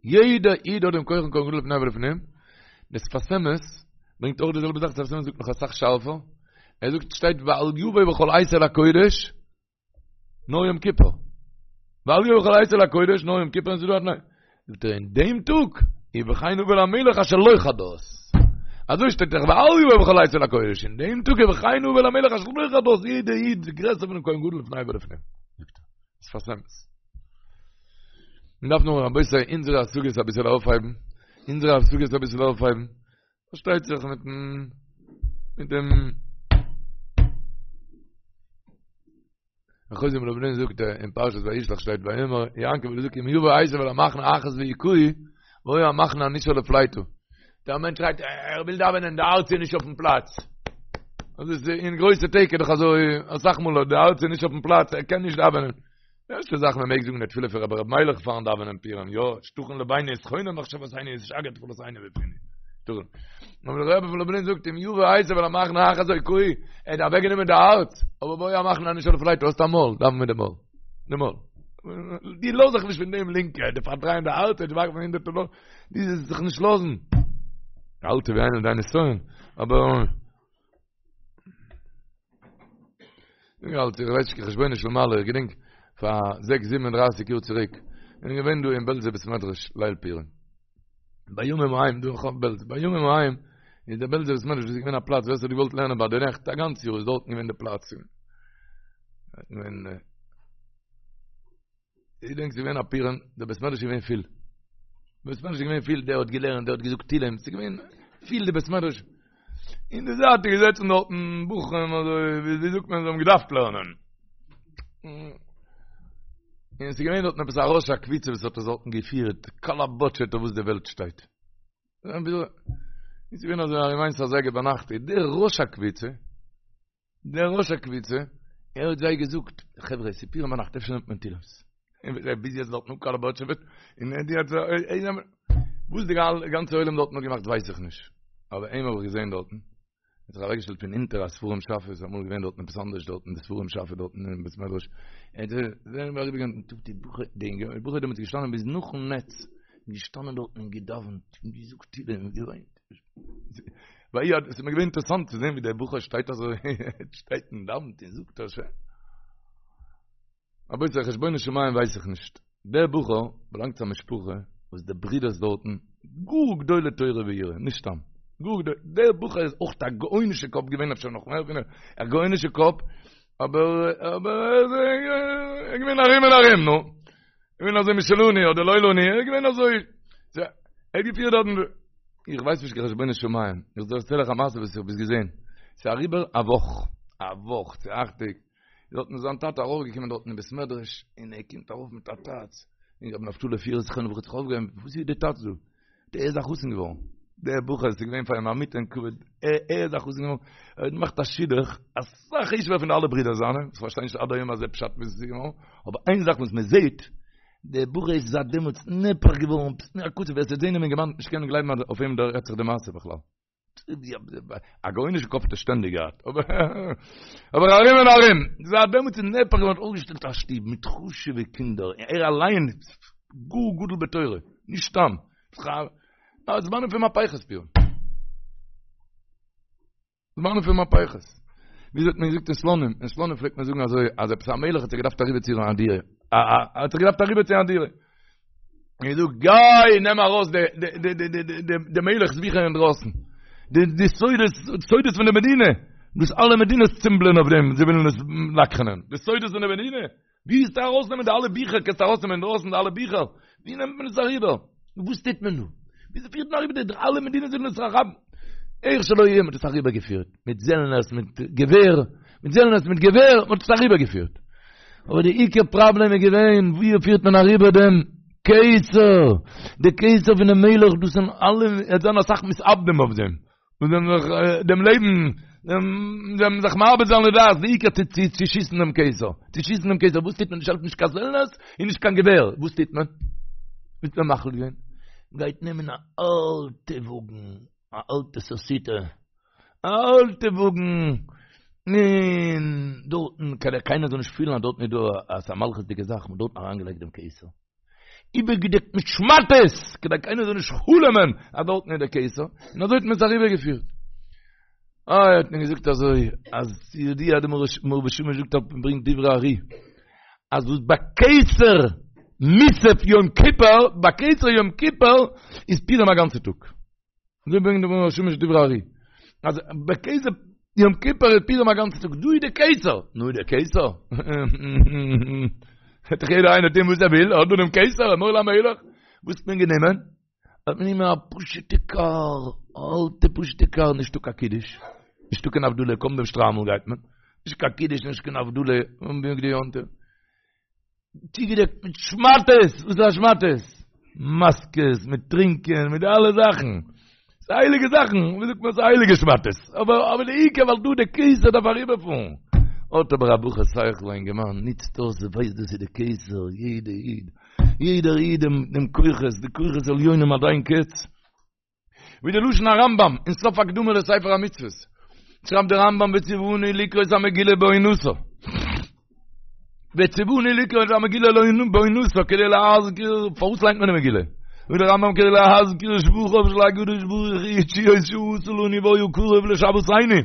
יעדער איד האט דעם כח פון כהן גדול לפני ולפנים. דער שפת אמת ברענגט אויך די זעלבע זאך, שפת אמת זאגט נאך אסאך שארפער. ער זאגט שטייט ואל יבוא בכל עת אל הקודש נאר יום כיפור. ואל יבוא בכל עת אל הקודש, נאר יום כיפור, און ס'איז דא א תנאי. זאגט ער אין דעם טאג, ובכן הבא אל המלך אשר לו חדות. אזוי שטייט דאך ואל יבוא בכל עת אל הקודש, אין דעם טאג ובכן הבא אל המלך אשר לו חדות, יעדער איד איז גרעסער פונעם כהן גדול לפני ולפנים. זאגט ער, שפת אמת. מען דארף נאר רבותי אונזערע השגות אביסעל אויפהייבן, אונזערע השגות אביסעל אויפהייבן, פארשטייט זיך מיטן מיט דעם חוזה מלובלין זאגט אין פרשת וישלח שטייט ויאמר יעקב זאגט אם יבוא עשו אל המחנה אחת והכהו והיה המחנה הנשאר לפליטה דער מענטש שרייט ער וויל דאווענען די הארץ איז נישט אויפן פלאץ אז איז אין גרויסע טעג איז דאך אזוי אסאך מאל די הארץ איז נישט אויפן פלאץ ער קען נישט דאווענען די ערשטע זאך מען מעג זאגן די תפילה פון רבי ר' מיילעך פארן דאווענען פורים, יא, שתכין לבנו ותכונן מחשבותינו ותשגר תפלתנו בפינו. שתכין. אבער דער רבי פון לובלין זאגט אם יבוא עשו אל המחנה אחת והכהו, ער האט אוועקגענומען די הארץ, אבער והיה המחנה הנשאר לפליטה, האסט א מויל, דאווען מיט די מויל. די מויל. דו לאז זיך נישט פון דעם לינקע, די פארדרייען די הארץ, די ווארפן הונדערטער דאלאר, דו זאלסט זיך נישט לאזן. אל תביאנו לידי נסיון, אבער איך האלט איך ווייס נישט חשבונות של מעלה איך געדענק פאר זעקס זיבן און דרייסיג יאר צוריק איך בין געווען דא אין בעלזער בית מדרש ליל פורים בימים ההם דא אין בעלז בימים ההם איז דער בעלזער בית מדרש איז געווען א פלאץ ווער ס'האט געוואלט לערנען ביי די נעכט א גאנץ יאר איז דארטן געווען די פלאץ און איך געדענק ס'איז געווען א פורים, דער בית מדרש איז געווען פיל. בית מדרש איז געווען פיל, דער האט געלערנט, דער האט געזאגט תהילים, ס'איז געווען פיל די בית מדרש. אין די זייט איז געזעצן דארטן בחורים אזוי, ווי זאגט מען, זיי האבן געדארפט לערנען. און ס'איז געווען דארטן עפעס א ראש הקבוצה וואס האט עס דארטן געפירט, קאלאבאטשעט אויף וואס די וועלט שטייט. איז געווען אזוי ארום איינס אזייגער ביינאכט, איז דער ראש הקבוצה, דער ראש הקבוצה, ער האט זיי געזאגט, חברה, ס'איז פורים ביינאכט, אפשר נעמט מען תהילים'ס. און ביז יעצט דארטן אפקאלאבאטשעוועט, און ער האט זיי, וואס די גאנצע עולם דארטן האט געמאכט ווייס איך נישט. אבער אים האב איך געזען דארטן, ער האט זיך אוועקגעשטעלט פון אונטער א ספרים שאפע, איז אמאל געווען דארטן עפעס אנדערש דארטן, די ספרים שאפע דארטן אין בית מדרש. ער האט זיך אריבערגעגאנגען, די בחור, די בחור איז דעמאלטס געשטאנען ביז נאכן נץ, געשטאנען דארטן און געדאווענט, און געזאגט תהילים און געוויינט. ווייל עס איז מיר געווען אינטערעסאנט צו זען ווי דער בחור שטייט אזוי, שטייט און דאווענט און זאגט אזוי. רבותי, חשבונות שמים ווייס איך נישט. דער בחור באלאנגט צו א משפחה וואס די ברידערס דארטן גאר גדולי תורה ויראה, נישט סתם. גאר גדולי, דער בחור איז אויך א גאונישע קאפ געווען, אפשר נאך מער פון אים, א גאונישע קאפ, אבער אבער ער איז געווען ארום און ארום, נו. געווען אזוי משלנו אדער לא לנו, ער איז געווען אזוי. ער האט געפירט דארטן. איך ווייס נישט קיין חשבונות שמים, איך דערצייל אייך א מעשה וואס איך האב עס געזען. ס'איז אריבער א וואך. א וואך צו אכט טעג, דארטן איז זיין טאטע ארויפגעקומען דארטן אין בית מדרש, און ער קומט ארויף מיט א טאץ, און רבי נפתלי פירער זכרונו לברכה האט זיך אויפגעהויבן, וואס איז די טאץ דא? דער איז א חתן געווארן, דער בחור איז געווען פאר אים א מוטען כבוד, ער איז א חתן געווארן, ער האט געמאכט א שידוך, אסאך חשוב'ער פון די אלע ברידער זיינע, איך פארשטיי נישט עד היום הזה פשט ווי עס איז געווארן, אבער איין זאך וואס מען זעט, דער בחור איז זייט דעמאלטס נהפך געווארן, ווער עס וועט זען דעם אינגערמאן נישט קענען גלייבן אז אויף אים רעדט זיך די מעשה בכלל. א גאונישע קאפ האט ער שטענדיג געהאט, אבער ארום און ארום, זייט דעמאלטס איז נהפך געווארן, אויפגעשטעלט א שטוב מיט חשוב'ע קינדער, ער אליין איז גאר גדול בתורה, נישט סתם, זמנים פון מהפכות פורים. זמנים פון מהפכות. וויאזוי האט מען געזאגט אין סלאנים? אין סלאנים פלעגט מען זאגן אזוי, אז עפעס א מלך האט זיך געדארפט אריבערציען א דירה. א א האט זיך געדארפט אריבערציען א דירה. און געזאגט, גיי נעם ארויס די די די די די די מלך'ס ביכער אינדרויסן. די די סודות, סודות פון די מדינה. וואס אלע מדינות צימבלען אויף דעם, זיי ווילן עס לקח'נען. די סודות פון די מדינה. ווי וועסטו ארויסנעמען די אלע ביכער? קענסטו ארויסנעמען אינדרויסן די אלע ביכער? ווי נעמט מען עס אריבער? וואס טוט מען דא? וויאזוי פירט מען אריבער די אלע מדינות ווילן עס האבן? איך שלא יהיה, מ'האט עס אריבערגעפירט, מיט זעלנערס, מיט געווער, מיט זעלנערס, מיט געווער, מ'האט עס אריבערגעפירט. אבער די עיקר פראבלעם איז געווען, ווי פירט מען אריבער דעם כתר? די כתר פונעם מלך, דאס זענען אלע, עס זענען אסאך מתאבדים אויף דעם. און זיי זיך דעם לעבן, זיי זיך מאבד זיין לדעת, די עיקר צו צו צו שיסן דעם כתר, צו שיסן דעם כתר, וואס טוט מען? נישט העלפט נישט קיין זעלנערס און נישט קיין געווער, וואס טוט מען? וואס האט מען מחליט געווען? גייט נעמען א אלטע וואגן, א אלטע סוסיתא, א אלטע וואגן, און דארטן, כדי קיינער זאל נישט פילן אז דארטן איז דא א מלכות'דיגע זאך, מ'האט דארטן אריינגעלייגט דעם כתר. איבערגעדעקט מיט שמאטעס, כדי קיינער זאל נישט חלומ'ען אז דארטן איז דער כתר, און אזוי האט מען עס אריבערגעפירט. איי האט מען געזאגט אזוי, אז ידוע דער מאור ושמש זאגט אויף און ברענגט דברי ארי, אז וואס בכתר מוסף יום כיפור, בכתר יום כיפור איז פורים א גאנצע טאג. אזוי ברענגט דער מאור ושמש דברי ארי. אז בכתר יום כיפור איז פורים א גאנצע טאג, דא איז די כתר, נו די כתר. וועט דאך יעדער איינער טון וואס ער וויל, האט דא דעם כתר, אמור למלך. וואס האט מען גענומען? האט מען גענומען א פשוטע קאר, א אלטע פשוטע קאר, נישטא קיין קידוש, נישטא קיין הבדלה, קוים דעם שטריימל גייט מען, נישט קיין קידוש, נישט קיין הבדלה, און בגדי יום טוב. צוגעדעקט מיט שמאטעס, וואס איז א שמאטעס? מאסקעס, מיט טרינקען, מיט די אלע זאכן. ס'איז הייליגע זאכן, ווי זאגט מען, ס'איז הייליגע שמאטעס. אבער אבער די עיקר ווייל דא די כתר דארף אריבערפארן. האט אבער א בחור שכל א אינגערמאן, נוצט אויס, ווייסט דאס איז די כתר, יעדע איד, יעדער איד דעם דעם כוחות, די כוחות עליונים עד אין קץ. ווי די לשון הרמב"ם אין סוף הקדמה לספר המצוות, שרייבט דער רמב"ם וציוונו לקרות המגילה בעונתה, וציוונו לקרות המגילה בעונתה כדי להזכיר, פארוואס ליינט מען די מגילה? זאגט דער רמב"ם כדי להזכיר שבחיו של הקדוש ברוך הוא ותשועות שעשה לנו והיה קרוב לשוועתנו,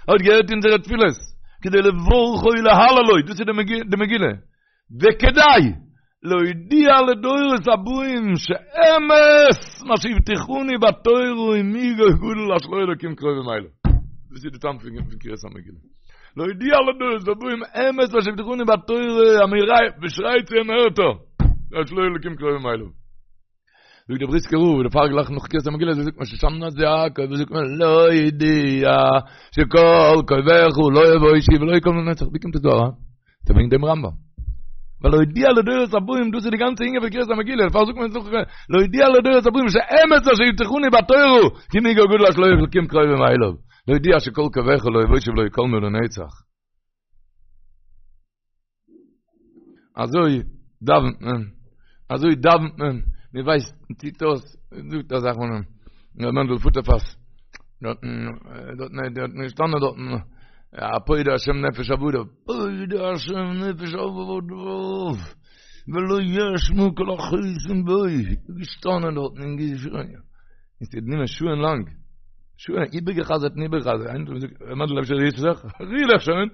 ער האט געהערט אונזערע תפילות, כדי לברכו ולהללו, דאס איז די מגילה, וכדי להודיע לדורות הבאים שאמת מה שהבטיחנו בתורה ומי גוי גדול אשר לו אלוקים קרובים אליו. דאס איז די טעם פון קריאת המגילה. להודיע לדורות הבאים אמת מה שהבטיחנו בתורה, מען שרייט צו אים הערט ער, אשר לו אלוקים קרובים אליו. זאגט דער בריסקער רב, דערפאר גלייך נאך קריאת המגילה, זאגט מען שושנת יעקב, זאגט מען להודיע שכל קויך לא יבושו ולא יכלמו לנצח, ווי קומט עס דא אריין? ס'איז וועגן דעם רמב"ם. ווייל להודיע לדורות הבאים, דאס איז די גאנצע ענין פון קריאת המגילה, דערפאר זאגט מען נאך להודיע לדורות הבאים שאמת אשר הבטיחנו בתורה, כי מי גוי גדול אשר לו אלוקים קרובים אליו, להודיע שכל קויך לא יבושו ולא יכלמו לנצח. אזוי דאווענט מען, אזוי דאווענט מען, מען ווייסט, מען טוט אויס, מען זאגט א זאך פון ר' מענדל פוטערפאס, דארטן, דארטן, דארטן געשטאנען דארטן, א פודה השם נפש עבדיו, פודה השם נפש עבדיו, ולא יאשמו כל החוסים בו, געשטאנען דארטן און געשריגן, און ס'האט גענומען שעה'ן לאנג, שעה'ן, איבערגעחזרט און איבערגעחזרט, איינער האט געזאגט, ר' מענדל אפשר רירסט זיך? ריר דיך שוין!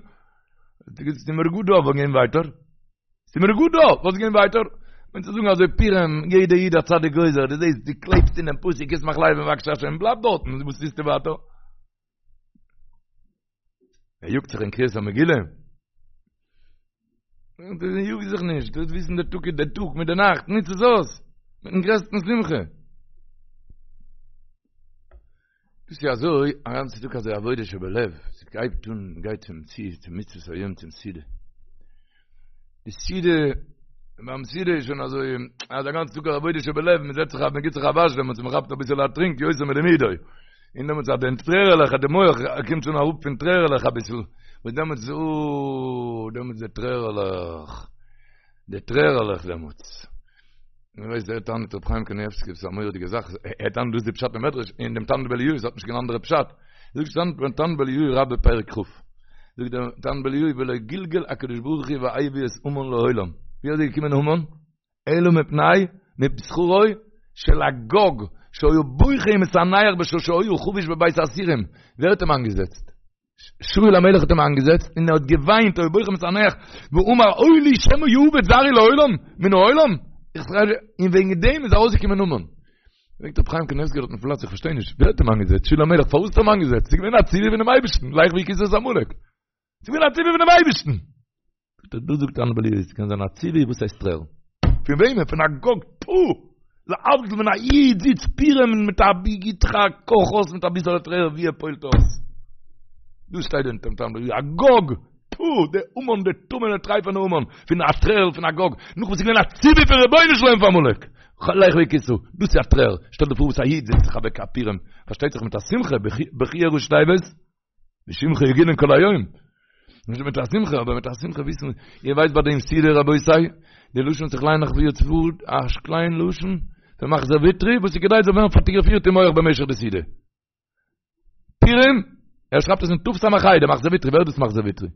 ס'איז מיר גוט דא, וואס גיין ווייטער? ס'איז מיר גוט דא, וואס גיין ווייטער? מיינט צו זאגן אזוי פורים, יעדע איד א צדיק גוזר, דו זעסט, דו קלעבסט אינעם פסוק, ישמח לב מבקשי השם, בלייב דארטן, וואס טוסטו ווייטער? ער יאגט זיך אין קריאת המגילה. יאג זיך נישט, דו וויסן דער טאג איז דער טאג מיט דער נאכט, ניץ עס אויס, מיטן גרעסטן שמחה. דאס איז אזוי א גאנצע טאג אזוי עבודה שבלב, ס'הייבט אן מ'גייט צום ציל צום מצוות היום צום סעודה. די סעודה, ביים סעודה איז שוין אזוי, אז א גאנצע טאג עבודה שבלב, מ'זעצט זיך מ'גיט זיך א וואש דעמאלטס, מ'כאפט אביסעלע א טרינק, יותר מלימודו. און דעמאלטס אז די טרערעלעך, די מח קומט שוין אראפ פון טרערעלעך אביסל, וואס דעמאלטס, אוי, דעמאלטס די טרערעלעך, די טרערעלעך דעמאלטס. איר ווייסט דער טענה'ט רבי חיים קנייבסקי דאס איז א מורא'דיגע זאך, ער טענה'ט דאס איז די פשט אין מדרש, אין דעם תנא דבי אליהו, עס האט נישט קיין אנדערע פשט. זאגט דער תנא דבי אליהו רבה פרק כ', זאגט דער תנא דבי אליהו ולא גלגל הקדוש ברוך הוא והביא את המן לעולם, ווי אזוי איז געקומען המן? אלא מפני מפני שכרו של אגג שהיה בוכה ומתאנח בשעה שהיה חבוש בבית האסורים, ווער האט אים איינגעזעצט? שאול המלך האט אים איינגעזעצט און ער האט געוויינט היה בוכה ומתאנח ואמר אוי לי שמא יאבד זרעי לעולם מן העולם און וועגן דעם איז ארויסגעקומען המן. פרעגט רבי חיים קניבסקי דארט אויפן פלאץ איך פארשטיי נישט ווער האט אים איינגעזעצט שאול המלך פארוואס האט ער אים איינגעזעצט ס'איז געווען א ציווי פונעם אייבערשטן לך והכית את עמלק ס'איז געווען א ציווי פונעם אייבערשטן זאגט ער, דאס זאגט תנא דבי אליהו, עס קען זיין א ציווי, וואס הייסט טרערן? פון וועמען? פון אגג, פו! להבדיל ווען א איד זיצט פורים מיט א גיט זיך א קאך אויס מיט אביסעלע טרער ווי ער פועל'ט אויס. דאס שטייט דא אין תנא דבי אליהו, אגג, פו! דער המן, דער טמא'נער טרייפענער המן, פון א טרערל פון אגג, נאך וואס איז געווען א ציווי פון רבונו של עולם פאר עמלק, לך והכית, דאס איז א טרער, שטעל דיר פאר וואס א איד זעצט זיך אוועק א פורים, פארשטייט זיך מיט א שמחה, בכיה ראשי תיבות. בשמך יגילון כל היום. נישט מיט א שמחה, אבער מיט א שמחה וויסן, איר ווייסט ביי דעם סעודה רבותי, די לשון וואס איך ליין נאך ווי יעצט פאר, א קליין לשון, פון מחזור ויטרי, וואס איז כדאי זאל ווערן פאטאגראפירט אין מוח במשך די סעודה. פורים, ער שרייבט עס אין תס"ה, דער מחזור ויטרי, ווער איז דאס מחזור ויטרי?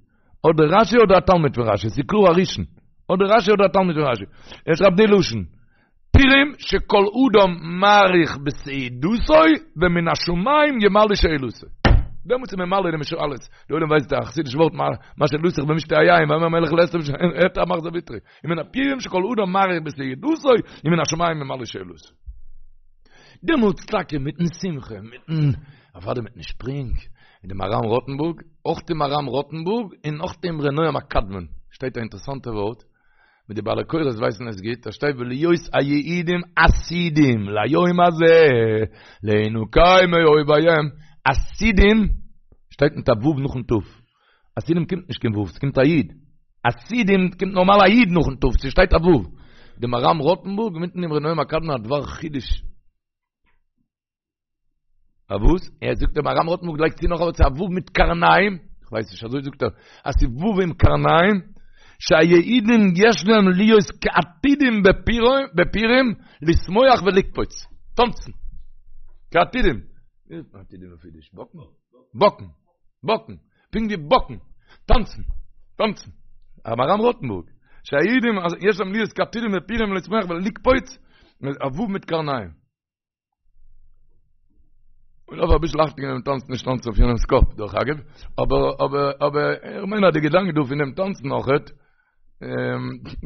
אדער רשי אדער א תלמיד פון רשי, ס'איז קלאר א ראשון. אדער רשי אדער א תלמיד פון רשי. ער שרייבט די לשון. פורים שכל אדם מאריך בסעודתו ומן השמים ימלא שאלתו. דעמאלטס איז ממלא דעם שאלות. די עולם ווייסט א חסידיש ווארט מה שאלתך במשתה היין ויאמר המלך לאסתר הערט א מחזור ויטרי. ומן הפורים שכל אדם מאריך בסעודתו ומן השמים ימלא שאלתו. דעמאלטס טאקע מיטן שמחה, מיטן, אוודאי מיטן שפרינג, אין די מהר"ם רוטנבורג, אויך די מהר"ם רוטנבורג און אויך דעם אמרי נועם הקדמון, שטייט א אינטערעסאנטע ווארט, ווי די בעלי קורא'ס ווייסן עס גוט, דא שטייט ולהיות היהודים עתידים ליום הזה להינקם מאויביהם, עתידים שטייט מיט א ו' נאכן ת', עתידים קומט נישט קיין ו', ס'קומט א י', עתידים קומט נארמאל א י' נאכן ת', ס'שטייט א ו', די מהר"ם רוטנבורג מיטן אמרי נועם הקדמון א דבר חידוש. א וואס? ער זאגט דער מהר"ם רוטנבורג לייגט צו נאך א ווארט ס'איז א ו' מיט קרניים, איך ווייס נישט אזוי זאגט ער, אז ס'איז ו' עם קרניים, שהיהודים יש להם להיות כעתידים בפורים לשמוח ולקפוץ, טאנצן, כעתידים, ווי זאגט מען עתידים אויף אידיש? באקן? באקן, באקן, פונקט ווי באקן, טאנצן, טאנצן, מהר"ם רוטנבורג, שהיהודים יש להם להיות כעתידים בפורים לשמוח ולקפוץ, א ו' מיט קרניים. און אויב אביסל אכטונג געבן טאנצן נישט טאנצן אויף יענעמס קאפ דרך אגב, אבער אבער אבער איך מיין אז די געדאנק דא פון דעם טאנצן אויכעט,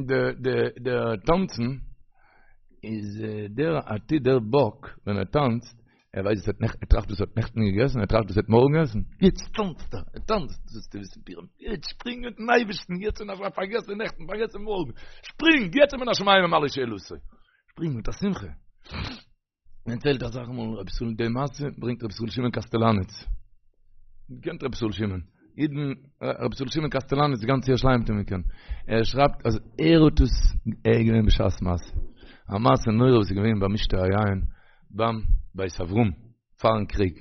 די די די טאנצן איז דער עתיד דער באק ווען ער טאנצט, ער ווייסט וואס ער האט נעכטן, ער טראכט וואס ער האט נעכטן געגעסן, ער טראכט וואס ער האט מארגן עסן, יעצט טאנצט ער, ער טאנצט, זאלסטו וויסן פורים, יעצט שפרינג מיטן אייבערשטן, יעצט און א פארגעס די נעכטן, פארגעס די מארגן, שפרינג, יעצט מן השמים ימלא שאלתו. שפרינג מיט א שמחה. מען דערציילט אסאך מאל רבי ישראל די מעשה ברענגט רבי ישראל שמעון קאסטעלאניץ. קענט רבי ישראל שמעון? אידן רבי ישראל שמעון קאסטעלאניץ גאנץ ירושלים האט אים געקענט. ער שרייבט אז ער האט עס ער איז געווען בשעת מעשה. א מעשה נורא וואס איז געווען ביים משתה היין ביים בית אברהם פארן קריג.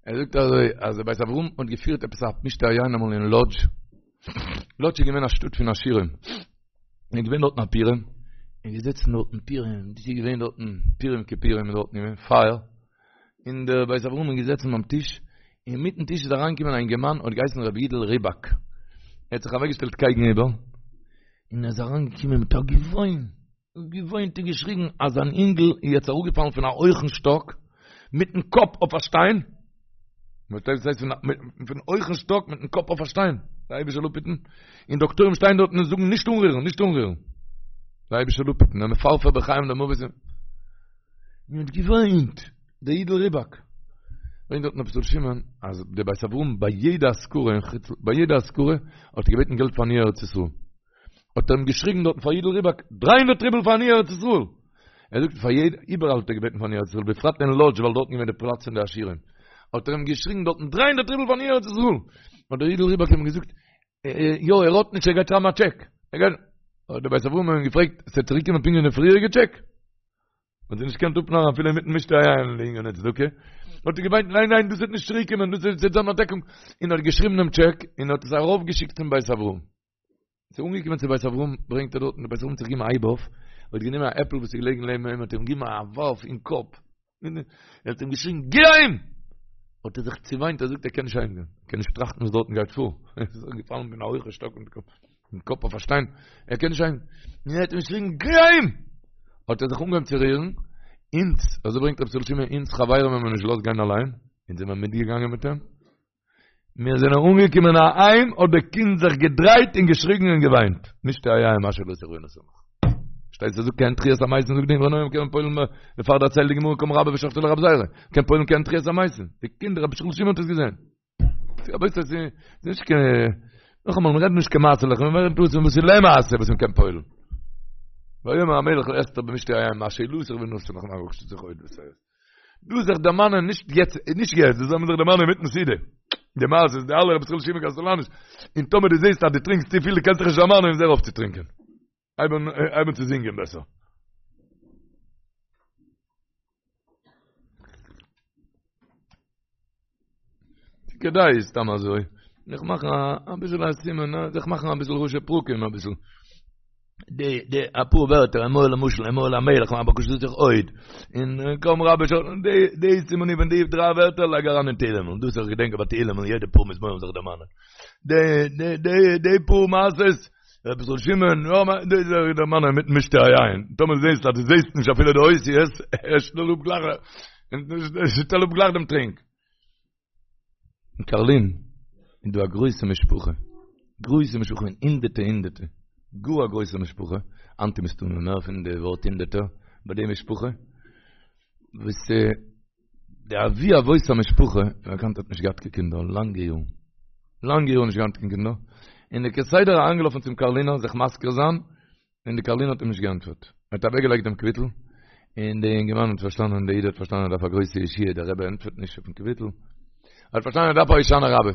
ער זאגט אזוי אז דער בית אברהם האט געפירט עפעס א משתה היין אמאל אין לאדזש. לאדזש איז געווען א שטאט פון עשירים. איז געווען דארטן א פורים, און געזעצן דארטן פורים, דאס איז געווען דארטן פורים כפורים איז דארטן געווען פייער, און דער בית אברהם איז געזעצן ביים טיש, אינמיטן טיש איז אריינגעקומען א אינגערמאן האט געהייסן רבי יודל ריבאק, ער האט זיך אוועקגעשטעלט קייגן איבער, און ער איז אריינגעקומען מיט א געוויין, געוויינט און געשריגן אז זיין אינגל איז יעצט אראפגעפאלן פון א הויכן שטאק מיטן קאפ אויף א שטיין, פארשטייט וואס הייסט פון הויכן שטאק מיטן קאפ אויף א שטיין, דער אייבערשטער זאל אפהיטן, און דאקטוירים שטייען דארטן און זאגן נישט אנרירן, נישט אנרירן, דער אייבערשטער זאל אפהיטן, ער מפרפר בין חיים למוות, און האט געוויינט, דער יודל ריבאק, ברענגט דארטן רבי ישראל שמעון אז דער בית אברהם ביי יעדע אזכרה אין חוץ, ביי יעדע אזכרה האט ער געבעטן געלט פאר עניי ארץ ישראל. האט ער אים געשריגן דארטן פאר יודל ריבאק, דריי הונדערט רובל פאר עניי ארץ ישראל! ער זאגט פאר יעדע, איבעראל האט ער געבעטן פארן ארץ ישראל, בפרט אין לאדזש ווייל דארטן געווען די פלאץ פון די עשירים. האט ער אים געשריגן דארטן דריי הונדערט רובל פארן ארץ ישראל. האט דער אידל ריבאק אים געזאגט, יא ער האט נישט ער גייט שרייבן א טשעק. ער גייט, האט דער בית אברהם אים געפרעגט, ס'וועט צוריק קומען פונקט ווי די פריעריגע טשעק? האט זיך נישט געקענט אפנארן אפילו אינמיטן משתה היין לענין צדקה, האט ער געוויינט ניין ניין דאס וועט נישט צוריק קומען דאס וועט זיין א דעקונג, און האט געשריבן דעם טשעק און האט עס ארויף געשיקט צום בית אברהם. ס'איז אנגעקומען צו בית אברהם ברענגט ער דארטן, דער בית אברהם האט זיך געגעבן א הייב אויף, האט גענומען א עפל וואס איז געלעגן לעבן אים האט אים געגעבן א ווארף אין קאפ, ער האט אים געשריגן גיי אהיים! האט ער זיך צעוויינט ער זאגט ער קען נישט אהיים גיין, ער קען נישט טראכטן וואס דארטן גייט פאר, ער איז געפאלן פון א הויכע שטאק מיט דעם קאפ אויף א שטיין, ער קען נישט אהיים, און ער האט אים געשריגן גיי אהיים! האט ער זיך אנגעהויבן צו רירן, אונז, אזוי ברענגט רבי ישראל שמעון, אונז חברים האבן אים נישט געלאזט גיין אליין, אונז זעמער מיטגעגאנגען מיט אים, מיר זענען אנגעקומען אהיים האט די קינד זיך געדרייט און געשריגן און געוויינט, משתה היין מה שאלתך ונתן לך. שטייט ס'זאגט כעין תחיית המתים זאגט די אמרי נועם קען מען פועל'ן דערפאר דערציילט די גמרא קם רבה ושחטיה לרבי זירא קען פועל'ן כעין תחיית המתים די קינד רבי ישראל שמעון האט עס געזען רבותי ס'איז נישט קיין נאכאמאל מ'רעדט נישט קיין מעשה'לעך מ'רעדט דאס וואס איז למעשה וואס מ'קען פועל'ן ויאמר המלך לאסתר במשתה היין מה שאלתך ונתן לך מה בקשתך עוד דא זיך דערמאנען נישט יעצט, נישט יעצט, דאס זאל מען זיך דערמאנען אינמיטן סעודה. די מעשה די אלע רבי ישראל שמעון קאסטעלאניש, און טאמער דו זעסט אז דו טרינקסט צופיל, דו קענסט זיך נישט דערמאנען, איז הער אויף צו טרינקען. הייב אן, הייב אן צו זינגען בעסער. כדאי סתם אזוי, זיך מאכן אביסל א סימן, זיך מאכן אביסל ראשי פרקים אביסל. די די אפאר ווערטער אמור למשל אמור למלך מה בקשתך עוד און קם רבה ש די די סימנים פון די דריי ווערטער לייג אריין אין תהילים און דאס איך געדענק ביי תהילים און יעדע פאר מזמורים זיך דערמאנען די די די די פאר מעשות רבי ישראל שמעון יא די זיך דערמאנען מיט משתה היין טאמער זעסט אז דו זעסט נישט אפילו די אותיות שטעל אפ גלייך שטעל אפ גלייך דעם טרינק אין קארלין איז דא א גרויסע משפחה, גרויסע משפחה פון הונדערטע הונדערטע, גאר א גרויסע משפחה, היינט איז מסתמא מער פון די ווארט הונדערטער ביי די משפחה, וואס די אבי אבות המשפחה, ווי באקאנט האט נישט געהאט קיין קינדער לאנגע יארן, לאנגע יארן נישט געהאט קיין קינדער, און איז כסדר אריינגעלאפן צום קארלינער זיך מזכיר זיין, און די קארלינער האט אים נישט געענטפערט. ער האט אוועקגעלייגט דעם קוויטל, און די אינגערמאן האט פארשטאנען, דער איד האט פארשטאנען ער דארף א גרויסע ישועה, דער רבי ענטפערט נישט אויפן קוויטל. ער האט פארשטאנען ער דארף א הושענא רבה.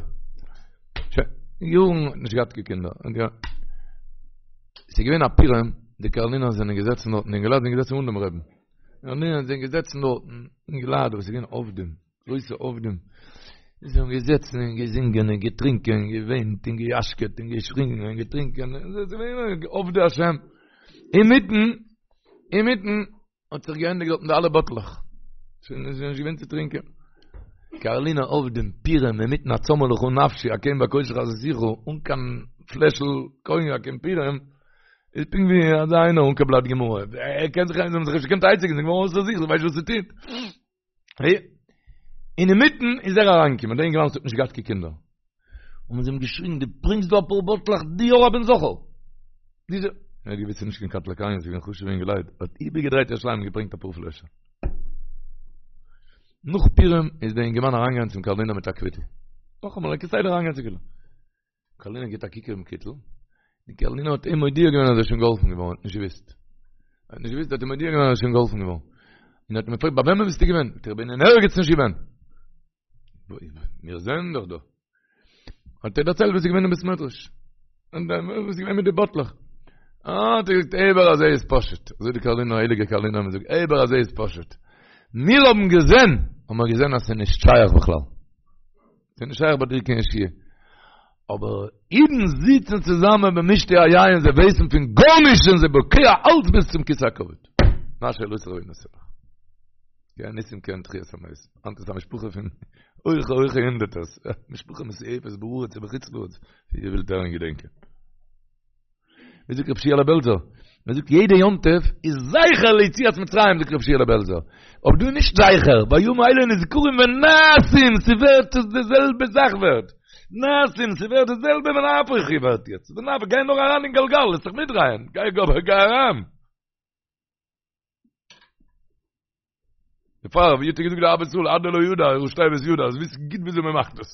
שוין, יארן האט נישט געהאט קיין קינדער. ס'איז געווען א פורים, די קארלינער זענען געזעצן דארטן, די אינגעלייט זענען געזעצן אן דעם רבין. די קארלינער זענען געזעצן דארטן, אינגעלייט וואס איז געווען עובדים. גרויסע עובדים, זיי האבן געזעצן און געזינגען און געטרינקען און געוויינט און געיאשקעט און געשריגן און געטרינקען, עובדי השם. אינמיטן, אינמיטן האט זיך געענדיגט דארטן די אלע באטלעך, שוין איז נישט געווען צו טרינקען. קארלינער עובדים, פורים, אינמיטן הצמאה לך נפשי, כן בקודש חזיתיך, אן קיין פלעשל קאניאק אין פורים, איז פונקט ווי אזא איינער אן קיין בלאט גמרא, ער קען זיך, זיי האבן זיך נישט געקענט עצה געבן, זיי זענען געווארן אויסער זיך, זיי ווייסן נישט וואס צו טון. און אינמיטן איז ער אריינגעקומען, דער אינגערמאן וואס האט נישט געהאט קיין קינדער. האבן זיי אים געשריגן, דו ברענגסט דא אפאר באטלעך, דו האר א בן זכר! דיזע. ער האט געוואוסט ס'איז נישט קיין קטלא קניא, ס'איז געווען חשוב'ע אינגעלייט, האט איבערגעדרייט ירושלים און געברענגט אפאר פלעשער. נאך פורים איז דער אינגערמאן אריינגעגאנגען צום קארלינער מיט א קוויטל. נאכאמאל, ער איז כסדר אריינגעגאנגען צום קוויטל. קארלינער גיט א קוק אויפן קוויטל, די קארלינער האט אים מודיע געווען אז ער איז שוין געהאלפן געווארן, האט נישט געוואוסט. ער האט נישט געוואוסט, האט אים מודיע געווען אז ער איז שוין געהאלפן געווארן. און האט אים געפרעגט, ביי וועמען ביסטו געווען? זאגט ער, איך בין אין ערגעץ נישט געווען. מיר זעען דאך דא. האט ער דערציילט וואס איז געווען אין בית מדרש. און וואס איז געווען מיט די באטלעך. אה, האט ער געזאגט, אבער אזוי איז פשוט. אזוי די קארלינער, הייליגע קארלינער האבן געזאגט, אבער אזוי איז פשוט. מיר האבן געזען, האבן מיר געזען אז ס'איז נישט שייך בכלל. ס'איז נישט שייך ביי דיר קיין ישועה. אבער אידן זיצן צוזאמען במשתה היין, זיי ווייסן פון גארנישט, זענען זיי בוקע אלץ ביז צום כסא הכבוד. מה שאלתך ונתן לך. כעין ניסים כעין תחיית המתים. היינט איז א משפחה פון הויכע הויכע הונדערטערס. משפחה מסועפת בארץ ובחוץ לארץ, ווי איר ווילט הערן געדענקען. ווי זאגט רב שיעלע בעלזער? מען זאגט יעדע יום טוב איז זכר ליציאת מצרים זאגט רב שיעלע בעלזער. אבער דא איז נישט זכר, והימים האלה נזכרים ונעשים, ס'ווערט די זעלבע זאך ווערט. נעשים, ס'ווערט די זעלבע ונהפוך הוא ווערט יעצט. ונהפוך, גיי נאר אריין אין גלגל, לאז זיך מיטדרייען. גיי גיי אריין. דערפאר ווי האט ער געזאגט די אהבת ישראל עד דלא ידע, ראשי תיבות ידע, אז וויסן גוט וויאזוי מען מאכט דאס.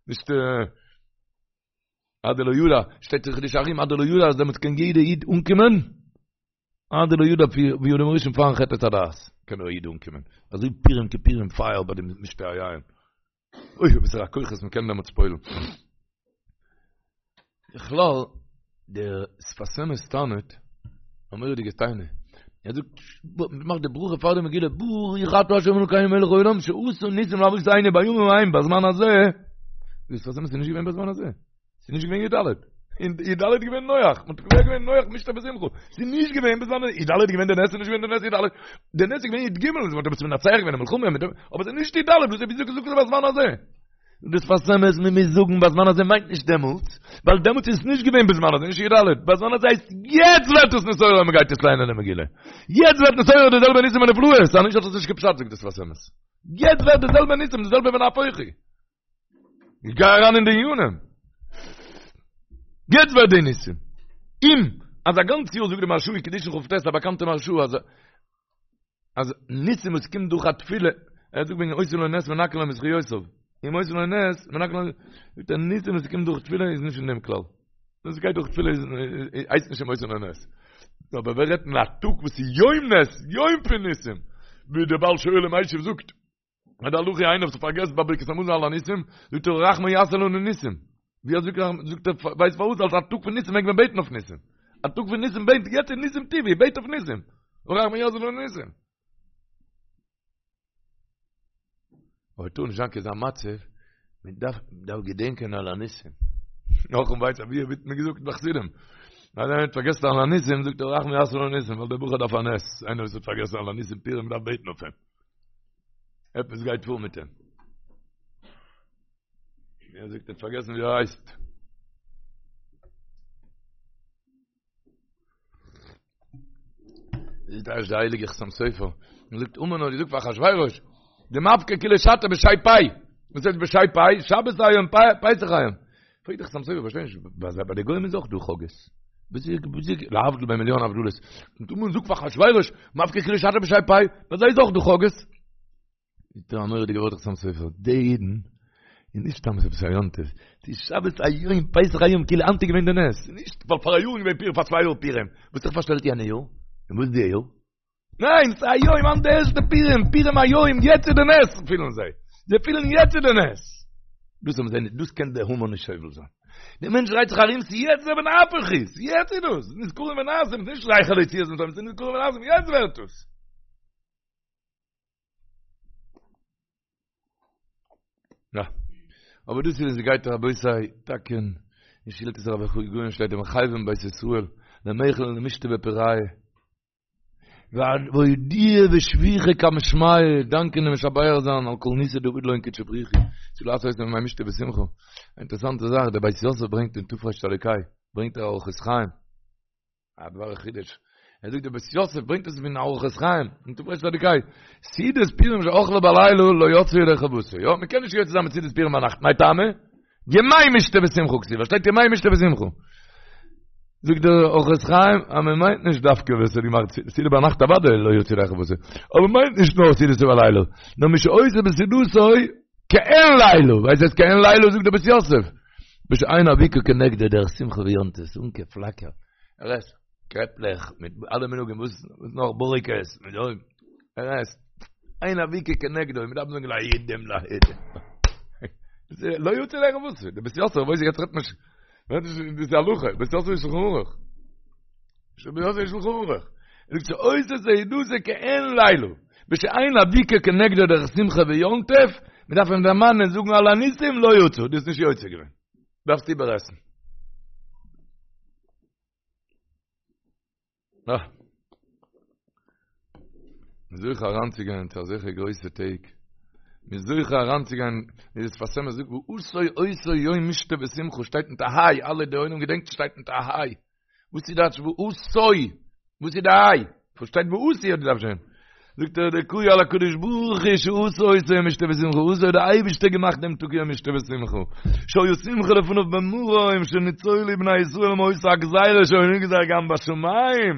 נישט עד דלא ידע, שטייט אין חידושי הרי"ם עד דלא ידע אז דעמאלטס קען יעדע איד אנקומען. עד דלא ידע ווי אדם הראשון פארן חטא עץ הדעת קען דער איד אנקומען אזוי פורים כפורים פייער ביי די משתה היין אוי וואסערע כוחות מ'קען דעמאלטס פועל'ן. בכלל, דער שפת אמת טענה'ט, א מורא'דיגע טענה, ער זאגט, מ'מאכט די ברכה פאר די מגילה, ברוך אתה ה' אלוקינו מלך העולם שעשה ניסים לאבותינו בימים ההם בזמן הזה, דער שפת אמת איז נישט געווען בזמן הזה. ס'איז נישט געווען י"ד. אין י"ד איז געווען נוח, מ'האט קובע געווען נוח משתה ושמחה. ס'איז נישט געווען בזמן הזה, י"ד איז געווען די נס, ס'איז נישט געווען די נס י"ד. די נס איז געווען י"ג, מ'האט עפעס מנצח געווען אין מלחמה, מיט דעם, אבער ס'איז נישט י"ד, וואס וויאזוי זאגסטו בזמן הזה? דער שפת אמת, מען מוז זאגן בזמן הזה מיינט נישט דעמאלטס, ווייל דעמאלטס איז עס נישט געווען בזמן הזה, נישט י"ד. בזמן הזה הייסט יעצט ווערט עס נתעורר ווען מ'גייט יעצט ליינען די מגילה. יעצט ווערט נתעורר די זעלבע ניסים ונפלאות, אז נישט האט עס נישט קיין פשט זאגט דער שפת אמת. יעצט ווערט די זעלבע ניסים, די זעלבע ונהפוך הוא. איך גיי אריין אין די ענינים. יעצט ווערט די ניסים. אים, אז א גאנץ יאר זאגט די מהרש"א אין קידושין כ"ט, א באקאנטע מהרש"א, אז אז ניסים וואס קומט דורך א תפילה, ער זאגט וועגן עושה לו נס מנכין לו מזכיותיו. אם עושה לו נס, מנכין לו, זאגט ער ניסים וואס קומט דורך תפילה איז נישט אין דעם כלל. וואס גייט דורך תפילה איז הייסט נישט אם עושה לו נס. אבער ווער רעדט אין א טאג וואס איז יום נס, יום פון ניסים, ווי דער בעל שואל ומשיב זאגט, אז די הלכה איינער וואס פארגעסט ביי ברכת המזון על הניסים, זאגט ער הרחמן יעשה לנו ניסים. ווי אזוי זאגט ער, ווייסט פארוואס? אלס א טאג פון ניסים מעג מען בעטן אויף ניסים. א טאג פון ניסים בעט, יעצט איז ניסים טבעי, בעט אויף ניסים. הרחמן יעשה לנו ניסים. אבער טאר נישט זיין קיין אזא מצב, מען דארף דארף געדענקען על הניסים. נאך און ווייסט ווי ווערט מען געזאגט ביי חסידים. אז איינער האט פארגעסן על הניסים, זאגט ער הרחמן יעשה לנו ניסים, ווייל דער בחור דארף א נס. איינער וואס האט פארגעסן על הניסים פורים דארף בעטן אויף אים. עפעס גייט פאר מיט אים. ער זאגט ער האט פארגעסן ווי ער הייסט. זאגט דער הייליגער חתם סופר, ער זאגט המן האט געזאגט פאר אחשוורוש, דמפקר כולא שתא בשי פי. וואס הייסט בשי פי? שבת היום, פסח היום. פרעגט דער חתם סופר, פארשטיי נישט, ביי די גוים איז אויך דא חגאות. להבדיל בין מיליאן הבדלות. און המן זאגט פאר אחשוורוש, מפקר כולא שתא בשי פי, ביי זיי איז אויך דא חגאות. זאגט ער א מורא'דיגע ווארט חתם סופר, די אידן, איז נישט סתם עפעס א יום טוב, ס'איז שבת היום, פסח היום, כאילו היינט איז געווען די נס, נישט ווייל פאר א יאר איז געווען פורים, פאר צוויי יאר פורים, וואס האט זיך פארשטעלט יענע יאר? און וואס די יאר? ניין, ס'איז היום, היינט די ערשטע פורים, פורים היום, יעצט איז די נס, פילן זיי. זיי פילן יעצט איז די נס. דאס האבן זיי נישט, דאס קען דער המן נישט סובל זיין. דער מענטש דרייט זיך ארום, ס'איז יעצט דער ונהפוך הוא, ס'איז יעצט איז דאס, נזכרים ונעשים, ס'איז נישט זכר ליציאת מצרים, ס'איז נזכרים ונעשים, יעצט ווערט עס. יא. אבער דאס איז ווען ס'גייט רבותי, טאקע אין שאילתות הרב הגאון שטייט ומחייבים בית ישראל למיכל ולמישתי בפוריא. ואודויי ושבוחי קמי שמיא, דאנקען און משבח זיין על כל ניסא דעביד לון קודשא בריך הוא, צו לעשות אותם ימי משתה ושמחה. א אינטערעסאנטע זאך, דער בית יוסף ברענגט אין תרצ"ה, ברענגט ער אורחות חיים, א דבר חידוש, ער זאגט דער בית יוסף ברענגט עס פון אורחות חיים, אין תרצ"ה, סעודת פורים שאכלה בלילה לא יצא ידי חובתו, יא, מען קען נישט יוצא זיין מיט סעודת פורים ביינאכט, מאי טעמא? ימי משתה ושמחה כתיב, שטייט ימי משתה ושמחה. זאגט דער אורחות חיים, אז מען מיינט נישט דווקא ווער ס'האט געמאכט סעודה ביינאכט אוודאי לא יצא ידי חובתו, אבער מיינט נישט נאר סעודתו בלילה, נאר מי שעושה בסעודתו כעין לילה, ווייסט וואס כעין לילה זאגט דער בית יוסף, בשאין אבוקה כנגדו דרך שמחה ויום טוב, אן קיין פלאקער, ער עסט קרעפלעך מיט אלע מנהגים, וואס נאך בוריקעס, מיט ער עסט. אין אבוקה כנגדו, מען דארף זאגן להידים להידים. לא יוצא ידי חובתו, דער בית יוסף, ווייס איך יעצט רעדט מען נישט, רעדט נישט דאס איז הלכה, בית יוסף איז שלחן ערוך. בית יוסף איז שלחן ערוך. ער זאגט שעושה סעודתו כעין לילה, בשאין אבוקה כנגדו דרך שמחה ויום טוב, מען דארף אים דערמאנען זאגן על הניסים לא יצא, דו האסט נישט יוצא געווען. דארפסט איבערעסן. אה. מ'איז זוכה אריינצוגיין צו אזעלכע גרויסע טעג. מ'איז זוכה אריינצוגיין, ווי דער שפת אמת זאגט, ועשה אותו יום משתה ושמחה, שטייט מיט א היי, אלע די עולם געדענקט שטייט מיט א היי. וואס איז דאס ועשה? וואס איז די היי? וואס שטייט ועשו האט געדארפט שטיין. זאגט ער דקאי על הקדוש ברוך הוא שעשה אותו יום משתה ושמחה, עשה האט דער אייבערשטער געמאכט דעם טאג יום משתה ושמחה, שהיה שמחה לפניו במרום שניצולו בני ישראל מאותה הגזירה שהיה נגזר גם בשמים,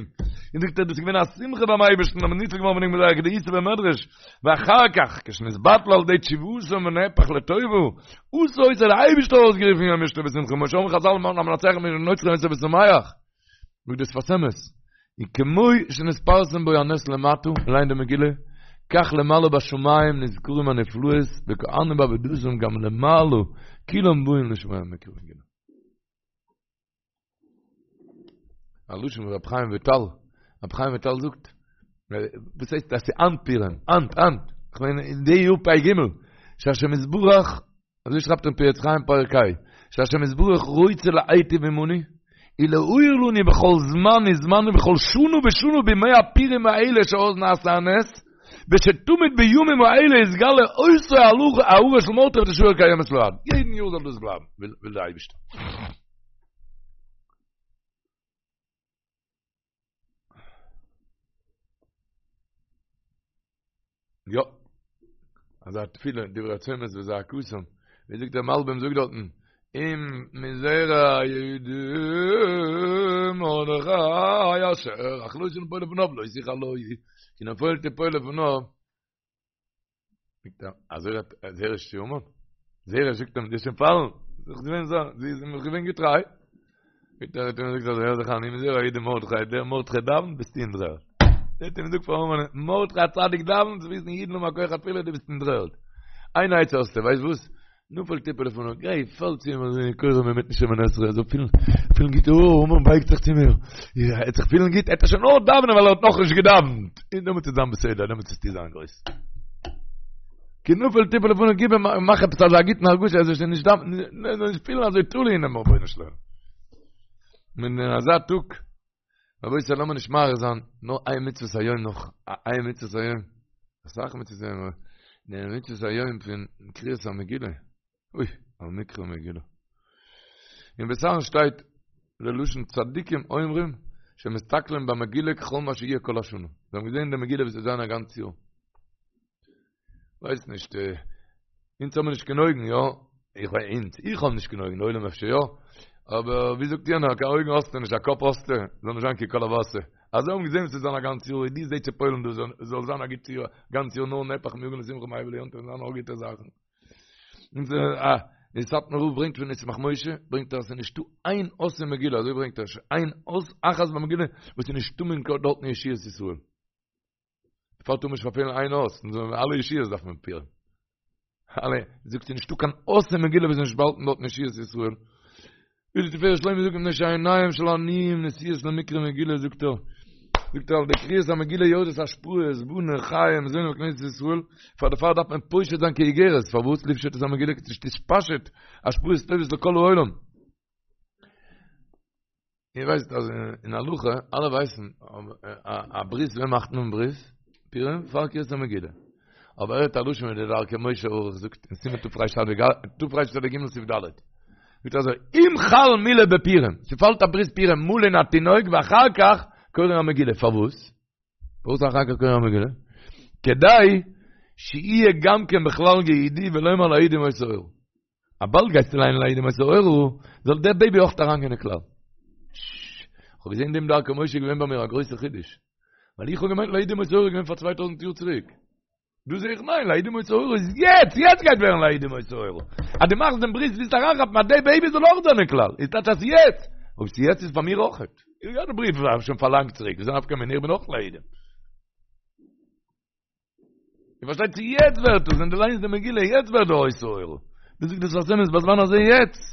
און זאגט ער דאס איז געווען א שמחה ביים אייבערשטן אז מען איז ניצול געווארן פון דעם גזירה כדאיתא במדרש, ואחר כך כשנתבטל על ידי תשובתם ונהפך לטובה, עשה אותו האט דער אייבערשטער אויסגערופן יום משתה ושמחה, כמו שאמרו חז"ל המנצח לנוצרים יוסף ושמח. זאגט דער שפת אמת. וכמו שנתפרסם בו הנס למטה, ליינט די מגילה, כך למעלה בשמים נזכרים הנפלאות וכהנים בעבודתם גם למעלה כולם באים לשמוע מקרא מגילה. א לשון פון רב חיים וויטאל, רב חיים וויטאל זאגט, וואס הייסט אז ס'איז היינט פורים, היינט, היינט, כ'מיין אין די יאר פ"ג, שהשם יתברך, אזוי שרייבט ער אין פרי עץ חיים פרק ה', שהשם יתברך רוצה להיטיב עמנו, ולהאיר לנו בכל זמן וזמן ובכל שנה ושנה בימי הפורים האלה שאז נעשה הנס, ושתמיד בימים האלה יתגלה אותה הארה של מרדכי ותשאר קיימת לעד. יעדן יאר זאל דאס בלייבן, וויל דער אייבערשטער. יא. אזא תפילה, דברי צומות וזעקתם. ווי זאגט דער מלבים זאגט דארטן, אם מזרע יהודה מרדכי אשר החלותה ליפול לפניו לא תוכל לו, כי נפול תפול לפניו. זאגט ער, אזוי רעדט זרש צו המן? זרש זאגט אים, דו וועסט שוין פאלן, זי איז געווען זא, זי איז אים געווען געטריי. זאגט ער, האט אים געזאגט אזוי, הער זיך איין, אם מזרע יהודה מרדכי, דער מרדכי דאווענט, ביסטו אין דר'ערד. ער האט אים געזאגט פאר המן, מרדכי הצדיק דאווענט, זאלסט וויסן אידן האבן א כח התפילה, דו ביסט אין דר'ערד. איין עצה האסטו, ווייסט וואס? נפול תפול לפניו, גיי פאל צו אים אזוי כורע אינמיטן שמונה עשרה, ער זאל פילן, פילן גוט, אוי, המן בייגט זיך צו מיר, ער וועט זיך פילן גוט, ער וועט שוין נאר דאווענען ווייל ער האט נאכנישט געדאווענט, און דעמאלטס וועט זיין בסדר, דעמאלטס וועסטו זיין גרויס. כי נפול תפול לפניו, גיב אים, מאך עפעס אזא גוטן הרגשה, ער זאל שוין נישט דאווענען, ער זאל נישט פילן אזוי תלוי אינעם רבונו של עולם. און אין אזא טאג, רבותי לאמיר נישט מאריך זיין, נאר איין מצוות היום נאך, איין מצוות היום, אסאך מצוות היום, אבער די מצוות היום פון קריאת המגילה, אוי, על מקרא מגילה. אין בית אהרן שטייט ללשון צדיקים אומרים שמסתכלים במגילה ככל מה שיהיה כל השנה. זיי האבן געזען די מגילה וואס וועט זיין א גאנץ יאר. ווייס נישט, אונז האבן נישט קיין אויגן, יא? איך ווייס, אונז, איך האב נישט קיין אויגן, די עולם אפשר יא, אבער ווי זאגט יענער, קיין אויגן האסטו נישט, א קאפ האסטו, זאל נישט זיין כי כל הבשר. אז זיי האבן געזען וואס ס'וועט זיין א גאנץ יאר, דו זע צו פועל'ן דא, זאל זיין א גוט יאר, גאנץ יאר נאר נהפך מיגון לשמחה מאבל ליום טוב, זיין נאר גוטע זאכן. און אה, די סאטמאר רב ברענגט פון ישמח משה, ברענגט ער אז ס'איז נישטא איין אות אין מגילה, אזוי ברענגט ער, איין אות אחת במגילה, וואס איז נישטא מען דארטן ישועות ישראל. דערפאר טאר מען נישט פארפעלן איין אות, און זאל אלע ישועות דארף מען פועל'ן. אלע, זאגט ס'איז נישטא קיין אות אין מגילה וואס איז נישט באהאלטן דארטן ישועות ישראל. ווי די תפארת שלמה זאגט מפני שעיניהם של עניים נשואות למקרא מגילה זאגט ער, זאגט ער על ידי קריאת המגילה יורדות השפעות, בני חיי ומזוני בכנסת ישראל, פאר דערפאר דארף מען פושט זיין כאיגרת, פארוואס לפשוט את המגילה כדי שתתפשט השפעות טובות לכל העולם. איר ווייסט אז אין הלכה, אלע ווייסן, א ברית, ווען מאכט מען ברית? פורים, פאר קריאת המגילה. אבער ער האט א לשון ווי דער דרכי משה ערוך זאגט אין סימן תרצ"ג סעיף ד'. זאגט אזוי, אם חל מילה בפורים, ס'פאלט א ברית פורים מלין התינוק ואחר כך קורין המגילה, פארוואס? פארוואס אחר כך קורין המגילה? כדי שיהיה גם כן בכלל יהודי ולומר ליהודים היתה אורה. אז באלד גייסטו ליינען ליהודים היתה אורה, זאל דער בעיבי אויך אריינגיין אין כלל. כ'האב געזען דעם דרכי משה געווען ביי מיר א גרויסע חידוש. ווייל איך האב געמיינט ליהודים היתה אורה איז געווען פאר 2000 יאר צוריק. דא זע איך ניין, ליהודים היתה אורה איז יעצט, יעצט גייט ווערן ליהודים היתה אורה. אז דו מאכסט דעם ברית ווילסט אריינכאפן אז דער בעיבי זאל אויך זיין אין כלל. איז טייטש אז יעצט. אויב ס'איז יעצט איז פאר מיר אויך. איך געהאט די בריוו שוין פאר לאנג צוריק, וואס איז א נפקא מינה, איך בין אויך ליהודים. איר פארשטייט צו יעצט ווערט עס, ווען דו ליינסט די מגילה, יעצט ווערט די היתה אורה. דו זאגסט דאס פאר'ן אמת בזמן הזה יעצט.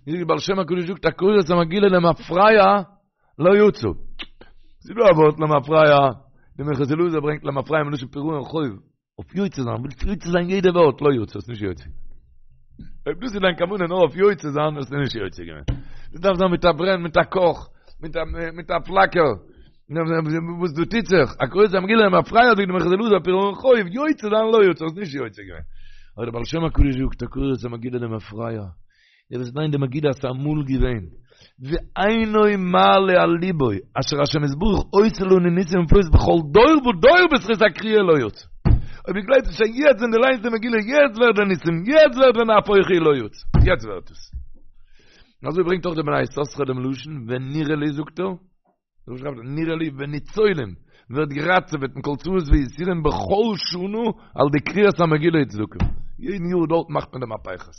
ווי דער בעל שם הקדוש זאגט הקורא את המגילה למפרע לא יצא. ס'איז דא א ווארט למפרע, די מנחת אלעזר ברענגט למפרע מלשון פירעון חוב, אויף יוצא זיין, ווילסט יוצא זיין יעדע ווארט, לא יצא, האסט נישט יוצא. אויב דאס איז דיין כוונה נאר אויף יוצא זיין, האסטו נישט יוצא געווען. דאס דארף זיין מיט א ברען, מיט א קאך, מיט א מיט א פלאקער. וואס דא טוט זיך? הקורא את המגילה למפרע זאגט די מנחת אלעזר פירעון חוב, יוצא זיין לא יצא, האסט נישט יוצא געווען. אבער דער בעל שם הקדוש זאגט הקורא את המגילה למפרע, דער וואס ליינט די מגילה אז ס'איז אמאל געווען, ואינו מעלה על ליבו, אשר השם יתברך עושה לנו ניסים ונפלאות בכל דור ודור בזכות הקריאה לא יצא. אויב דו גלייבסט נישט אז יעצט ווען דו ליינסט די מגילה יעצט ווערט די ניסים, יעצט ווערט ונהפוך הוא לא יצא, יעצט ווערט עס. און אזוי ברענגט אויך דער בני יששכר דעם לשון, ונראה לי זאגט ער, אזוי שרייבט ער, נראה לי וניצולים, ווערט געראטעוועט מכל צרות ויסורים בכל שנה על ידי קריאת המגילה וצדקה. יעדן יאר דארט מאכט מען די מהפכות.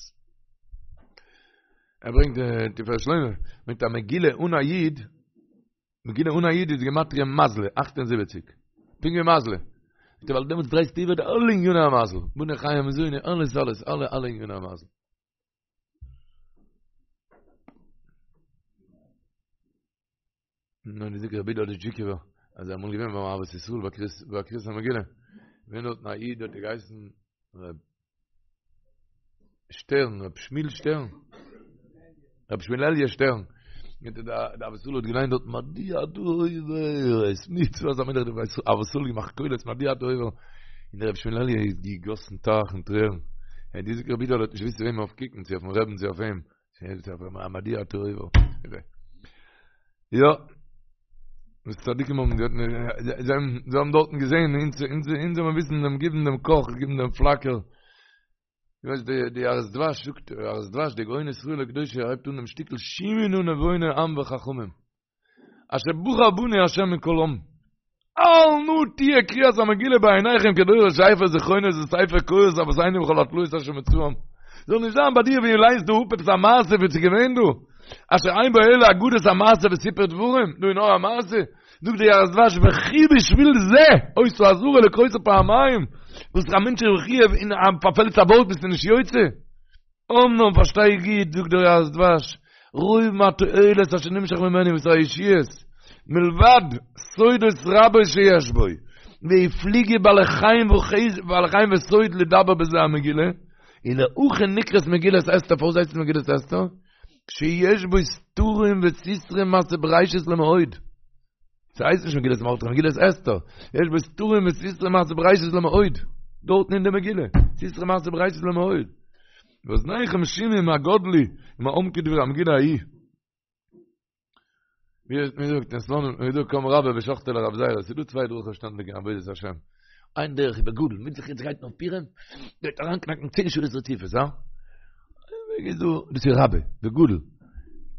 ער ברענגט די תפארת שלמה, מיט א מגילה אן א יוד. מגילה אן א יוד איז גימטריא מזלא, 78. פונקט ווי מזלא. זאגט ער ווייל דעמאלטס דרייסטו איבער די אלע עניני המזל. בני חיי ומזוני, אלעס אלעס, אלע אלע עניני המזל. נו, די זאגט רבי יודל דזשיקובער, אז ער אמאל געווען ביים אהבת ישראל ביי קריאת ביי קריאת המגילה. געווען דארטן א איד האט געהייסן רב שטערן, רב שמיל שטערן. רב שמואל אלי' שטערן. מיט דער דער אהבת ישראל האט געליינט דארט מדוע אתה עובר את מצות המלך דער אהבת ישראל געמאכט קולות מדוע אתה עובר. און דער רב שמואל אלי' איז געגאסן טייכן טרערן. ער די זאגט רבי יודל האט נישט געוואוסט צו וועם אויף קוקן, צו אויפן רעבן צו אויף אים. מדוע אתה עובר. יא. וואס צדיקים האבן געהאט, זיי האבן דארטן געזען, אונז אונז זאל מען וויסן דעם גיבן דעם קאך, גיבן דעם פלאקער. דו ווייסט די די יערות דבש זאגט, יערות דבש די גאון ישראל הקדוש הייבט אן דעם שטיקל שמעו נא נבוני עם וחכמים. אשר בחר בנו השם מכל עם. אל נא תהיה קריאת המגילה בעיניכם כדורש ספר זכרונות וספר קורות אבותינו וכל התלאות אשר מצאום. זאל נישט זיין ביי דיר ווי ליינסט דא אפ עפעס א מעשה וואס איז געווען דא. אשר אין בו אלא אגדות המעשה וסיפור דברים, דא איז נאר א מעשה. זאגט די יערות דבש וכי בשביל זה היתה אזהרה לקרותה פעמיים, וואס א מענטש איז מחויב און פארפעלט א ווארט ביסטו נישט יוצא. אמנם פארשטיי גוט, זאגט דער יערות דבש, רוב מהתועלת אשר נמשך ממנו וואס הישועות, מלבד סודות רבות שיש בו, והפליגו בעלי חן בעלי חן וסוד לדבר בזה המגילה, ולהכי נקראת מגילת אסתר, פארוואס הייסט עס מגילת אסתר? שיש בו סתרים וסתרי מעשה בראשית למאוד. ס'הייסט נישט מגילת מרדכי, מגילת אסתר. יש בו סתרים וסתרי מעשה בראשית למאוד. דארטן אין די מגילה. סתרי מעשה בראשית למאוד. ואזניכם שמעו מה גדלו ומה עמקו דברי המגילה ההיא. ווי האט מען געזאגט אין סלאנים, ווי דא קם רבה ושחטיה לרב זירא, ס'איז דא צוויי דרכים שטענדיג אין עבודת השם. איין דרך איז בגדול, מיט זיך יעצט גייט נאך פורים, גייט אריינקנאקן צען שעות רציפות, הא? וועג איז דא, דאס איז רבה, בגדול.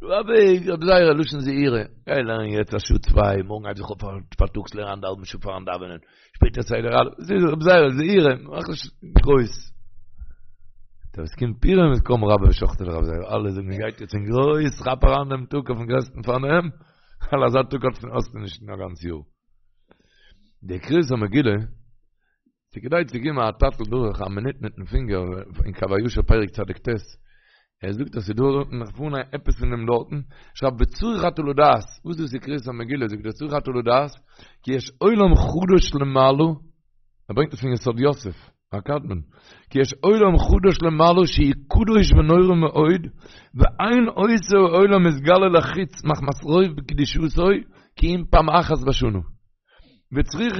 רבה, רב זירא, לשון זעירא, גיי לערן יעצט א שעה צוויי, מארגן הייב זיך אויף פארטאגס לערן אנדערהאלבן שעה פארן דאווענען, שפעטער סדר א', דאס איז רב זירא, זעירא, מאך נישט גרויס. דער וואס קומט פורים איז קם רבה ושחטיה לרב זירא, אלע זאגן מען גייט יעצט אין גרויס, כאפ אריין דעם טאג אויפן גרעסטן פארנעם, ווייל אזא טאג האסטו נישט אין א גאנץ יאר. די קריאת המגילה, ס'כדאי צו געבן א טאטל דורך א מינוט מיטן פינגער אין קב הישר פרק צדיק ט', ער זאגט אז ס'דא דארטן נאך פארהאן עפעס פון דעם דארטן, שרייבט וצריך אתה לדעת, וואס דאס איז קריאת המגילה, זאגט ער צריך אתה לדעת, כי יש עולם חדש למעלה, ער ברענגט עס פון יסוד יוסף, הקדמון, כי יש עולם חדש למעלה שהוא קדוש ונורא מאוד, ואין אותו העולם מתגלה לחוץ מחמת רוב קדושתו, כי אם פעם אחת בשנה. וצריך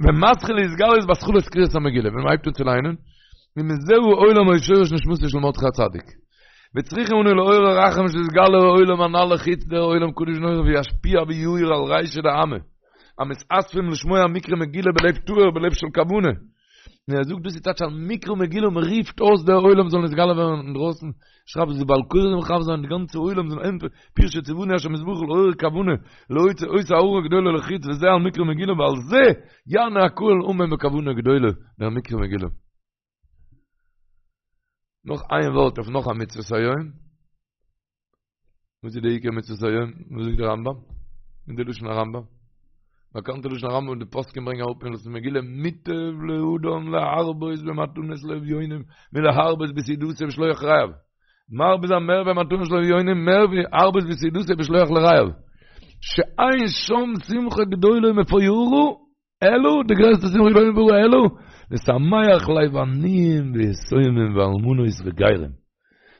ומתחיל להתגלות בהתחלת קריאת המגילה ווען מ'הייבט אן צו ליינען ומזהו עולם היה שורש נשמתו של מרדכי הצדיק וצריכים אנו לעורר רחמים שיתגלה העולם הנ"ל לחוץ דער עולם קדוש ונורא וישפיע ויאיר על רישא דעמא המתאספים לשמוע מקרא מגילה בלב טהור בלב של כוונה און ער זאגט דאס איז טייטש על מקרא מגילה און מען רופט אויס דער עולם זאל נתגלה ווערן אינדרויסן, שרייבט אז די בעל קורא זאל מכוון זיין די גאנצע עולם זאל ענטפערן, פירוש שציוונו השם יתברך לעורר כוונה להוציא אותה הארה גדולה לחוץ וזה על מקרא מגילה ועל זה יענה הקהל אמן בכוונה גדולה דער מקרא מגילה. נאך איין ווארט אויף נאך א מצוות היום. וואס איז די עיקר מצוות היום? וואס זאגט דער רמבם? אין די לשון הרמבם. באקאנטע לשון הרמבם די פוסקים ברענגען אראפ אין הלכות מגילה מוטב לאדם להרבות במתנות לאביונים מלהרבות בסעודתו ושלוח רעיו. מרבה זיין מער במתנות לאביונים מער ווי להרבות בסעודתו ושלוח לרעיו. שאין שם שמחה גדולה ומפוארה אלא, די גרעסטע שמחה גדולה ומפוארה אלא, לשמח לב עניים ויתומים ואלמנות וגרים.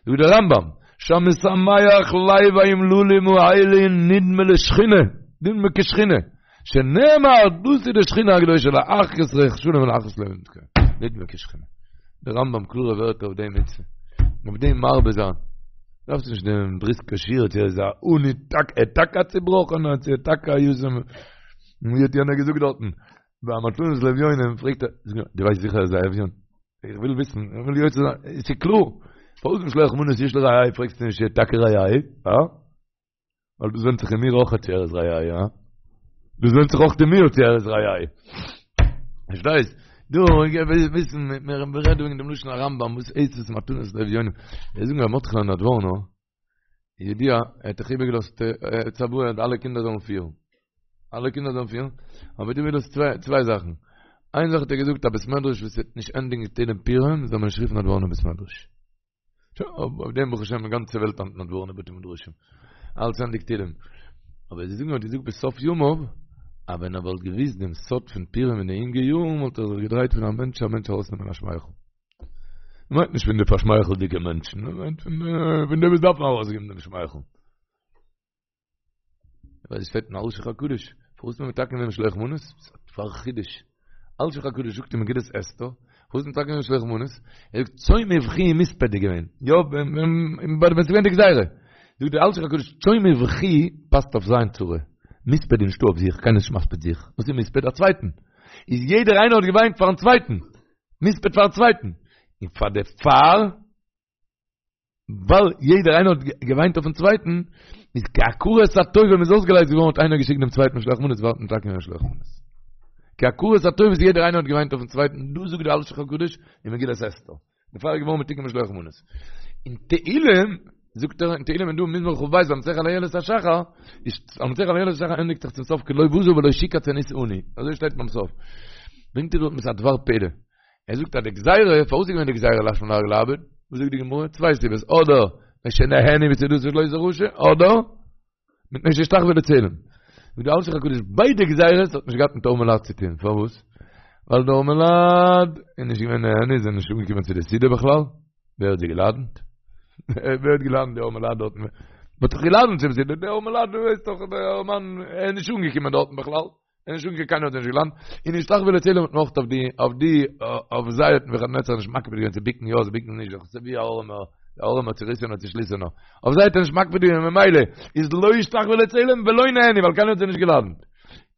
זאגט דער רמב"ם, שהמשמח לב האומללים האלה נדמה לשכינה, נדמה כשכינה, שנאמר, דאס איז די שכינה הקדושה להחיות רוח שלום ולהחיות לב נדמה כשכינה. דער רמב"ם קלארע ווערטער אויף די מצוה, אויף דעם מרבה זיין. דארפסט נישט דעם בריסקער שיעור צו ער איז א עני טאקע, ער טאקע א צובראכענער, צו ער טאקע א יתום. און ווי האט יענער געזאגט דארטן, ביי מתנות לאביונים פרעגט ער, זאג נאר, דו ווייסט זיכער אז ער איז א אביון? איך וויל וויסן, איך וויל יוצא זיין, עס איז קלאר, פארוואס משלוח מנות איש לרעהו פרעגסטו נישט צו ער איז טאקע רעהו, הא? ווייל דאס ווענדט זיך אין מיר אויך צו ער איז רעהו, הא? דאס ווענדט זיך אויך אין מיר צו ער איז רעהו. פארשטייסט? דא, איך וויל וויסן, מיר רעדן וועגן דעם לשון הרמב"ם, וואס הייסט עס מתנות לאביונים? זיי זאגן ר' מרדכי'לע נדבורנא, ידוע, ער האט דאך איבערגעלאזט צוואה אז אלע קינדער זאלן פירן. אלע קינדער זאלן פירן, אבער דא איז דאס צוויי זאכן, איין זאך האט ער געזאגט א בית מדרש וואס וועט נישט ענדיגן תהלים פורים זאל מען נישט רופן נדבורנא בית מדרש. שוין, אויף דעם ברוך השם די גאנצע וועלט היינט נדבורנא בתי מדרשים. אלץ ענדיגט תהלים. אבער זיי זאגן האט געזאגט בסוף ימיו, אז ווען ער וואלט געוואוסט דעם סוד פון פורים אין די אינגע יארן וואלט ער זיך געדרייט פון א מענטש צו א מענטש ארויסנעמען א שמייכל. מ'מיינט נישט פון די פארשמייכלדיגע מענטשן, מ'מיינט פון די וואס דארפן ארויסגעבן דעם שמייכל. ווייל עס שטייט אין אלשיך הקדוש, פארוואס האט מען מתקן געווען משלוח מנות? פאר חידוש. אלשיך הקדוש זאגט אין מגילת אסתר, פארוואס מתקן געווען משלוח מנות? ער זאגט צום ובכי ומספד איז געווען. יא, ווען ווען ס'איז געווען די גזירה. זאגט דער אלשיך הקדוש, צום ובכי פאסט אויף זיין צרה. מספד איז נישטא אויף זיך, קיינער איז נישט מספיד זיך. וואס איז מספד? א צווייטן. איז יעדער איינער האט געוויינט פארן צווייטן. מספד פארן צווייטן. און פאר דערפאר ווייל יעדער איינער האט געוויינט אויפן צווייטן, איז כהכרת הטוב ווען מ'איז אויסגעלייזט געווארן האט איינער געשיקט דעם צווייטן משלוח מנות וואלט מען מתקן געווען משלוח מנות. כהכרת הטוב איז יעדער איינער האט געוויינט אויפן צווייטן, דאס זאגט דער אלשיך הקדוש אין מגילת אסתר. דערפאר איז געווארן מתוקן משלוח מנות. אין תהילים, זאגט ער אין תהילים איז דא מזמור כ"ב למנצח על אילת השחר, איז למנצח על אילת השחר ענדיגט זיך צום סוף כי לא בזה ולא שקץ ענות עני, אזוי שטייט ביים סוף. ברענגט ער דארט מיט א דבר פלא. ער זאגט אז די גזירה, פארוואס איז געווען די גזירה להשמיד ולאבד? וואס זאגט די גמרא? צוויי סיבות, אדער מפני שנהנו מסעודתו של אותו רשע, אדער מפני שהשתחוו לצלם. זאגט דער אלשיך הקדוש, ביידע גזירות האט נישט געהאט מיט ארמי לד צו טון, פארוואס? ווייל די ארמי לד איז נישט געווען נהנו, זיי זענען נישט אנגעקומען צו די סעודה בכלל, ווער האט זיי געלאדענט? ווער האט געלאדענט די ארמי לד דארטן? מען האט דאך געלאדענט צום סעודה, די ארמי לד, דו ווייסט דאך, דער ארעמאן, ער איז נישט אנגעקומען דארטן בכלל. אין שום קיינער האט נישט געלאדנט און השתחוו לצלם האט נאך אויף די אויף די אויף זיי האט נבוכדנצר נישט מקפיד געווען צו ביקן יא צו ביקן נישט דאך ווי א ארעמער דער ארעמער צוריסענער צושליסענער אויף זיי האט ער נישט מקפיד געווען ממילא איז לא השתחוו לצלם ולא נהנו ווייל קיינער האט זיי נישט געלאדנט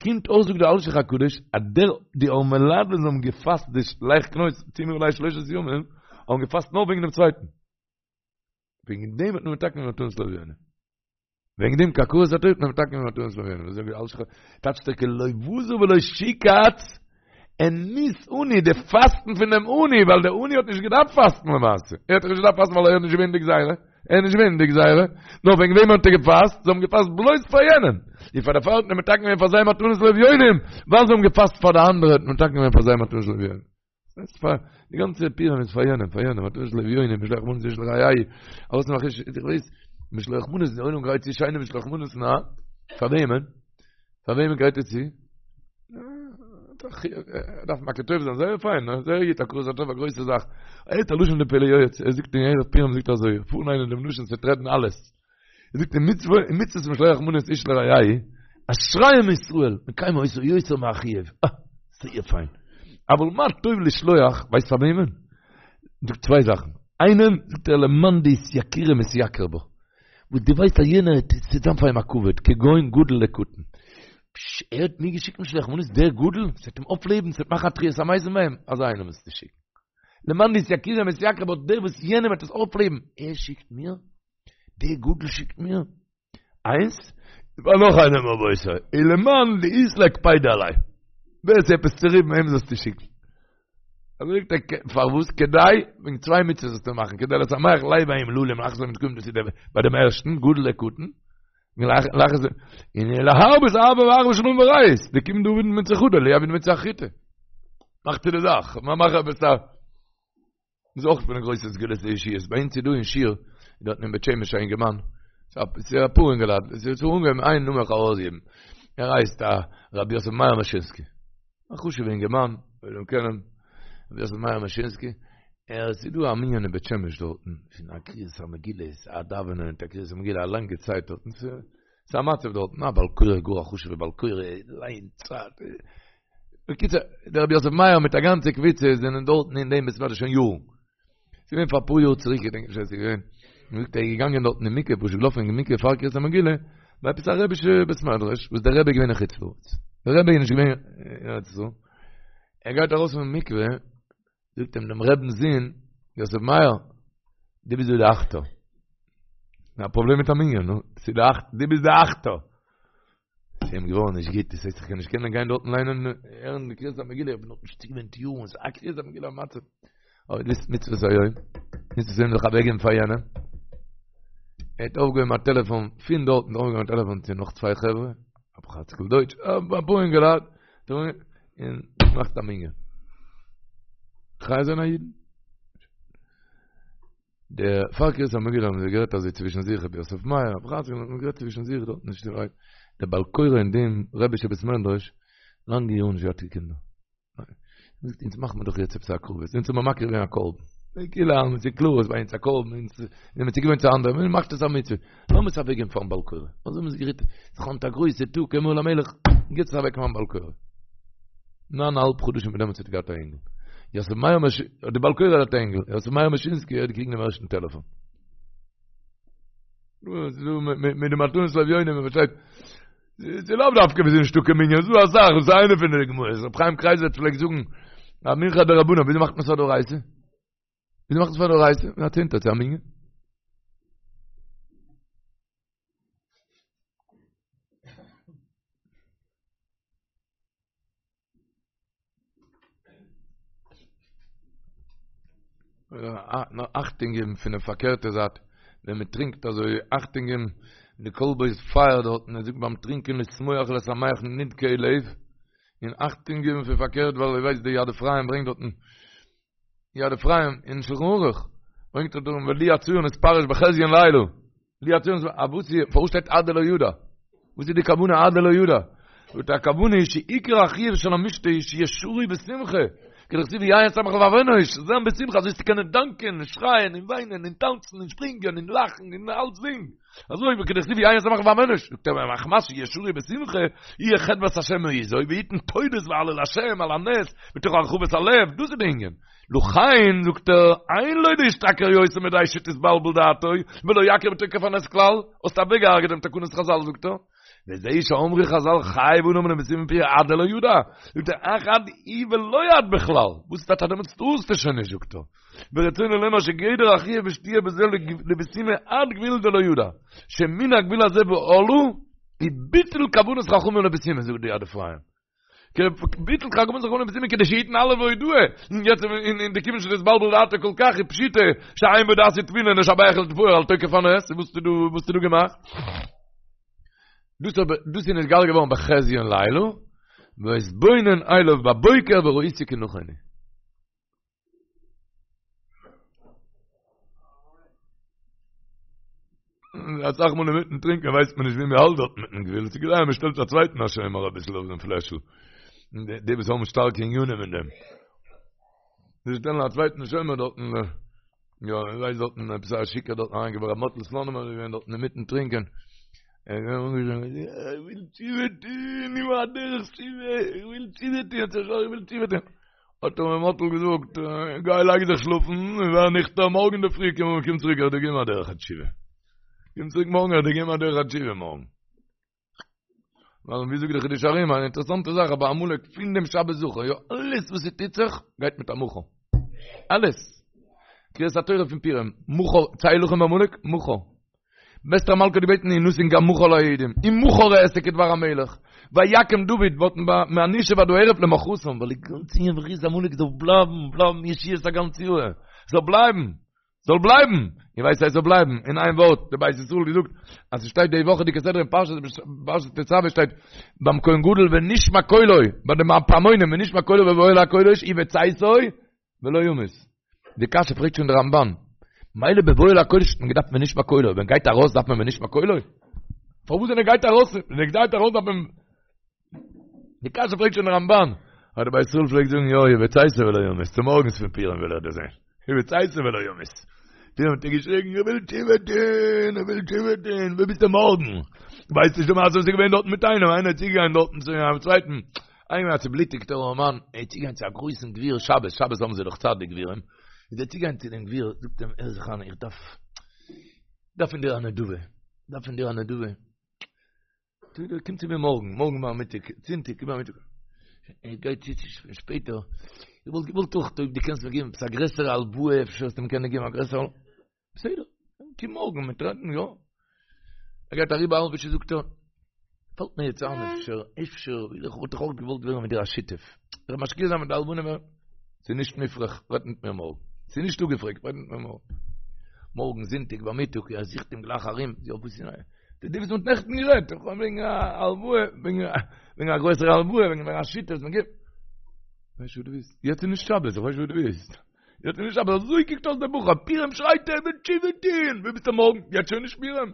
קומט אויס זאגט דער אלשיך הקדוש אז דער די ארמי לד וואס האבן געפאסט די לך כנוס צומו עלי שלושת ימים האבן געפאסט נאר וועגן דעם צווייטן וועגן דעם האט מען מתקן געווען מתנות לאביונים וועגן דעם כהכרת הטוב האט מען מתקן געווען מתנות לאביונים. זאגט דער אלשיך טייטשט ער כי לא בזה ולא שקץ ענות עני, די פאסטן פון דעם עני, ווייל דער עני האט נישט געדארפט פאסטן למעשה. ער האט דאך נישט געדארפט פאסטן ווייל ער איז נישט געווען די גזירה. ער איז נישט געווען די גזירה. נאר וועגן וועם האט ער געפאסט? זיי האבן געפאסט בלויז פאר יענעם. און פאר דערפאר האט מען מתקן געווען פאר זיי מתנות לאביונים, ווייל זיי האבן געפאסט פאר די אנדערע האט מען מתקן געווען פאר זיי מתנות לאביונים. ס'איז פאר די גאנצע פורים איז פאר יענעם, פאר יענעם, מתנות לאביונים, משלוח מנות איש לרעהו, ארויס נאך איש, איך ווייס, משלוח מנות, די עולם גרייט צו שיינע משלוח מנות, נא, פאר וועמען? פאר וועמען גרייט ער צו? דארף מכיר טוב זיין, זייער פיין, זייער גוט, הכרת הטוב, א גרויסע זאך. ער האט א לשון די פלא יועץ, ער זאגט אין ערב פורים זאגט ער אזוי, פארליינען דעם לשון, ס'וועט רעדן אלעס. ער זאגט אין מצוה, אין מצוות משלוח מנות איש לרעהו, אשריהם ישראל, מקיימים אותה יותר מהחיוב. אה, זייער פיין. אבל מה טוב לשלוח, ווייסט פאר וועמען? זאגט צוויי זאכן. איינעם, זאגט ער, למאן דאתייקורי מתייקר בה. וואס דו ווייסט אז יענער ס'וועט זיין פאר אים א כבוד, כגון גדול לקטן. פשש, ער האט מיר געשיקט משלוח מנות, דער גדול? ס'וועט אים אויפלעבן, ס'וועט מאכן א תחיית המתים ביי אים, אזא איינעם מוזטו שיקן. למאן דאתייקורי מתייקר בה, דער וואס יענעם וועט עס אויפלעבן, ער שיקט מיר? דער גדול שיקט מיר איינס, פאר נאך איינעם רבותי, ולמאן דאית ליה קפידא עליה, ווער ס'איז עפעס צוריבן אים זאלסטו שיקן. אזוי זאגט ער, פארוואס? כדי, וועגן צוויי מצוות זאלסטו מאכן, כדי לשמח לב האומללים, לאחר זה מתקיים דאס איז ביי דעם ערשטן, גדול לקטן, לאחר זה, און להרבות אהבה ואחווה שלום ורעות, דכיון דעביד מצוה חדא, לא עביד מצוה אחריתי. מאכט צו די זאך, מאך עפעס א. איז אויך פון די גרויסע סגולות לישועות, ביי אונז איז דא אין שיעור, דארטן אין בית שמש א אינגערמאן, ס'איז אפאר אינגעלייט, עס איז אנגעהויבן איין נאמען איך ארויסגעבן, ער הייסט א רבי יוסף מאיר מאשינסקי, א חשוב'ע אינגערמאן, וועל אים קענען, רבי יוסף מאיר מאשינסקי, ער עס איז דא א מנין אין בית שמש דארטן, פון א קריאת המגילה, א דאווענען מיט א קריאת המגילה א לאנגע צייט דארטן, ס'איז א מצב דארטן, א בעל קורא גאר א חשוב'ע בעל קורא, ליינט צייט. בקיצור, דער רבי יוסף מאיר מיט א גאנצע קבוצה זענען דארטן אין דעם בית מדרש שוין יארן. ס'איז געווען פאר אפאר יאר צוריק, איך געדענק נישט ווען ס'איז געווען. מ'זאגט ער איז געגאנגען דארטן אין מקווה, פשוט געלאפן אין מקווה פאר קריאת המגילה, ביי עפעס א רבי'שע בית מדרש, וואס דער רבי איז געווען אין חוץ לארץ. דער רבי איז נישט געווען אין ארץ ישראל. ער גייט ארויס פון מקווה, זאגט אים דעם רבינ'ס זון, יוסף מאיר, דו ביסט דא די אכטער. א פראבלעם מיט א מנין, נו, ס'איז די אכט, דו ביסט די אכטער. ס'איז אים געווארן נישט גוט, דאס הייסט איך קען נישט קענען גיין דארטן ליינען הערן די קריאת המגילה, איך בין נאך נישט צוגעוואוינט יארן, ס'איז א קריאת המגילה א מצב. אבער דאס איז מצוות היום, מצוות היום זיך אוועקגעבן פאר יענעם. ער האט אויפגעהויבן א טעלעפאן פון דארטן, אויפגעהויבן א טעלעפאן צו נאך צוויי חברה. רבי חצקל דויטש, אפאר אינגעלייט, און מאכט א מנין. חי זיין א אידן. דער פאר קריאת המגילה האבן זיי גערעדט אזוי צווישן זיך רבי יוסף מאיר רבי חצקל האבן גערעדט צווישן זיך דארט נישט ווייט דער בעל קורא אין דעם רבישע בית מדרש לאנגע יארן נישט געהאט קיין קינדער. זאגט אונז מאכן מיר דאך יעצט עפעס א הקרבה, אונז האבן מקריב געווען א קרבן. כאילו אז ס'איז קלאר אז ביי אונז א קרבן, אונז זענען צוגעוואוינט צו אנדערע, מען מאכט עס א מצוה. לאמיר עס אוועקגעבן פארן בעל קורא. אזוי האבן זיי גערעדט, ס'איז היינט א גרויסע טאג, אמור למלך, גיבט עס אוועק פארן בעל קורא. ניין א האלב חדשים פון דעמאלטס האט ער געהאט א אינגל. יוסף מאיר מש... די בעל קורא האט א אינגל, יוסף מאיר מאשינסקי האט געקריגן דעם ערשטן טעלעפאן. מיט די מתנות לאביונים, מען פארשטייט. ס'איז לאו דווקא ווען ס'איז נישטא קיין מנין, ס'איז דא אסאך, דאס איז איינע פון די דוגמאות. רבי חיים קרייזווירט פלעגט זאגן, א מנחה דרבנן, וויאזוי מאכט מען עס א דאורייתא? וויאזוי מאכט מען עס פאר דאורייתא? מיט א צענטער צו א מנין. אכטונג געבן פון די פארקערטע זייט, ווען מען טרינקט אזוי אכטונג געבן, די כלבו איז פייער דארטן, ער זאגט ביים טרינקען לשמוח ולשמח נדכאי לב, און אכטונג געבן פון פארקערט ווייל איר ווייסט די יד אפרים ברענגט דארטן, יד אפרים אין שלחן ערוך, ברענגט ער דארטן ולו יצוייר נתפרש בחזיון לילה, לו יצוייר נתפרש, א וואס איז, פארוואס שטייט עד דלא ידע? וואס איז די כוונה עד דלא ידע? זאגט ער הכוונה היא שעיקר החיוב של המשתה איז שיהיה שרוי בשמחה, כדכתיב יין ישמח לבב אנוש, זיין בשמחה אזוי צו קענען דאנקען און שרייען און וויינען און טאנצן און שפרינגען און לאכן און אלצדינג, אזוי וכדכתיב יין ישמח לבב אנוש, זאגט ער מחמת שיהיה שרוי בשמחה, יהיה חדות השם מעוזו, ויתן תודות והלל להשם על הנס, מתוך הרחבת הלב, דאס איז די ענין. לכן, זאגט ער, אין לו להשתכר יותר מדי שתתבלבל דעתו, ולא יכיר בתוקף הנס כלל, האסט אוועקגעהרגעט דעם תקנת חזל, זאגט ער. וזה שאמרו חזל חייב אדם לבסומי בפוריא עד דלא ידע, זאגט ער, אך עד איהו ולא עד בכלל, וואס איז טאטע דעמאלטס טארסטו שוין נישט, זאגט ער. ורצונו לומר שגדר החיוב בשתיה בזה לבסומי עד גבול דלא ידע, שמן הגבול הזה והלאה, היא ביטול כוונת חכמים לבסומי, זאגט די יד אפרים. ביטול כוונת חכמים לבסומי כדי שיתן הלל והודאה, און יעצט אין די כיוון שנתבלבל דעתו כל כך איז פשיטא שאין בו דעת ותבונה לשבח ולתפאר על תוקף הנס, וואס האסטו דא וואס האסטו דא געמאכט? דאס אבער דאס איז נתגלה געווארן בחזיון לילה, ואתבונן אליו בבוקר וראיתי כי נכון הוא. אסאך מאל אינמיטן טרינקען ווייסט מען נישט ווי מען האלט דארט מיטן גבול, ס'איז כדאי מען שטעלט א צווייטן א שומר אביסל אויף דעם פלעשל, די וואס האבן שטארקע ענינים אין דעם, זיי שטעלן א צווייטן שומר דארטן, יא, איך ווייס דארטן עפעס א שיכור דארטן אריינגעבראכט, ר' מאטל סלאנימער איז געווען דארטן אינמיטן טרינקען, ער איז געווען אנגעשטאנען, איך וויל תשובה טון, איך וויל א דרך תשובה, איך וויל תשובה טון, איך וויל תשובה טון. האט אים ר' מאטל געזאגט, גיי לייג זיך שלאפן, און ווער ניכטער מארגן אינדערפרי קום קום צוריק איך וועל דיר געבן א דרך התשובה. קום צוריק מארגן איך וועל דיר געבן א דרך התשובה מארגן. ווייל ווי זאגט דער חידושי הרי"ם, אן אינטערעסאנטע זאך, אבער עמלק פון דעם שבת זכור, יא, אלעס וואס ס'טוט זיך, גייט מיט א מחר. אלעס. קריאת התורה פון פורים, מחר, צא הלחם בעמלק, מחר. אסתר המלכה האט געבעטן ינתן גם מחר ליהודים, ומחר אעשה כדבר המלך, ויקם דוד ווארטן מהנישב עד הערב למחרתם, ווייל די גאנצע ענין פון מחיית עמלק זאל בלייבן, בלייבן ישועות א גאנץ יאר, זאל בלייבן, זאל בלייבן, איר ווייסט אז עס זאל בלייבן, אין איין ווארט, די בית ישראל האט געזאגט אז עס שטייט די וואכעדיגע סדרה אין פרשת פרשת תצוה שטייט ביים כהן גדול ונשמע קולו, ביי די פעמונים ונשמע קולו בבואו אל הקודש ובצאתו ולא ימות. די קשיא פרעגט שוין דער רמבן. מילא בבואו אל הקודש האט מען געדארפט ונשמע קולו, ווען גייט ארויס דארף מען ונשמע קולו? פארוואס ווען ער גייט ארויס, ווען ער גייט ארויס דארף מען די קשיא פרעגט שוין דער רמבן. אבער דער בית ישראל פלעגט זאגן יא, ובצאתו ולא ימות, צומארגנס פון פורים וויל ער דאס זען. ובצאתו ולא ימות. פורים האט ער געשריגן, איך וויל תשובה טון, איך וויל תשובה טון, וואו ביסטו מארגן? ווייסט נישט די מעשה וואס איז געווען דארטן מיט איינעם, איינער איז צוגעגאנגען דארטן צו א צווייטן, איינער א צובלוטיגטער ארעמאן, ער איז צוגעגאנגען צו א גרויסן גביר שבת, שבת האבן זיי דאך צייט די גבירים, איז ער צוגעגאנגען צו דעם גביר, זאגט אים, הער זיך איין, איך דארף, דארף פון דיר א נדבה, דארף פון דיר א נדבה. זאגט ער, קום צו מיר מארגן, מארגן ביי מיטאג, זונטאג, קום ביי מיטאג. ער גייט צו צו שפעטער, איך וואלט געוואלט אויך אויב דו קענסט מיר געבן עפעס א גרעסערע הלוואה, אפשר וועסטו מיר קענען געבן א גרעסערע הלוואה. בסדר, קום מארגן, מיר טרעפן, יא. ער גייט אריבער א האלבע שעה זאגט ער, פאלט מיר יעצט איין אפשר, אפשר, איך וואלט דאך אויך געוואלט ווערן מיט דיר א שותף. איך משקיע זיין מיט די הלוואה, ס'איז נישט מופרך, רעד מיט מיר מארגן. ס'איז נישט אפגעפרעגט, רעד מיט מיר מארגן. מארגן זונטאג ביי מיטאג, ער זוכט אים גלייך ארום, יא וואס איז נייע? די וואס מ'האט נעכטן גערעדט, איך האב וועגן א הלוואה, וועגן א גרויסער הלוואה, וועגן א שיטה, מען גיבט. ווייסט וואס דו ווילסט? יעצט איז נישט שבת, איך ווייס וואס דו ווילסט. יעצט איז נישט שבת, אזוי קוקט אויס דער בחור, פורים שרייט ער וויל תשובה טוהן, ווי ביסטו מארגן? יעצט שוין נישט פורים.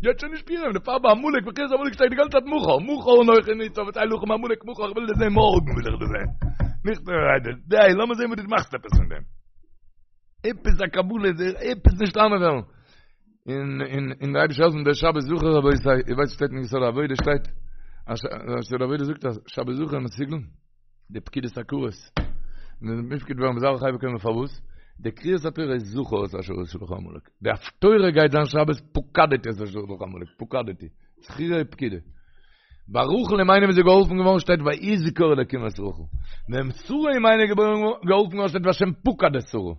יעצט שוין נישט פורים, דערפאר ביי עמלק, מחיית עמלק שטייט די גאנצע צייט מחר, מחר אנכי נצב וצא הלחם בעמלק מחר, איך וויל דיר זעהן מארגן וויל איך דיר זעהן. נישט די, לאמיר זעהן וואס דו מאכסט עפעס פון דעם. עפעס א קבלה, עפעס נישט איינוועלן. און און און דער אייבערשטער העלפן דער שבת זכור רבותי, איר ווייסט שטייט אין יסוד העבודה שטייט, אז יסוד העבודה זאגט אז שבת זכור מסוגל די פקידת עקרות. און מופקד ווערן בזרעא חי וקיימא פארוואס? די קריאת התורה איז זכור את אשר עשה לך עמלק. די הפטורה גייט זיין שבת פקדתי את אשר עשה לך עמלק, פקדתי. זכירה ופקידה. ביי רחל אמנו איז זי געהאלפן געווארן שטייט ויזכור אלקים את רחל. ווען שרה אמנו איז געהאלפן געווארן שטייט והשם פקד את שרה.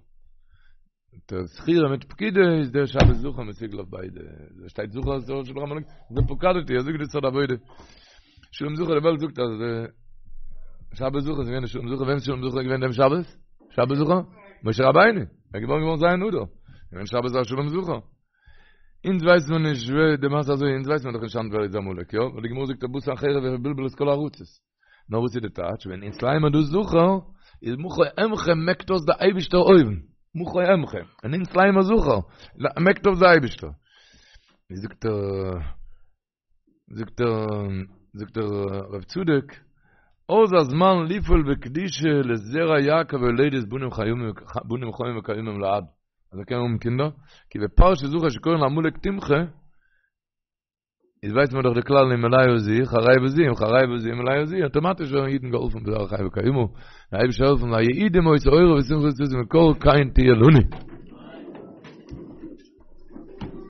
דער זכירה מיט פקידה איז דער שבת זכור מסוגל אויף ביידע. דא שטייט זכור את אשר עשה לך עמלק, דער פקדתי, אזוי זאגט די יסוד העבודה. שלום זכר די וועלט זאגט אז שבת זכור איז געווען שלום זכר, ווען איז שלום זכר געווען דעם שבת? שבת זכור? משה רבינו, ער איז געבוירן געווארן ז' אדר. געווען שבת זכור שלום זכר. אונז ווייסן מיר נישט ווער די מעשה אזוי, אונז ווייסן מיר דאך נישט היינט ווער איז עמלק, יא? ווייל די גמרא זאגט אז בא סנחריב ובלבל את כל הארצות. נאר וואס איז די טייטש? ווען אונז לייען מיר דא זכור, איז מחה אמחה מעקט אויס די אייבישטער אויבן. מחה אמחה. ווען אונז לייען מיר זכור, מעקט אויס די אייבישטער. ווי זאגט ער, זאגט ער, זאגט דער רב צדוק, אז הזמן לפעול בקדושה לזרע יעקב הולדת בנים חיים בנים חיים וקיימים לעד. אז ער קען האבן קינדער, כי בפרשת זכור שקורין לעמלק תמחה, איז ווייסט מען דאך די כלל אם מלאה זו חרבה זו אם חרבה זו מלאה זו אויטאמאטיש ווערן אידן געהאלפן בזרע חי וקיימא, דער אייבערשטער העלפן ליהודים היתה אורה ושמחה וששון ויקר כן תהיה לנו.